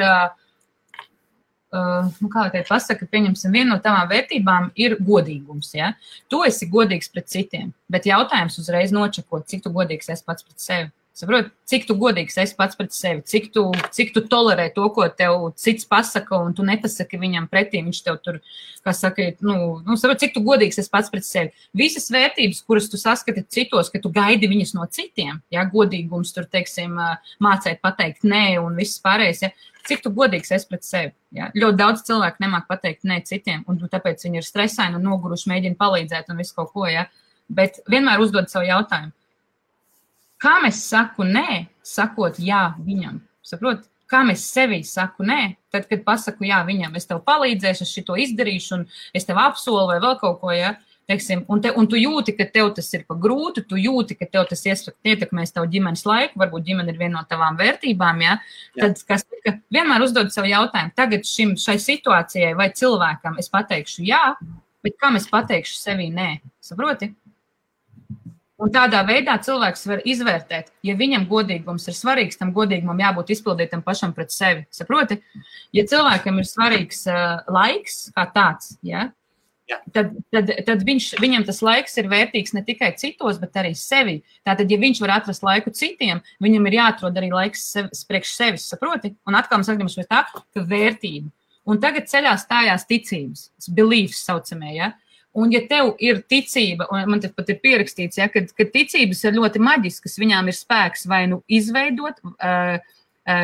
kā lai teikt pasaka, viena no tavām vērtībām ir godīgums. Ja. Tu esi godīgs pret citiem, bet jautājums uzreiz nočakot, cik tu godīgs esi pats pret sevi. Saprot, cik tu godīgs esi pats pret sevi, cik tu tolerē to, ko tev cits pasaka, un tu nepasaki viņam pretī, viņš tev tur, kā saka, saprot, cik tu godīgs esi pats pret sevi. Visas vērtības, kuras tu saskati citos, ka tu gaidi viņas no citiem, ja, godīgums tur, teiksim, mācēt pateikt nē un viss pārējais, ja, cik tu godīgs esi pret sevi. Ja. Ļoti daudz cilvēku nemāk pateikt nē citiem, un tāpēc viņi ir stresaini un noguruši, mēģina palīdzēt un visu kaut ko, ja. Bet vienmēr uzdod savu jautājumu. Kā mēs saku nē, sakot jā viņam? Saprot, kā mēs sevī saku nē, tad, kad pasaku jā viņam, es tev palīdzēšu, es šito izdarīšu, un es tev apsolu vai vēl kaut ko, ja, teiksim, un tu jūti, ka tev tas ir pa grūti, tu jūti, ka tev tas ietekmēs tev ģimenes laiku, varbūt ģimene ir viena no tavām vērtībām, ja, tad, kas vienmēr uzdod savu jautājumu, tagad šai situācijai vai cilvēkam es pateikšu jā, bet kā es pateikšu sevī nē, saproti? Un tādā veidā cilvēks var izvērtēt, ja viņam godīgums ir svarīgs, tam godīgumam jābūt izpildītam pašam pret sevi. Saproti? Ja cilvēkam ir svarīgs laiks kā tāds, ja, tad viņam tas laiks ir vērtīgs ne tikai citos, bet arī sevi. Tātad, ja viņš var atrast laiku citiem, viņam ir jāatrod arī laiks priekš sevis. Saproti? Un atkal mēs atgriežamies pie tā, ka vērtība. Un tagad ceļā stājās ticības, beliefs saucamie, ja. Un ja tev ir ticība, un man te pat ir pierakstīts, ja, ka ticības ir ļoti maģiskas, viņām ir spēks vai nu izveidot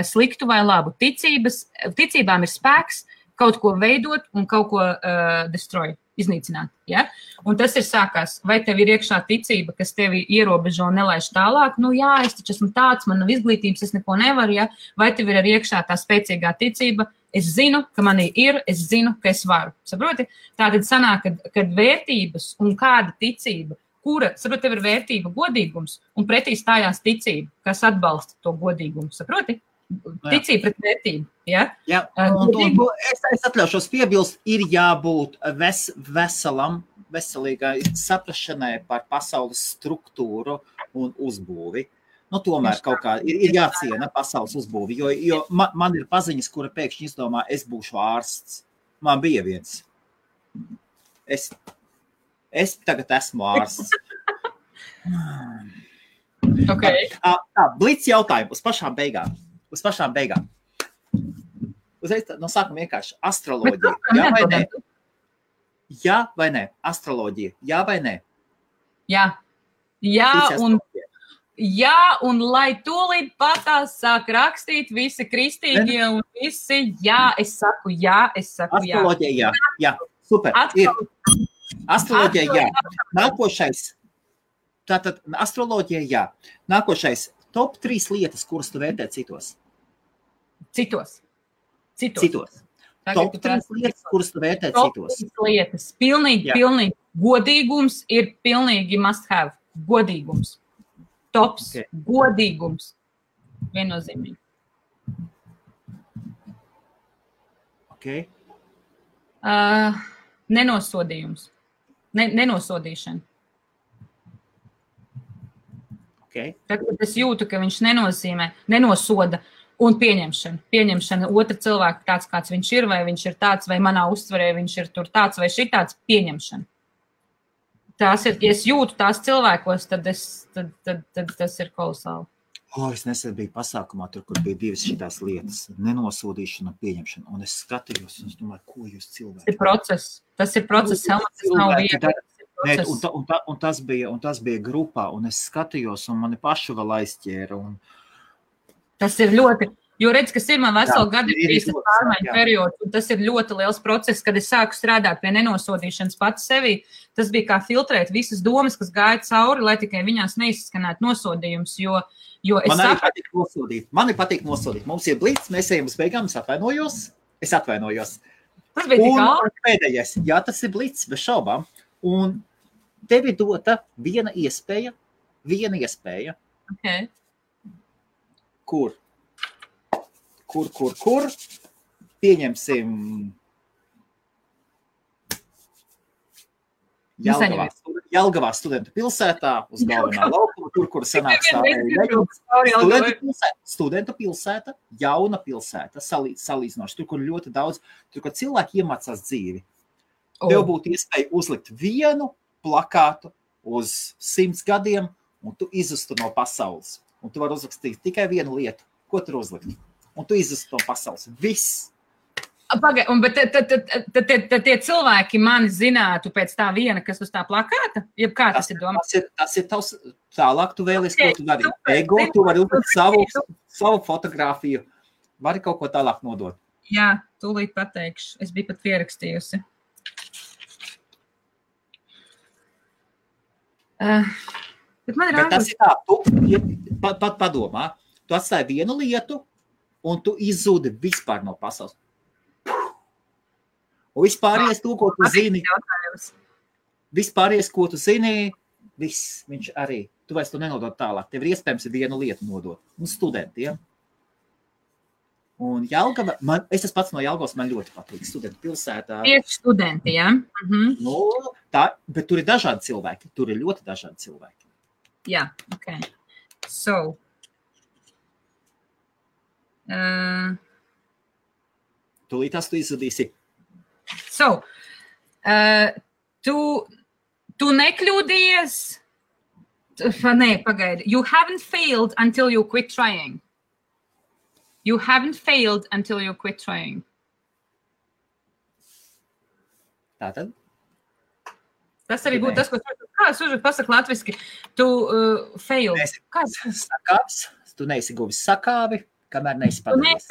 sliktu vai labu. Ticībām ir spēks kaut ko veidot un kaut ko destroy, iznīcināt. Ja? Un tas ir sākās, vai tev ir iekšā ticība, kas tevi ierobežo un nelaiž tālāk, nu jā, es taču esmu tāds, man nav izglītības, es neko nevaru, ja? Vai tev ir arī iekšā tā spēcīgā ticība, es zinu, ka manī ir, es zinu, ka es varu. Saproti? Tātad sanāk, kad vērtības un kāda ticība, kura, saproti, tev ir vērtība godīgums, un pretī stājās ticība, kas atbalsta to godīgumu. Saproti? Ticība pret vērtību. Ja? Jā, un es atļaušos piebilst, ir jābūt veselīgai saprašanai par pasaules struktūru un uzbūvi. Nu, tomēr kaut kā ir jāciena pasaules uzbūvi, jo man ir paziņas, kura pēkšņi izdomā, es būšu ārsts. Man bija viens. Es tagad esmu ārsts. Okay. Blitz jautājumu uz pašām beigām. Uzreiz no sākuma vienkārši astroloģija. Jā vai nē? Jā vai nē? Astroloģija. Jā vai nē? Jā. Jā, un jā, un lai tūlīt patās sāk rakstīt visi kristīgie un visi, jā, es saku jā. Astroloģija, jā, super, ir. Astroloģija, jā. Nākošais, tātad astroloģija, jā. Nākošais, top 3 lietas, kuras tu vērtē citos. Citos. Top 3 lietas, kuras tu vērtē citos. Top 3 lietas. Pilnīgi. Godīgums ir pilnīgi must have. Godīgums. Tops. Okay. Godīgums. Viennozīmīgi. Okay. Nenosodījums. Nenosodīšana. Okay. Tad, kad es jūtu, ka viņš nenosoda un pieņemšana otra cilvēka tāds, kāds viņš ir, vai viņš ir tāds, vai manā uztverē viņš ir tur tāds, vai šitāds, pieņemšana. Tās ir, ja es jūtu tās cilvēkos, tad tas ir kolosāli. Es nesen biju pasākumā, tur, kur bija 2 šitās lietas, nenosodīšana un pieņemšana, un es skatījos, un es domāju, ko jūs cilvēki? Tas ir process, Helmut, tas nav vieta. Un tas bija grupā, un es skatījos, un mani pašu vēl aizķēra. Tas ir ļoti, jo redz, kas ir man veselu gadu bijis pārmaiņu periods, un tas ir ļoti liels process, kad es sāku strādāt pie nenosodīšanas pats sevī. Tas bija kā filtrēt visas domas, kas gāja cauri, lai tikai viņās neizskanētu nosodījums, jo es Man patīk nosodīt. Mums ir blīts, mēs ejam uz beigām, es atvainojos. Tas bija tik ātri. Pēdējais, jā, tas ir blīts, bez šaubām. Un tev ir dota viena iespēja. Okay. Kur? Pieņemsim Jelgavā studentu pilsētā, uz galvenā laukuma, kur sanāk studentu pilsēta, jauna pilsēta, salīdzinoši, tur, kur ļoti daudz, tur, kur cilvēki iemācās dzīvi. Tev būtu iespēja uzlikt vienu plakātu uz 100 gadiem, un tu izustu no pasaules. Un tu vari uzrakstīt tikai vienu lietu. Ko tur uzlikt? Un tu izustu no pasaules. Viss. Bet tad tie cilvēki mani zinātu pēc tā viena, kas uz tā plakāta? Jeb kā tas ir domāts? Tas ir tavs, tālāk tu vēlies, ko tu dari. Ego, tu vari uzlikt savu fotogrāfiju. Vari kaut ko tālāk nodot. Jā, tūlīt pateikšu. Es biju pat pierakstījusi. Bet tas ir tā, tu pat padomā, tu atstāji vienu lietu, un tu izzūdi vispār no pasaules. Un vispāries to, ko tu zini, viss, viņš arī, tu vairs to nenodod tālāk. Tev ir iespējams vienu lietu nodot. Un studentiem. Un Jelgava, es esmu pats no Jelgavas, man ļoti patīk studentu pilsētā. Tieši studenti, jā? No, bet tur ir dažādi cilvēki. Tur ir ļoti dažādi cilvēki. Jā, ok. So. Tūlītās tu izsudīsi. So, tu nekļūdījies? Nē, pagaidi. You haven't failed until you quit trying. You haven't failed until you quit trying. Tātad? Tas arī būtu tas, ko kāds uzvar pasaka latviski. Tu failed. Tu neesi guvis sakāvi. Kamēr neesi padarījis.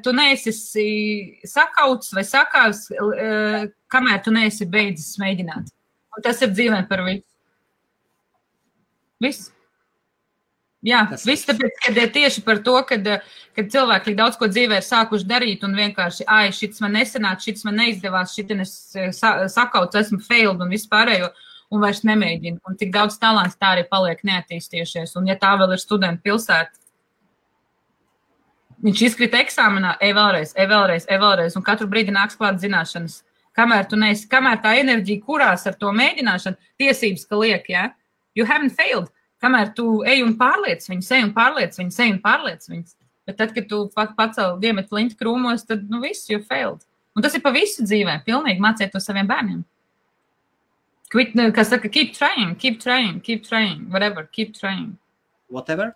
Tu neesi sakauts vai sakāvs, kamēr tu neesi beidzis mēģināt. Un tas ir dzīvē par visu. Viss. Jā, viss tāpēc, kad ir tieši par to, kad cilvēki daudz ko dzīvē ir sākuši darīt un vienkārši, šits man nesanāca, šits man neizdevās, šitin es sakauts, esmu failed un viss pārējo, un vairs nemēģinu. Un tik daudz talants tā arī paliek neattīstījušies. Un ja tā vēl ir studentu pilsēta, viņš izkrita eksāmenā, vēlreiz, un katru brīdi nāks klāt zināšanas. Kamēr tā enerģija kurās ar to mēģināšanu, tiesības, ka liek, ja? You haven't failed. Kamēr tu ej un pārliec viņus. Bet tad, kad tu pacēli diemet plinti krūmos, tad, viss, you failed. Un tas ir pa visu dzīvē. Pilnīgi māciet to saviem bērniem. Kas saka, keep trying, whatever, keep trying. Whatever?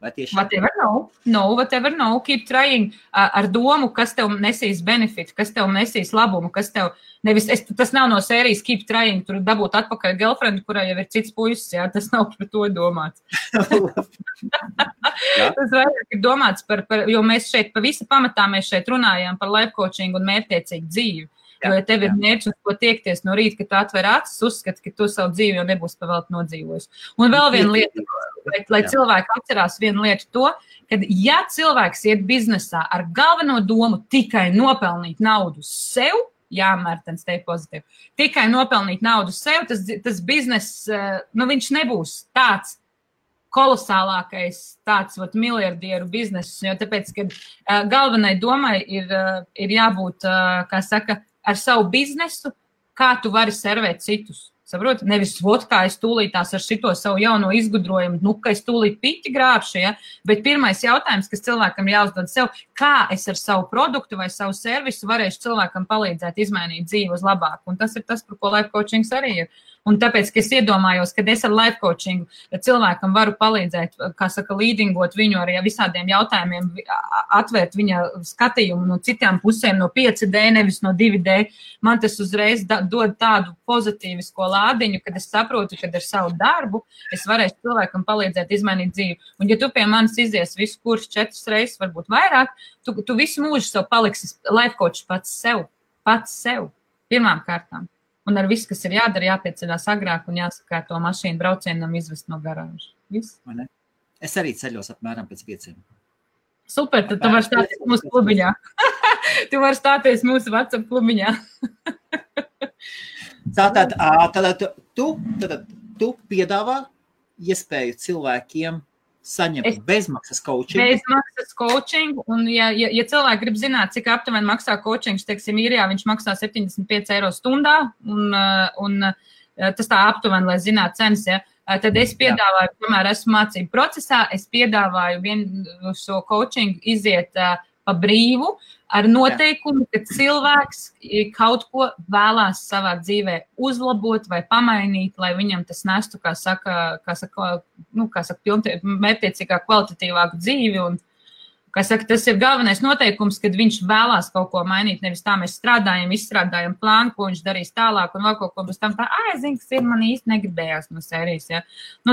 Vai tieši? Whatever no. No, whatever no. Keep trying ar domu, kas tev nesīs benefitu, kas tev nesīs labumu, kas tev nevis, tas nav no sērijas keep trying, tur dabūt atpakaļ girlfriend, kurai jau ir cits puisis, jā, tas nav par to domāts. Tas vairāk ir domāts par, jo mēs šeit, pa visa pamatā mēs šeit runājām par life coaching un mērķtiecīgu dzīvi. Jo, ja tev ir mērķis, uz ko tiekties no rīta, ka tu atver acis, uzskati, ka tu savu dzīvi jau nebūs pavēlti nodzīvojis. Un vēl viena lieta, lai cilvēki atcerās vienu lietu to, ka ja cilvēks iet biznesā ar galveno domu tikai nopelnīt naudu sev, jā, Mērtens, te pozitīvi, tikai nopelnīt naudu sev, tas biznes, viņš nebūs tāds kolosālākais tāds miljardieru biznesis, jo tāpēc, ka galvenai domai ir jābūt, kā saka, ar savu biznesu, kā tu vari servēt citus. Saproti? Nevis, kā es tūlītās ar šito savu jauno izgudrojumu, ka es tūlīt piķi grābšu, ja? Bet pirmais jautājums, kas cilvēkam jāuzdod sev, kā es ar savu produktu vai savu servisu varēšu cilvēkam palīdzēt izmainīt dzīvi uz labāku. Un tas ir tas, par ko life coachings arī ir. Un tāpēc, ka es iedomājos, ka es ar life coachingu cilvēkam varu palīdzēt, kā saka, līdingot viņu arī visādiem jautājumiem, atvērt viņa skatījumu no citām pusēm, no 5D, nevis no 2D. Man tas uzreiz dod tādu pozitīvisko lādiņu, kad es saprotu, kad ar savu darbu es varēšu cilvēkam palīdzēt izmainīt dzīvi. Un ja tu pie manis izies visu kursu 4 reizes, varbūt vairāk, tu visu mūžu sev paliksi life coach pats sev, pirmām kārtām. Un ar visu, kas ir jādara, jāpieceļās agrāk un jāsakārto mašīnu braucienam izvest no garāžas. Viss? Es arī ceļos apmēram pēc 5. Super, tad tu vari stāties mūsu klubiņā. Tu vari stāties mūsu WhatsApp klubiņā. Tātad tu piedāvā iespēju cilvēkiem saņemt bezmaksas coaching. Bezmaksas coaching, un ja cilvēki grib zināt, cik aptuveni maksā coachings, teiksim, īrijā, viņš maksā 75 eiro stundā, un tas tā aptuveni, lai zinātu cenas, ja, tad es piedāvāju, kamēr esmu mācību procesā, es piedāvāju vienu šo coaching iziet pa brīvu, ar noteikumu, ka cilvēks kaut ko vēlās savā dzīvē uzlabot vai pamainīt, lai viņam tas nestu, kā saka, mērķtiecīgā kvalitatīvāku dzīvi. Un, kā saka, tas ir galvenais noteikums, kad viņš vēlās kaut ko mainīt. Nevis tā mēs izstrādājam plānu, ko viņš darīs tālāk, un vēl kaut ko bez tam tā, zinu, kas ir, man īsti negribējās no sērijas. Ja?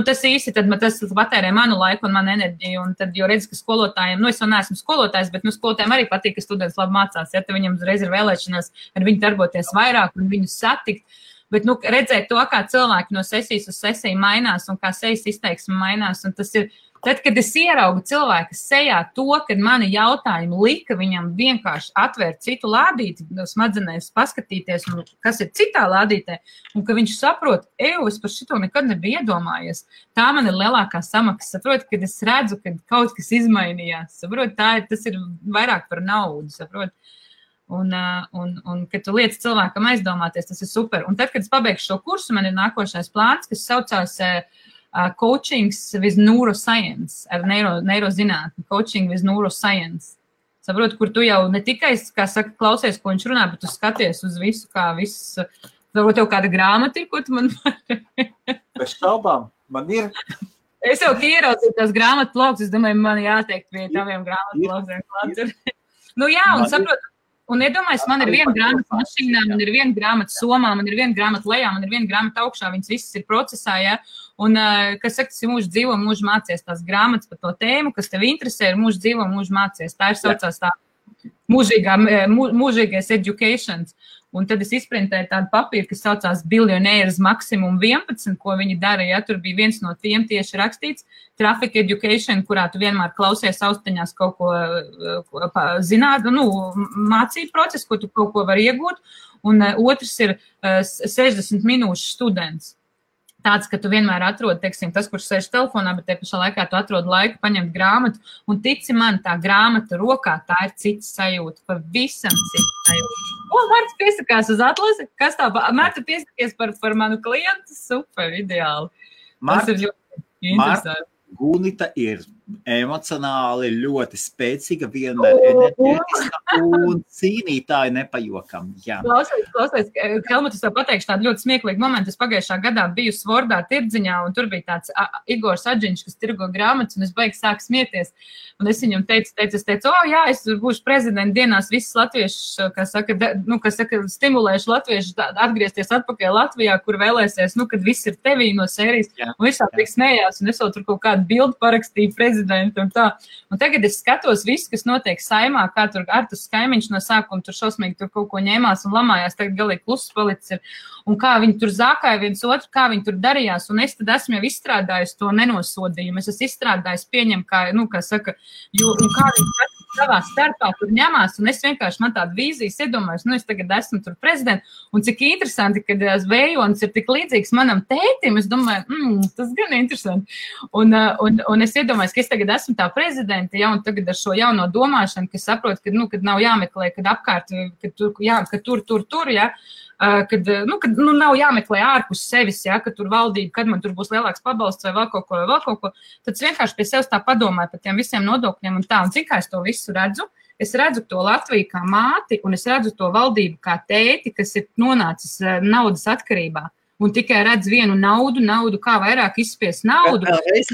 Tas īsti, tad tas patērē manu laiku un manu enerģiju, un tad, jo redz, ka skolotājiem, es jau neesmu skolotājs, bet skolotājiem arī patīk, ka students labi mācās, ja, tad viņam uzreiz ir vēlēšanās ar viņu darboties vairāk un viņu satikt. Bet, redzēt to, kā cilvēki no sesijas uz sesiju mainās un kā sejas izteiksme mainās, un tas ir, tad, kad es ieraugu cilvēka sejā to, kad mani jautājumi lika viņam vienkārši atvērt citu lādīti, smadzenēs paskatīties, kas ir citā lādītē, un ka viņš saprot, es par šito nekad nebiju iedomājies. Tā man ir lielākā samaksa. Saprot, kad es redzu, ka kaut kas izmainījās. Saprot, tas ir vairāk par naudu, saprot. Un kad tu liec cilvēkam aizdomāties, tas ir super. Un tad, kad es pabeigšu šo kursu, man ir nākošais plāns, kas saucās coachings with neuroscience, ar neirozinātni, coaching with neuroscience. Saprot, kur tu jau ne tikai, kā saka, klausies, ko viņš runā, bet tu skaties uz visu, kā viss, varbūt tev kāda grāmata ir, ko tu man vari. Bez šaubām, man ir. Es jau ieraudzīju tās grāmatu blogus, es domāju, man jāteikt pie taviem grāmatu blogiem klāts. Jā, un saprot, un iedomājies, man ir viena grāmata mašīnā, man ir viena grāmata somā, man ir viena grāmata lejā, man ir viena grāmata augšā, viņas visas ir procesā, ja? Un, kas saka, tas ir mūžu dzīvo, mūžu mācies tās grāmatas par to tēmu, kas tev interesē, ir mūžu dzīvo, mūžu mācies. Tā ir saucās tā mūžīgais educations. Un tad es izprintēju tādu papīru, kas saucās Billionaires Maximum 11, ko viņi dara, ja tur bija viens no tiem tieši rakstīts, Traffic Education, kurā tu vienmēr klausies austiņās kaut ko zināt, mācību procesu, ko tu kaut ko var iegūt, un otrs ir 60 minūšu students. Tāds, ka tu vienmēr atrodi, teiksim, tas, kurš sēž telefonā, bet te pašā laikā tu atrodi laiku paņemt grāmatu, un tici man, tā grāmata rokā, tā ir cits sajūta, pavisam cits sajūta. Mārta piesakās uz atlasi, kas tā, Mārta piesakies par manu klientu, super, ideāli. Tas ir ļoti interesanti. Gunita ir emocionāli ļoti spēcīga, vienmēr enerģētiska un cīnītāji nepajokam. Jā. Klausies, Helmut, es tev pateikšu tādu ļoti smieklīgu momentu. Es pagājušā gadā biju Svordā tirdziņā, un tur bija tāds Igors Adžiņš, kas tirgo grāmatas, un es baigi sāku smieties. Un es viņam teicu, jā, es būšu prezidenta dienās visus latviešus, kas saka, stimulēšu latviešus atgriezties atpakaļ Latvijā, kur vēlēsies, kad viss ir tevī no sērijas. Jā, un visā tik smējās, un es vēl tur kaut kādu bildu parakstīju prezidentu un tā. Un tagad es skatos visu, kas notiek Saimā, kā tur Artus Kaimiņš no sākuma tur šausmīgi tur kaut ko ņēmās un lamājās, tagad galīgi kluss palicis ir. Un kā viņi tur zākāja viens otru, kā viņi tur darījās, un es tad esmu jau izstrādājis to nenosodījumu. Es esmu izstrādājis pieņem, kā saka, un kā viņi savā starpā tur ņemās, un es vienkārši man tādu vīzijas iedomājos, es tagad esmu tur prezidents, un cik interesanti, kad Vējonis ir tik līdzīgs manam tētim, es domāju, tas gan interesanti. Un es iedomājos, ka es tagad esmu tā prezidenta, ja, un tagad ar šo jauno domāšanu, ka saprotu, kad nav jāmeklē, kad apkārt, kad tur, ja, kad nav jāmeklē ārpus sevis, ja, kad tur valdība, kad man tur būs lielāks pabalsts vai vēl kaut ko, tad es vienkārši pie sevis tā padomāju par tiem visiem nodokļiem un tā, un cik kā es to visu redzu. Es redzu to Latviju kā māti, un es redzu to valdību kā tēti, kas ir nonācis naudas atkarībā. Un tikai redz vienu naudu, kā vairāk izspies naudu.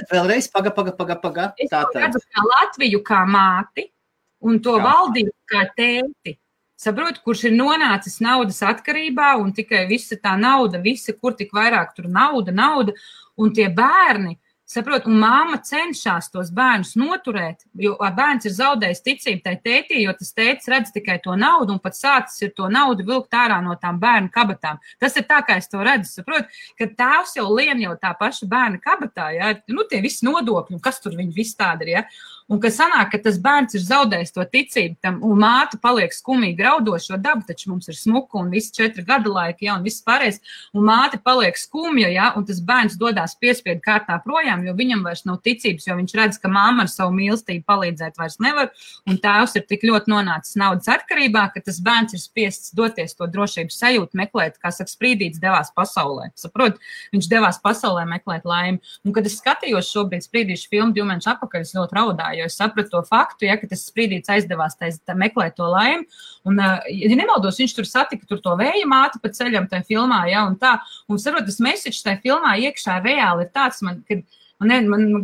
Vēlreiz, paga. Es redzu kā Latviju kā māti, un to valdību kā tēti. Saprot, kurš ir nonācis naudas atkarībā, un tikai visa tā nauda, kur tik vairāk tur nauda, un tie bērni, saprot, un māma cenšas tos bērnus noturēt, jo bērns ir zaudējis ticību tai tētī, jo tas tētis redz tikai to naudu, un pat sācis ir to naudu vilkt ārā no tām bērnu kabatām. Tas ir tā, kā es to redzu, saprot, ka tēvs jau lien jau tā paša bērna kabatā, ja, tie visi nodokļi, kas tur viņi visi tādi ir, ja. Un ka sanāk, ka tas bērns ir zaudējis to ticību tam, un māte paliek skumīgi raudošo dabu, taču mums ir smuka un visi 4 gada laiki, ja, un viss pārējais, un māte paliek skumja, ja, un tas bērns dodās piespiedu kārtā projām, jo viņam vairs nav ticības, jo viņš redz, ka mamma ar savu mīlestību palīdzēt vairs nevar, un tēvs ir tik ļoti nonācis naudas atkarībā, ka tas bērns ir spiests doties to drošības sajūtu meklēt, kā saka, Sprīdītis devās pasaulē. Saprot, viņš devās pasaulē meklēt laimi. Un kad es skatījos šobrīd Sprīdīšu filmu 2 mēnešus atpakaļ, es ļoti raudāju. Jo es sapratu to faktu, ja, ka tas Sprīdītis aizdevās meklēt to laimi. Un, ja nemaldos, viņš tur satika to vēja māti pa ceļam tajā filmā, ja, un tā. Un saprot, tas message tajā filmā iekšā reāli ir tāds, man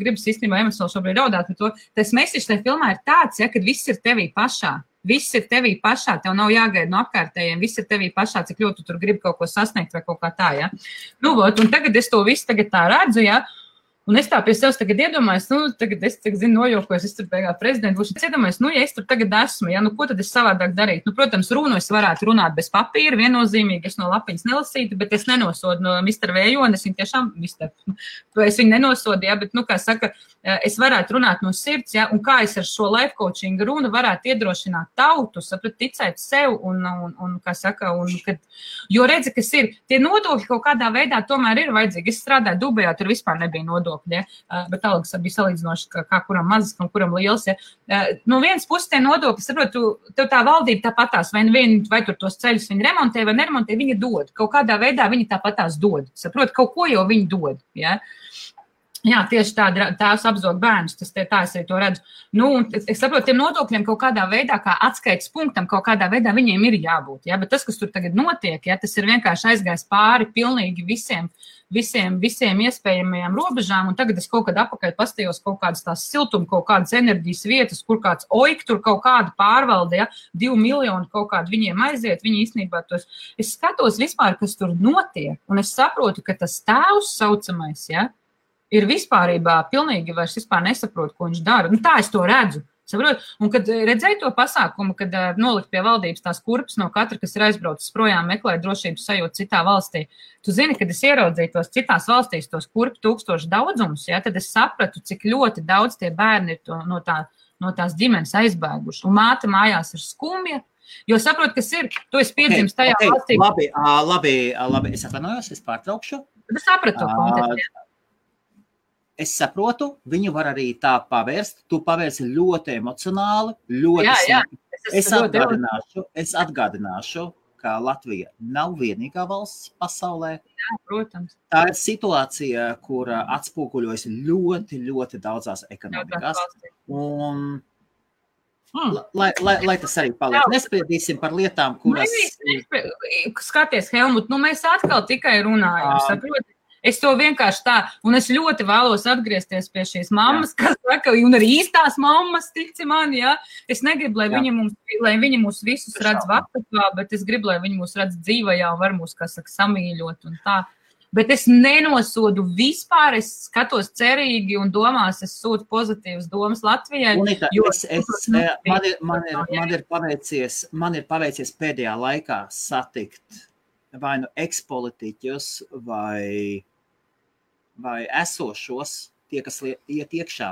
gribas īstenībā emocionāli šobrīd raudāt par to. Tas message tajā filmā ir tāds, ja, kad viss ir tevī pašā. Viss ir tevī pašā, tev nav jāgaida no apkārtējiem, viss ir tevī pašā, cik ļoti tu tur gribi kaut ko sasniegt vai kaut kā tā, ja. Un tagad es to visu tagad tā redzu, ja. Un es tā pie sevis tagad iedomājos, tagad es nojokos, es tur beigās prezidents būšu. Es iedomājos, ja es tur tagad esmu, ja, ko tad es savādāk darītu? Protams, runu es varētu runāt bez papīra, viennozīmīgi, es no lapiņas nelasītu, bet es nenosodu no Mr. Vējoni, es viņu tiešām, es viņu nenosodu, ja, bet, kā saka, es varētu runāt no sirds, ja, un kā es ar šo life coaching runu varētu iedrošināt tautu, saprat, ticēt sev un kā saka, jo redzi, kas ir, tie nodokļi kaut kādā veidā tomēr ir vajadzīgi. Es strādāju Dubajā, tur vispār nebija nodokļi. Ja? Bet algas bija salīdzinoši, kā kuram mazas, kuram liels. Ja? No vienas puses tie nodokļi, saprot, tev tā valdība tāpatās, vai tur tos ceļus viņi remontē vai neremontē, viņi dod. Kaut kādā veidā viņi tāpatās dod. Saprot, kaut ko jau viņi dod. Ja? Jā, tieši tā, tēvs apzog bērnus, tā es arī to redzu. Es saprotu, tiem nodokļiem kaut kādā veidā, kā atskaites punktam, kaut kādā veidā viņiem ir jābūt. Ja? Bet tas, kas tur tagad notiek, ja, tas ir vienkārši aizgājis pāri pilnīgi visiem iespējamajām robežām, un tagad es kaut kad apakaļ pastījos kaut kādas tās siltuma, kaut kādas enerģijas vietas, kur kāds oik tur kaut kāda pārvalde, ja, 2 miljoni kaut kādu viņiem aiziet, viņi īstenībā tos. Es skatos vispār, kas tur notiek, un es saprotu, ka tas tēvs saucamais, ja, ir vispārībā pilnīgi vairs vispār nesaprot, ko viņš dara. Tā es to redzu. Saprot? Un kad redzēju to pasākumu, kad nolikt pie valdības tās kurpes no katra, kas ir aizbraucis projām meklēt drošības sajūtu citā valstī, tu zini, kad es ieraudzīju tos citās valstīs, tos kurpu 1000 daudzumus, ja, tad es sapratu, cik ļoti daudz tie bērni ir no tās ģimenes aizbēguši. Un māte mājās ir skumja, jo saprot, kas ir, tu esi piedzimis tajā valstī. Labi, es atvainojos, es pārtraukšu. Tad es sapratu kontekstu. Es saprotu, viņu var arī tā pavērst. Tu pavērsi ļoti emocionāli, ļoti jā. Es atgādināšu, ka Latvija nav vienīgā valsts pasaulē. Jā, protams. Tā ir situācija, kur atspoguļojas ļoti, ļoti daudzās ekonomikās. Un lai tas arī paliek. Nespriedīsim par lietām, kuras... Skaties, Helmut, mēs atkal tikai runājam, saproti? Es to vienkārši tā, un es ļoti vēlos atgriezties pie šīs mammas, kas saka, un arī īstās mammas, tici man, jā. Es negribu, lai viņi mūs visus redz vakatā, bet es gribu, lai viņi mūs redz dzīvajā un var mūs, kā saka, samīļot un tā. Bet es nenosodu vispār, es skatos cerīgi un domās, es sūtu pozitīvas domas Latvijai. Unita, man ir paveicies pēdējā laikā satikt vai nu ekspolitiķus vai esošos, tie, kas iet iekšā,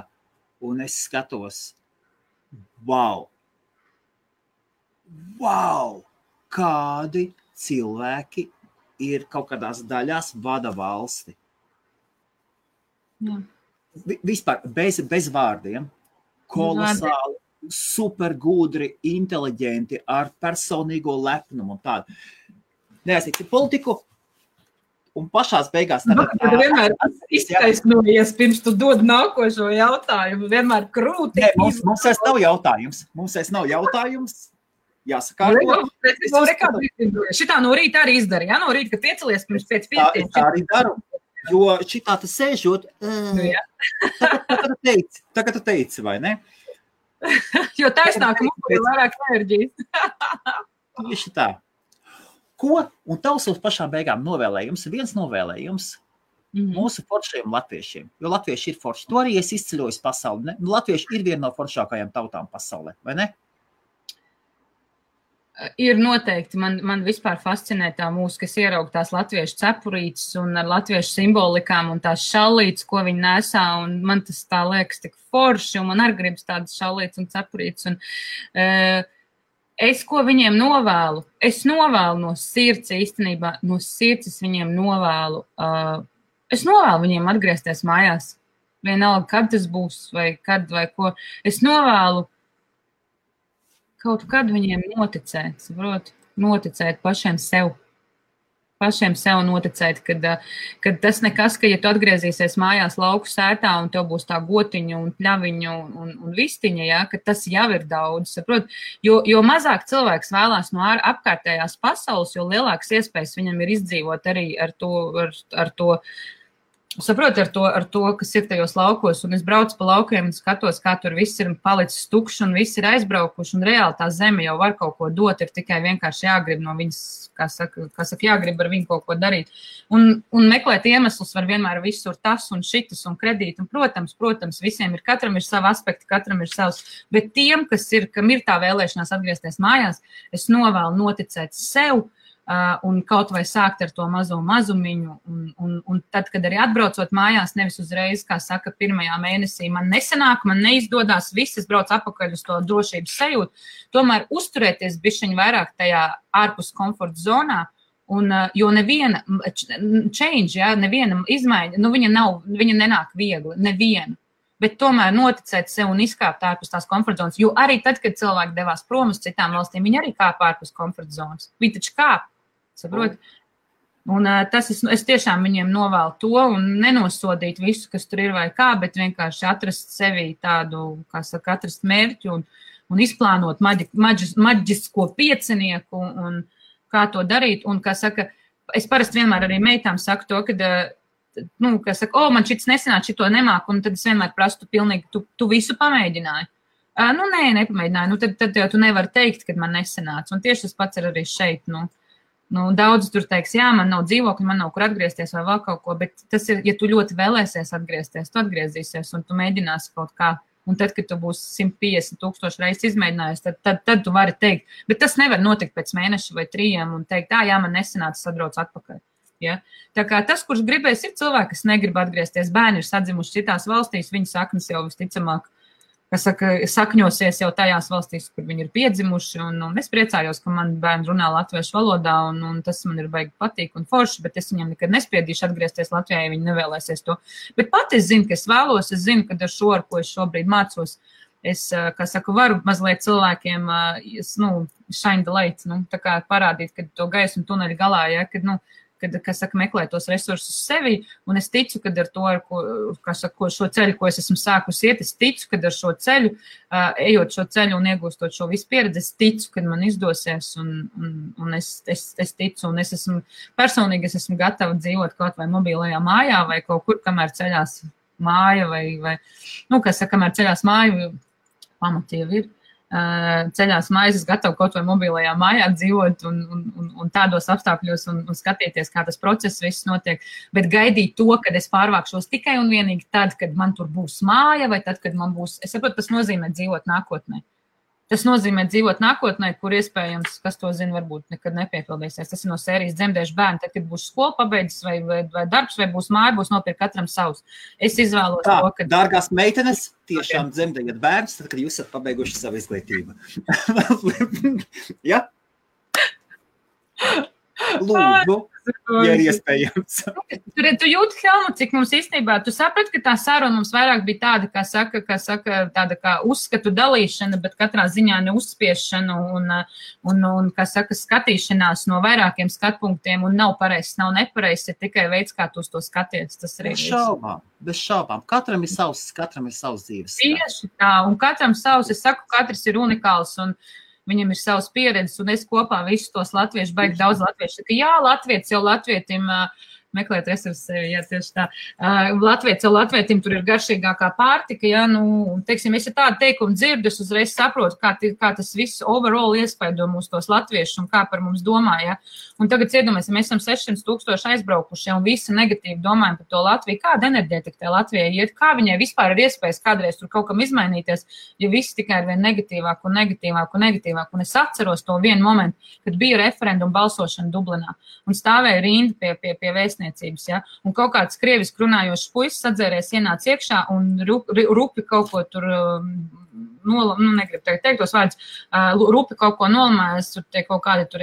un es skatos, wow, kādi cilvēki ir kaut kādās daļās vada valsti. Jā. Vispār bez vārdiem, kolosāli, super gudri, inteliģenti, ar personīgo lepnumu un tādu. Neaizsīti politiku, un pašās beigās... Tu vienmēr iztaisnojies, pirms tu dod nākošo jautājumu, vienmēr krūti. Nē, mums vairs nav jautājums. Jāsakārto. Šitā no rīta arī izdarīja, no rīta, kad piecelies pirms 5:05. Tā arī daru, jo šitā tas sēžot, tagad tu teici, vai ne? Jo taisnāk mums ir vairāk enerģijas. Tieši tā. Ko? Un tavs uz pašām beigām viens novēlējums mūsu foršajiem latviešiem, jo latvieši ir forši. To arī es izceļoju pasauli. Ne? Latvieši ir viena no foršākajām tautām pasaulē, vai ne? Ir noteikti. Man vispār fascinē tā mūzika, kas ieraug tās latviešu cepurītes un ar latviešu simbolikām un tās šallītes, ko viņi nesā, un man tas tā liekas tik forši, un man arī gribas tādas šallītes un cepurītes. Un, es, ko viņiem novēlu? Es novēlu no sirds īstenībā, no sirds es viņiem novēlu. Es novēlu viņiem atgriezties mājās. Vienalga, kad tas būs, vai kad, vai ko. Es novēlu kaut kad viņiem noticēt, saprot? Noticēt pašiem sev. Pašiem sev noticēt, kad tas nekas, ka ja tu atgriezīsies mājās lauku sētā un tev būs tā gotiņa un pļaviņa un vistiņa, ja, ka tas jau ir daudz, saprot? Jo mazāk cilvēks vēlās no apkārtējās pasaules, jo lielākas iespējas viņam ir izdzīvot arī ar to saprot, ar to, kas ir tajos laukos, un es braucu pa laukiem un skatos, kā tur viss ir palicis tukšs un viss ir aizbraukuši, un reāli tā zeme jau var kaut ko dot, ir tikai vienkārši jāgrib no viņas, kā saka, jāgrib ar viņu kaut ko darīt. Un meklēt iemeslus var vienmēr visur tas un šitas un kredīt, un protams, visiem ir, katram ir savi aspekti, katram ir savs, bet tiem, kam ir tā vēlēšanās atgriezties mājās, es novēlu noticēt sev, un kaut vai sākt ar to mazumiņu, un tad, kad arī atbraucot mājās, nevis uzreiz, kā saka, pirmajā mēnesī man nesanāk, man neizdodas, viss, es braucu atpakaļ uz to drošības sajūtu, tomēr uzturēties bišķiņ vairāk tajā ārpus komforta zonā, jo neviena change, ja, neviena izmaiņa, viņa nenāk viegli, neviena. Bet tomēr noticēt sev un izkāpt ārpus tās komforta zonas, jo arī tad, kad cilvēki devās prom uz citām valstīm, viņi arī kāp ārpus komforta zonas. Viņi taču kāp, saprot? Un es tiešām viņiem novēlu to un nenosodīt visu, kas tur ir vai kā, bet vienkārši atrast sevī tādu, kā saka, atrast mērķu un izplānot maģisko piecinieku un kā to darīt. Un, kā saka, es parasti vienmēr arī meitām saku to, kad kas saka, man šits nesanāk, šito nemāk, un tad es vienmēr prastu pilnīgi, tu visu pamēģināji. Nē, nepamēģināju, tad jau tu nevari teikt, kad man nesanāca, un tieši tas pats ir arī šeit, daudz tur teiks, jā, man nav dzīvokļi, man nav kur atgriezties vai vēl kaut ko, bet tas ir, ja tu ļoti vēlēsies atgriezties, tu atgriezīsies, un tu mēģināsi kaut kā, un tad, kad tu būsi 150,000 reizes izmēģinājis, tad tu vari teikt, bet tas nevar notikt pēc mēneša vai 3 un teikt, jā, man nesanāca, sadrauc atpakaļ. Ja? Tā kā tas, kurš gribēs, ir cilvēki, kas negrib atgriezties. Bērni ir sadzimuši citās valstīs, viņu saknes jau visticamāk, kas saka, sakņosies jau tajās valstīs, kur viņi ir piedzimuši. Un es priecājos, ka man bērni runā latviešu valodā, un tas man ir baigi patīk un forši, bet es viņam nekad nespiedīšu atgriezties Latvijā, ja viņi nevēlēsies to. Bet pat es zinu, ka es vēlos, es zinu, ka ar šo, ar ko es šobrīd mācos, kā saku, varu mazliet cilvēkiem, shine the light, tā kā parādīt, kad to gaismu tuneļa galā, ja, kad, kā saka, meklē tos resursus sevi, un es ticu, kad ar to, kā saka, šo ceļu, ko es esmu sākusi iet, es ticu, kad ar šo ceļu, ejot šo ceļu un iegūstot šo visu pieredzi, es ticu, kad man izdosies, un es ticu, un es esmu gatava dzīvot kaut vai mobilajā mājā, vai kaut kur, kamēr ceļās māja, vai kā saka, kamēr ceļās māja, pamati jau ir. Ceļās mājas, es gatavu kaut vai mobilajā mājā dzīvot un tādos apstākļos un skatīties, kā tas process viss notiek, bet gaidīt to, kad es pārvākšos tikai un vienīgi tad, kad man tur būs māja, vai tad, kad man būs, es saprotu, tas nozīmē dzīvot nākotnē. Tas nozīmē dzīvot nākotnē, kur iespējams, kas to zina, varbūt nekad nepiepildīsies. Tas ir no sērijas dzemdēšu bērni, tad, kad būs skola pabeidzis vai darbs, vai būs māja, būs nopirkt katram savs. Es izvēlos tā, to, ka... Dārgās meitenes, tiešām dzemdējat bērns, tad, kad jūs esat pabeiguši savu izglītību. Ja? Lūdzu, ja ir iespējams. Tu jūti, Helmut, cik mums īstenībā, tu saprati, ka tā saruna mums vairāk bija tāda, kā saka, tāda kā uzskatu dalīšana, bet katrā ziņā neuzspiešana un kā saka, skatīšanās no vairākiem skatpunktiem un nav pareizs, nav nepareizs, ir tikai veids, kā tu uz to skaties. Tas arī bez šaubām. Katram ir savs dzīves. Tieši tā, un katram savs, es saku, katrs ir unikāls un viņam ir savas pieredzes, un es kopā visus tos latviešu, baigi daudz latviešu. Saka, jā, latvietis jau latvietim meklēt resursus sevi, jā, tieši tā. Latvietis jau latvietim tur ir garšīgākā pārtika, jā, teiksim, es tādu teikumu dzirdu, es uzreiz saprotu, kā tas viss overall iespaido mūs tos latviešus un kā par mums domā, jā. Un tagad iedomāsim, mēs esam 600,000 aizbraukuši un visi negatīvi domājam par to Latviju. Kāda enerģētika tai Latvijai iet? Kā viņai vispār ir iespējas kādreiz tur kaut kam izmainīties, ja visi tikai ir vien negatīvāk un negatīvāk un negatīvāk. Un es atceros to vienu momentu, kad bija referenduma balsošana Dublinā un stāvēja rinda pie vēstniecības, ja? Un kaut kāds krieviski runājošs puisis atzērēs ienāca iekšā un rupi kaut ko tur negribu teikt tos vārdus, rupi kaut ko nolamājas, tur tie kaut kādi tur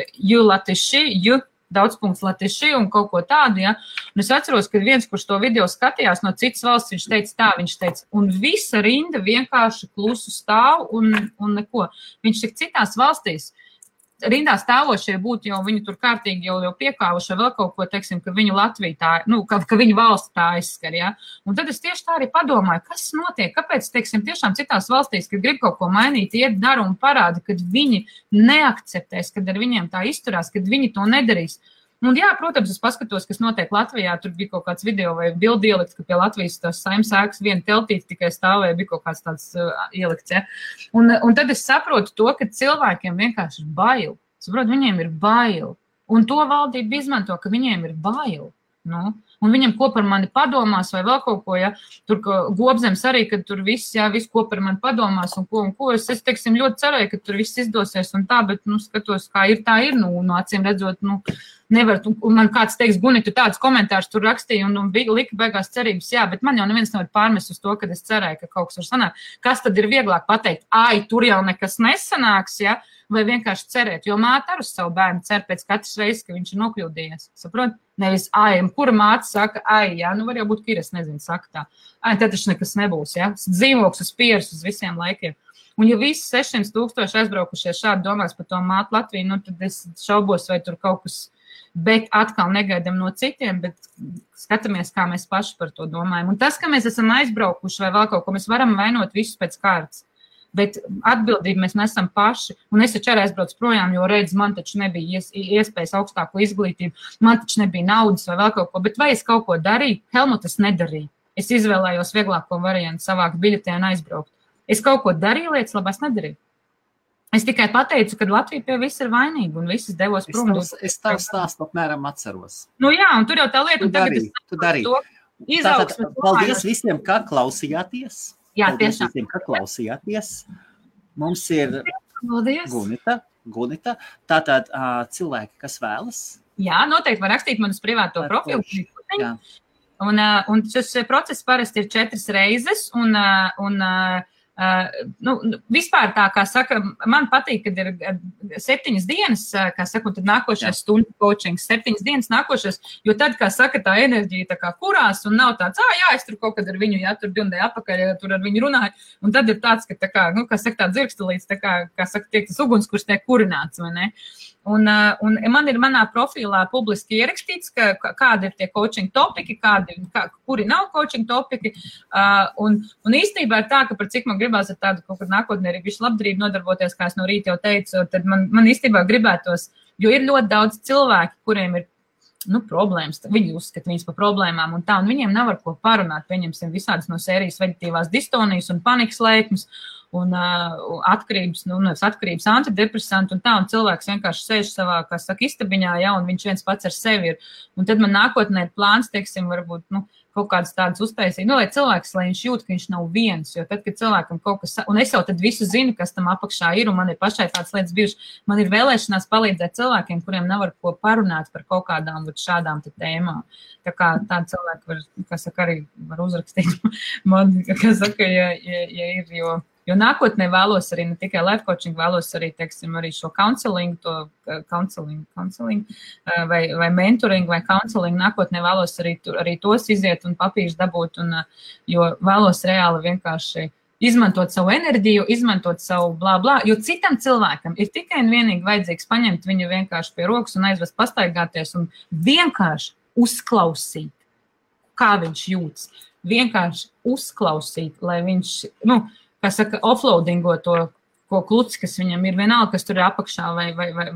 daudzpunkts latiši un kaut ko tādu, ja. Un es atceros, ka viens, kurš to video skatījās no citas valsts, viņš teica, un visa rinda vienkārši klusu stāv un neko. Viņš tik citās valstīs rindā stāvošie būtu jau viņi tur kārtīgi jau piekāvuši vēl kaut ko, teiksim, ka viņu Latvija tā, ka viņu valsts tā aizskar, ja. Un tad es tieši tā arī padomāju, kas notiek, kāpēc, teiksim, tiešām citās valstīs, kad grib kaut ko mainīt, iet dara un parāda, kad viņi neakceptēs, kad ar viņiem tā izturās, kad viņi to nedarīs. Un jā, protams, es paskatos, kas notiek Latvijā, tur bija kaut kāds video vai bildi ielikts, ka pie Latvijas tās Saeimas ēkas viena teltīte tikai stāvēja, bija kaut kāds tāds ielikts, ja. Un tad es saprotu to, ka cilvēkiem vienkārši ir bail. Saprotu, viņiem ir bail. Un to valdība izmanto, ka viņiem ir bail. Un viņam ko par mani padomās vai vēl kaut ko, ja. Tur Gobzems arī, kad tur viss ko par mani padomās un ko. Es teiksim, ļoti cerēju, ka tur viss izdosies un tā, bet, skatos, kā ir, tā ir, acīm redzot, nevar, un man kāds teiks, Gunita, tāds komentārs tur rakstīja un lika beigās cerības, jā, bet man jau neviens nevar pārmest uz to, kad es cerēju, ka kaut kas var sanākt. Kas tad ir vieglāk pateikt, tur jau nekas nesanāks, ja, vai vienkārši cerēt, jo māte ar uz savu bērnu cer pēc katras reizes, ka viņš ir nokļūdījies, saprot? Nevis, kura māte saka, jā, var jau būt, ka ir, es nezinu, saka tā. Tad taču nekas nebūs, ja, dzīvoks uz pieres uz visiem laikiem. Un ja visi 600,000 aizbraukušies šādi domās par to mātu Latviju, tad es šaubos, vai tur kaut kas, bet atkal negaidam no citiem, bet skatāmies, kā mēs paši par to domājam. Un tas, ka mēs esam aizbraukuši vai vēl kaut ko, mēs varam vainot visus pēc kārtas. Bet atbildību mēs nesam paši, un es taču arī aizbraucu projām, jo redz, man taču nebija iespējas augstāko izglītību, man taču nebija naudas vai vēl kaut ko, bet vai es kaut ko darīju? Helmut, es nedarīju. Es izvēlējos vieglāko variantu savākt biļetē un aizbraukt. Es kaut ko darīju, lietas labās nedarīju. Es tikai pateicu, ka Latvija pie viss ir vainīga un visas devos prom. Es tavu stāstu apmēram atceros. Jā, un tur jau tā lieta. Tu darīji. Paldies visiem, kā klausījāties. Jā, paldies tiešām. Visiem, ka klausījāties. Mums ir Gunita. Tātad cilvēki, kas vēlas. Jā, noteikti var rakstīt man uz privāto profilu. Un šis process parasti ir 4 reizes, un vispār tā, kā saka, man patīk, kad ir 7 dienas, kā saka, un tad nākošais stundu coachings, 7 dienas nākošais, jo tad, kā saka, tā enerģija tā kā kurās un nav tāds, es tur kaut kad ar viņu, tur 2 nedēļu apakaļ, tur ar viņu runāju, un tad ir tāds, ka tā kā, kā saka, tā dzirkstelīts, tā kā saka, tiek tas uguns, kurš tiek kurināts, vai ne? Un man ir manā profilā publiski ierakstīts, kādi ir tie coaching topiki, kuri nav coaching topiki. Un īstenībā ir tā, ka par cik man gribās ar tādu kaut kad nākotnē arī visu labdarību nodarboties, kā es no rīta jau teicu, tad man īstenībā gribētos, jo ir ļoti daudz cilvēki, kuriem ir problēmas, viņi uzskata viņas par problēmām un tā, un viņiem nav ar ko parunāt, pieņemsim visādas no sērijas veģetīvās distonijas un panikas lēkmes, un atkarības antidepresanti un tā, un cilvēks vienkārši sēž savā, kā saka, istabiņā, un viņš viens pats ar sevi ir. Un tad man nākotnē ir plāns, teiksim, varbūt, kaut kādas tādas uztaisīt, lai cilvēks, lai viņš jūt, ka viņš nav viens, jo tad, kad cilvēkam kaut kas, un es jau tad visu zinu, kas tam apakšā ir, un man ir pašai tādas lietas bijušas, man ir vēlēšanās palīdzēt cilvēkiem, kuriem nav ar ko parunāt par kaut kādām šādām tēmām. Tā kā tādi cilvēki var, kā saka, arī var uzrakstīt man, kā saka, ja ir, jo nākotnē vēlos arī ne tikai life coaching, vēlos arī, teiksim, arī šo counseling, vai mentoring, vai counseling, nākotnē vēlos arī tos iziet un papīrs dabūt, jo vēlos reāli vienkārši izmantot savu enerģiju, izmantot savu blā, jo citam cilvēkam ir tikai un vienīgi vajadzīgs paņemt viņu vienkārši pie rokas un aizvest pastaigāties un vienkārši uzklausīt, kā viņš jūtas. Vienkārši uzklausīt, lai viņš, kā saka, offloadingo to, ko kluci, kas viņam ir vienalga, kas tur ir apakšā,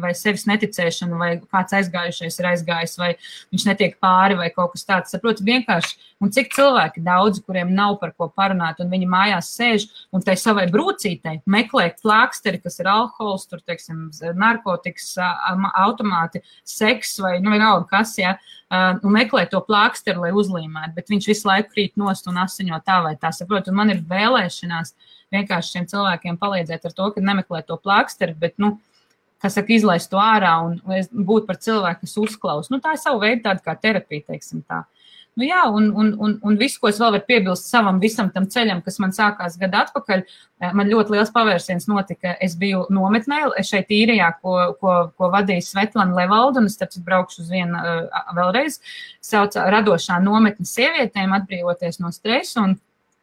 vai sevis neticēšana, vai kāds aizgājušais ir aizgājis, vai viņš netiek pāri, vai kaut kas tāds. Saprotu, vienkārši, un cik cilvēki daudzi, kuriem nav par ko parunāt, un viņi mājās sēž, un tai savai brūcītei meklē plāksteri, kas ir alkohols, tur, teiksim, narkotikas, automāti, seks, vai, vienalga kas, un meklē to plāksteri, lai uzlīmētu, bet viņš visu laiku krīt nost un asiņo tā vai tā, saprotu, un man ir vēlēšanās vienkārši šiem cilvēkiem palīdzēt ar to, ka nemeklē to plāksteri, bet, kā saka, izlaist to ārā un būt par cilvēku, kas uzklaus. Tā ir savu veidu tāda kā terapija, teiksim tā. Un visu, ko es vēl varu piebilst savam visam tam ceļam, kas man sākās gadu atpakaļ, man ļoti liels pavērsiens notika. Es biju nometnē šeit Īrijā, ko vadīja Svetlana Levalda, un es tāpēc braukšu uz vienu vēlreiz, sauca radošā nometne sievietēm atbrīvoties no stresa, un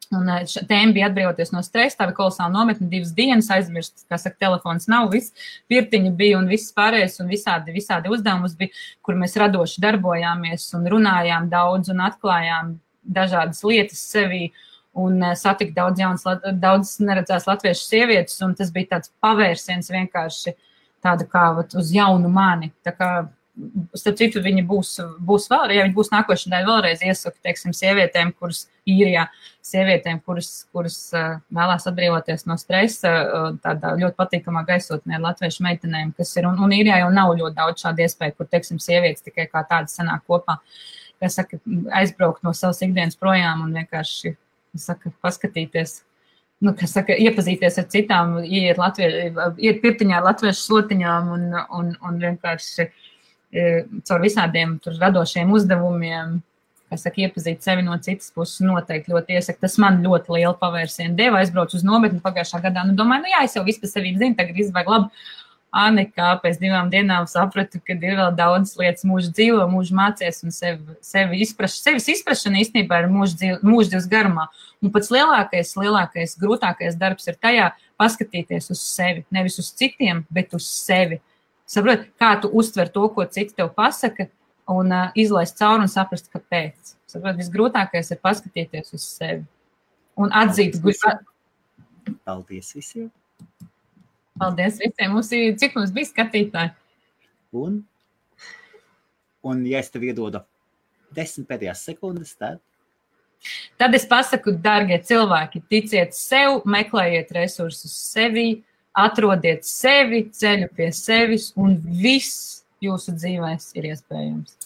tēma bija atbrīvoties no stresa, tā bija kolosāla nometne, 2 dienas aizmirst, kā saka, telefons nav, viss pirtiņa bija un viss pārējais un visādi uzdevumus bija, kur mēs radoši darbojāmies un runājām daudz un atklājām dažādas lietas sevī un satika daudz neredzēs latviešu sievietes, un tas bija tāds pavērsiens vienkārši tāda kā uz jaunu mani, tā kā starp citu, viņi būs vēl, ja viņi būs nākošanai vēlreiz iesaku, teiksim, sievietēm, kuras Īrijā, sievietēm, kuras vēlās atbrīvoties no stresa, tādā ļoti patīkamā gaisotnē ar latviešu meitenēm, kas ir, un Īrijā jau nav ļoti daudz šādu iespēju, kur, teiksim, sievietes tikai kā tādas sanāk kopā, kas saka, aizbraukt no savas ikdienas projām un vienkārši, saka, paskatīties, kas saka, iepazīties ar citām, iet pirtiņā ar latviešu slotiņām un vienkārši caur visādiem tur radošiem uzdevumiem, kas saka, iepazīt sevi no citas puses, noteikti ļoti iesaku. Tas man ļoti lielu pavērsienu deva, aizbraucu uz nometni pagājušā gadā, domāju, es jau visu par sevi zinu, tagad izvajag labi. Nekā pēc 2 dienām sapratu, ka ir vēl daudz lietas mūžu dzīvo, mūžu mācies un sevis izprašana īstenībā ir mūžu dzīves garumā. Un pats lielākais, grūtākais darbs ir tajā paskatīties uz sevi, nevis uz citiem, bet uz sevi. Saprot, kā tu uztver to, ko citi tev pasaka, un izlaist cauri un saprast, kāpēc. Saprot, visgrūtākais ir paskatīties uz sevi. Un atzīt. Paldies visiem. Paldies visiem. Cik mums bija skatītāji? Un ja es tev iedodu 10 pēdējās sekundes, tad es pasaku, dargie cilvēki, ticiet sev, meklējiet resursus sevi, atrodiet sevi, ceļu pie sevis, un viss jūsu dzīvēs ir iespējams.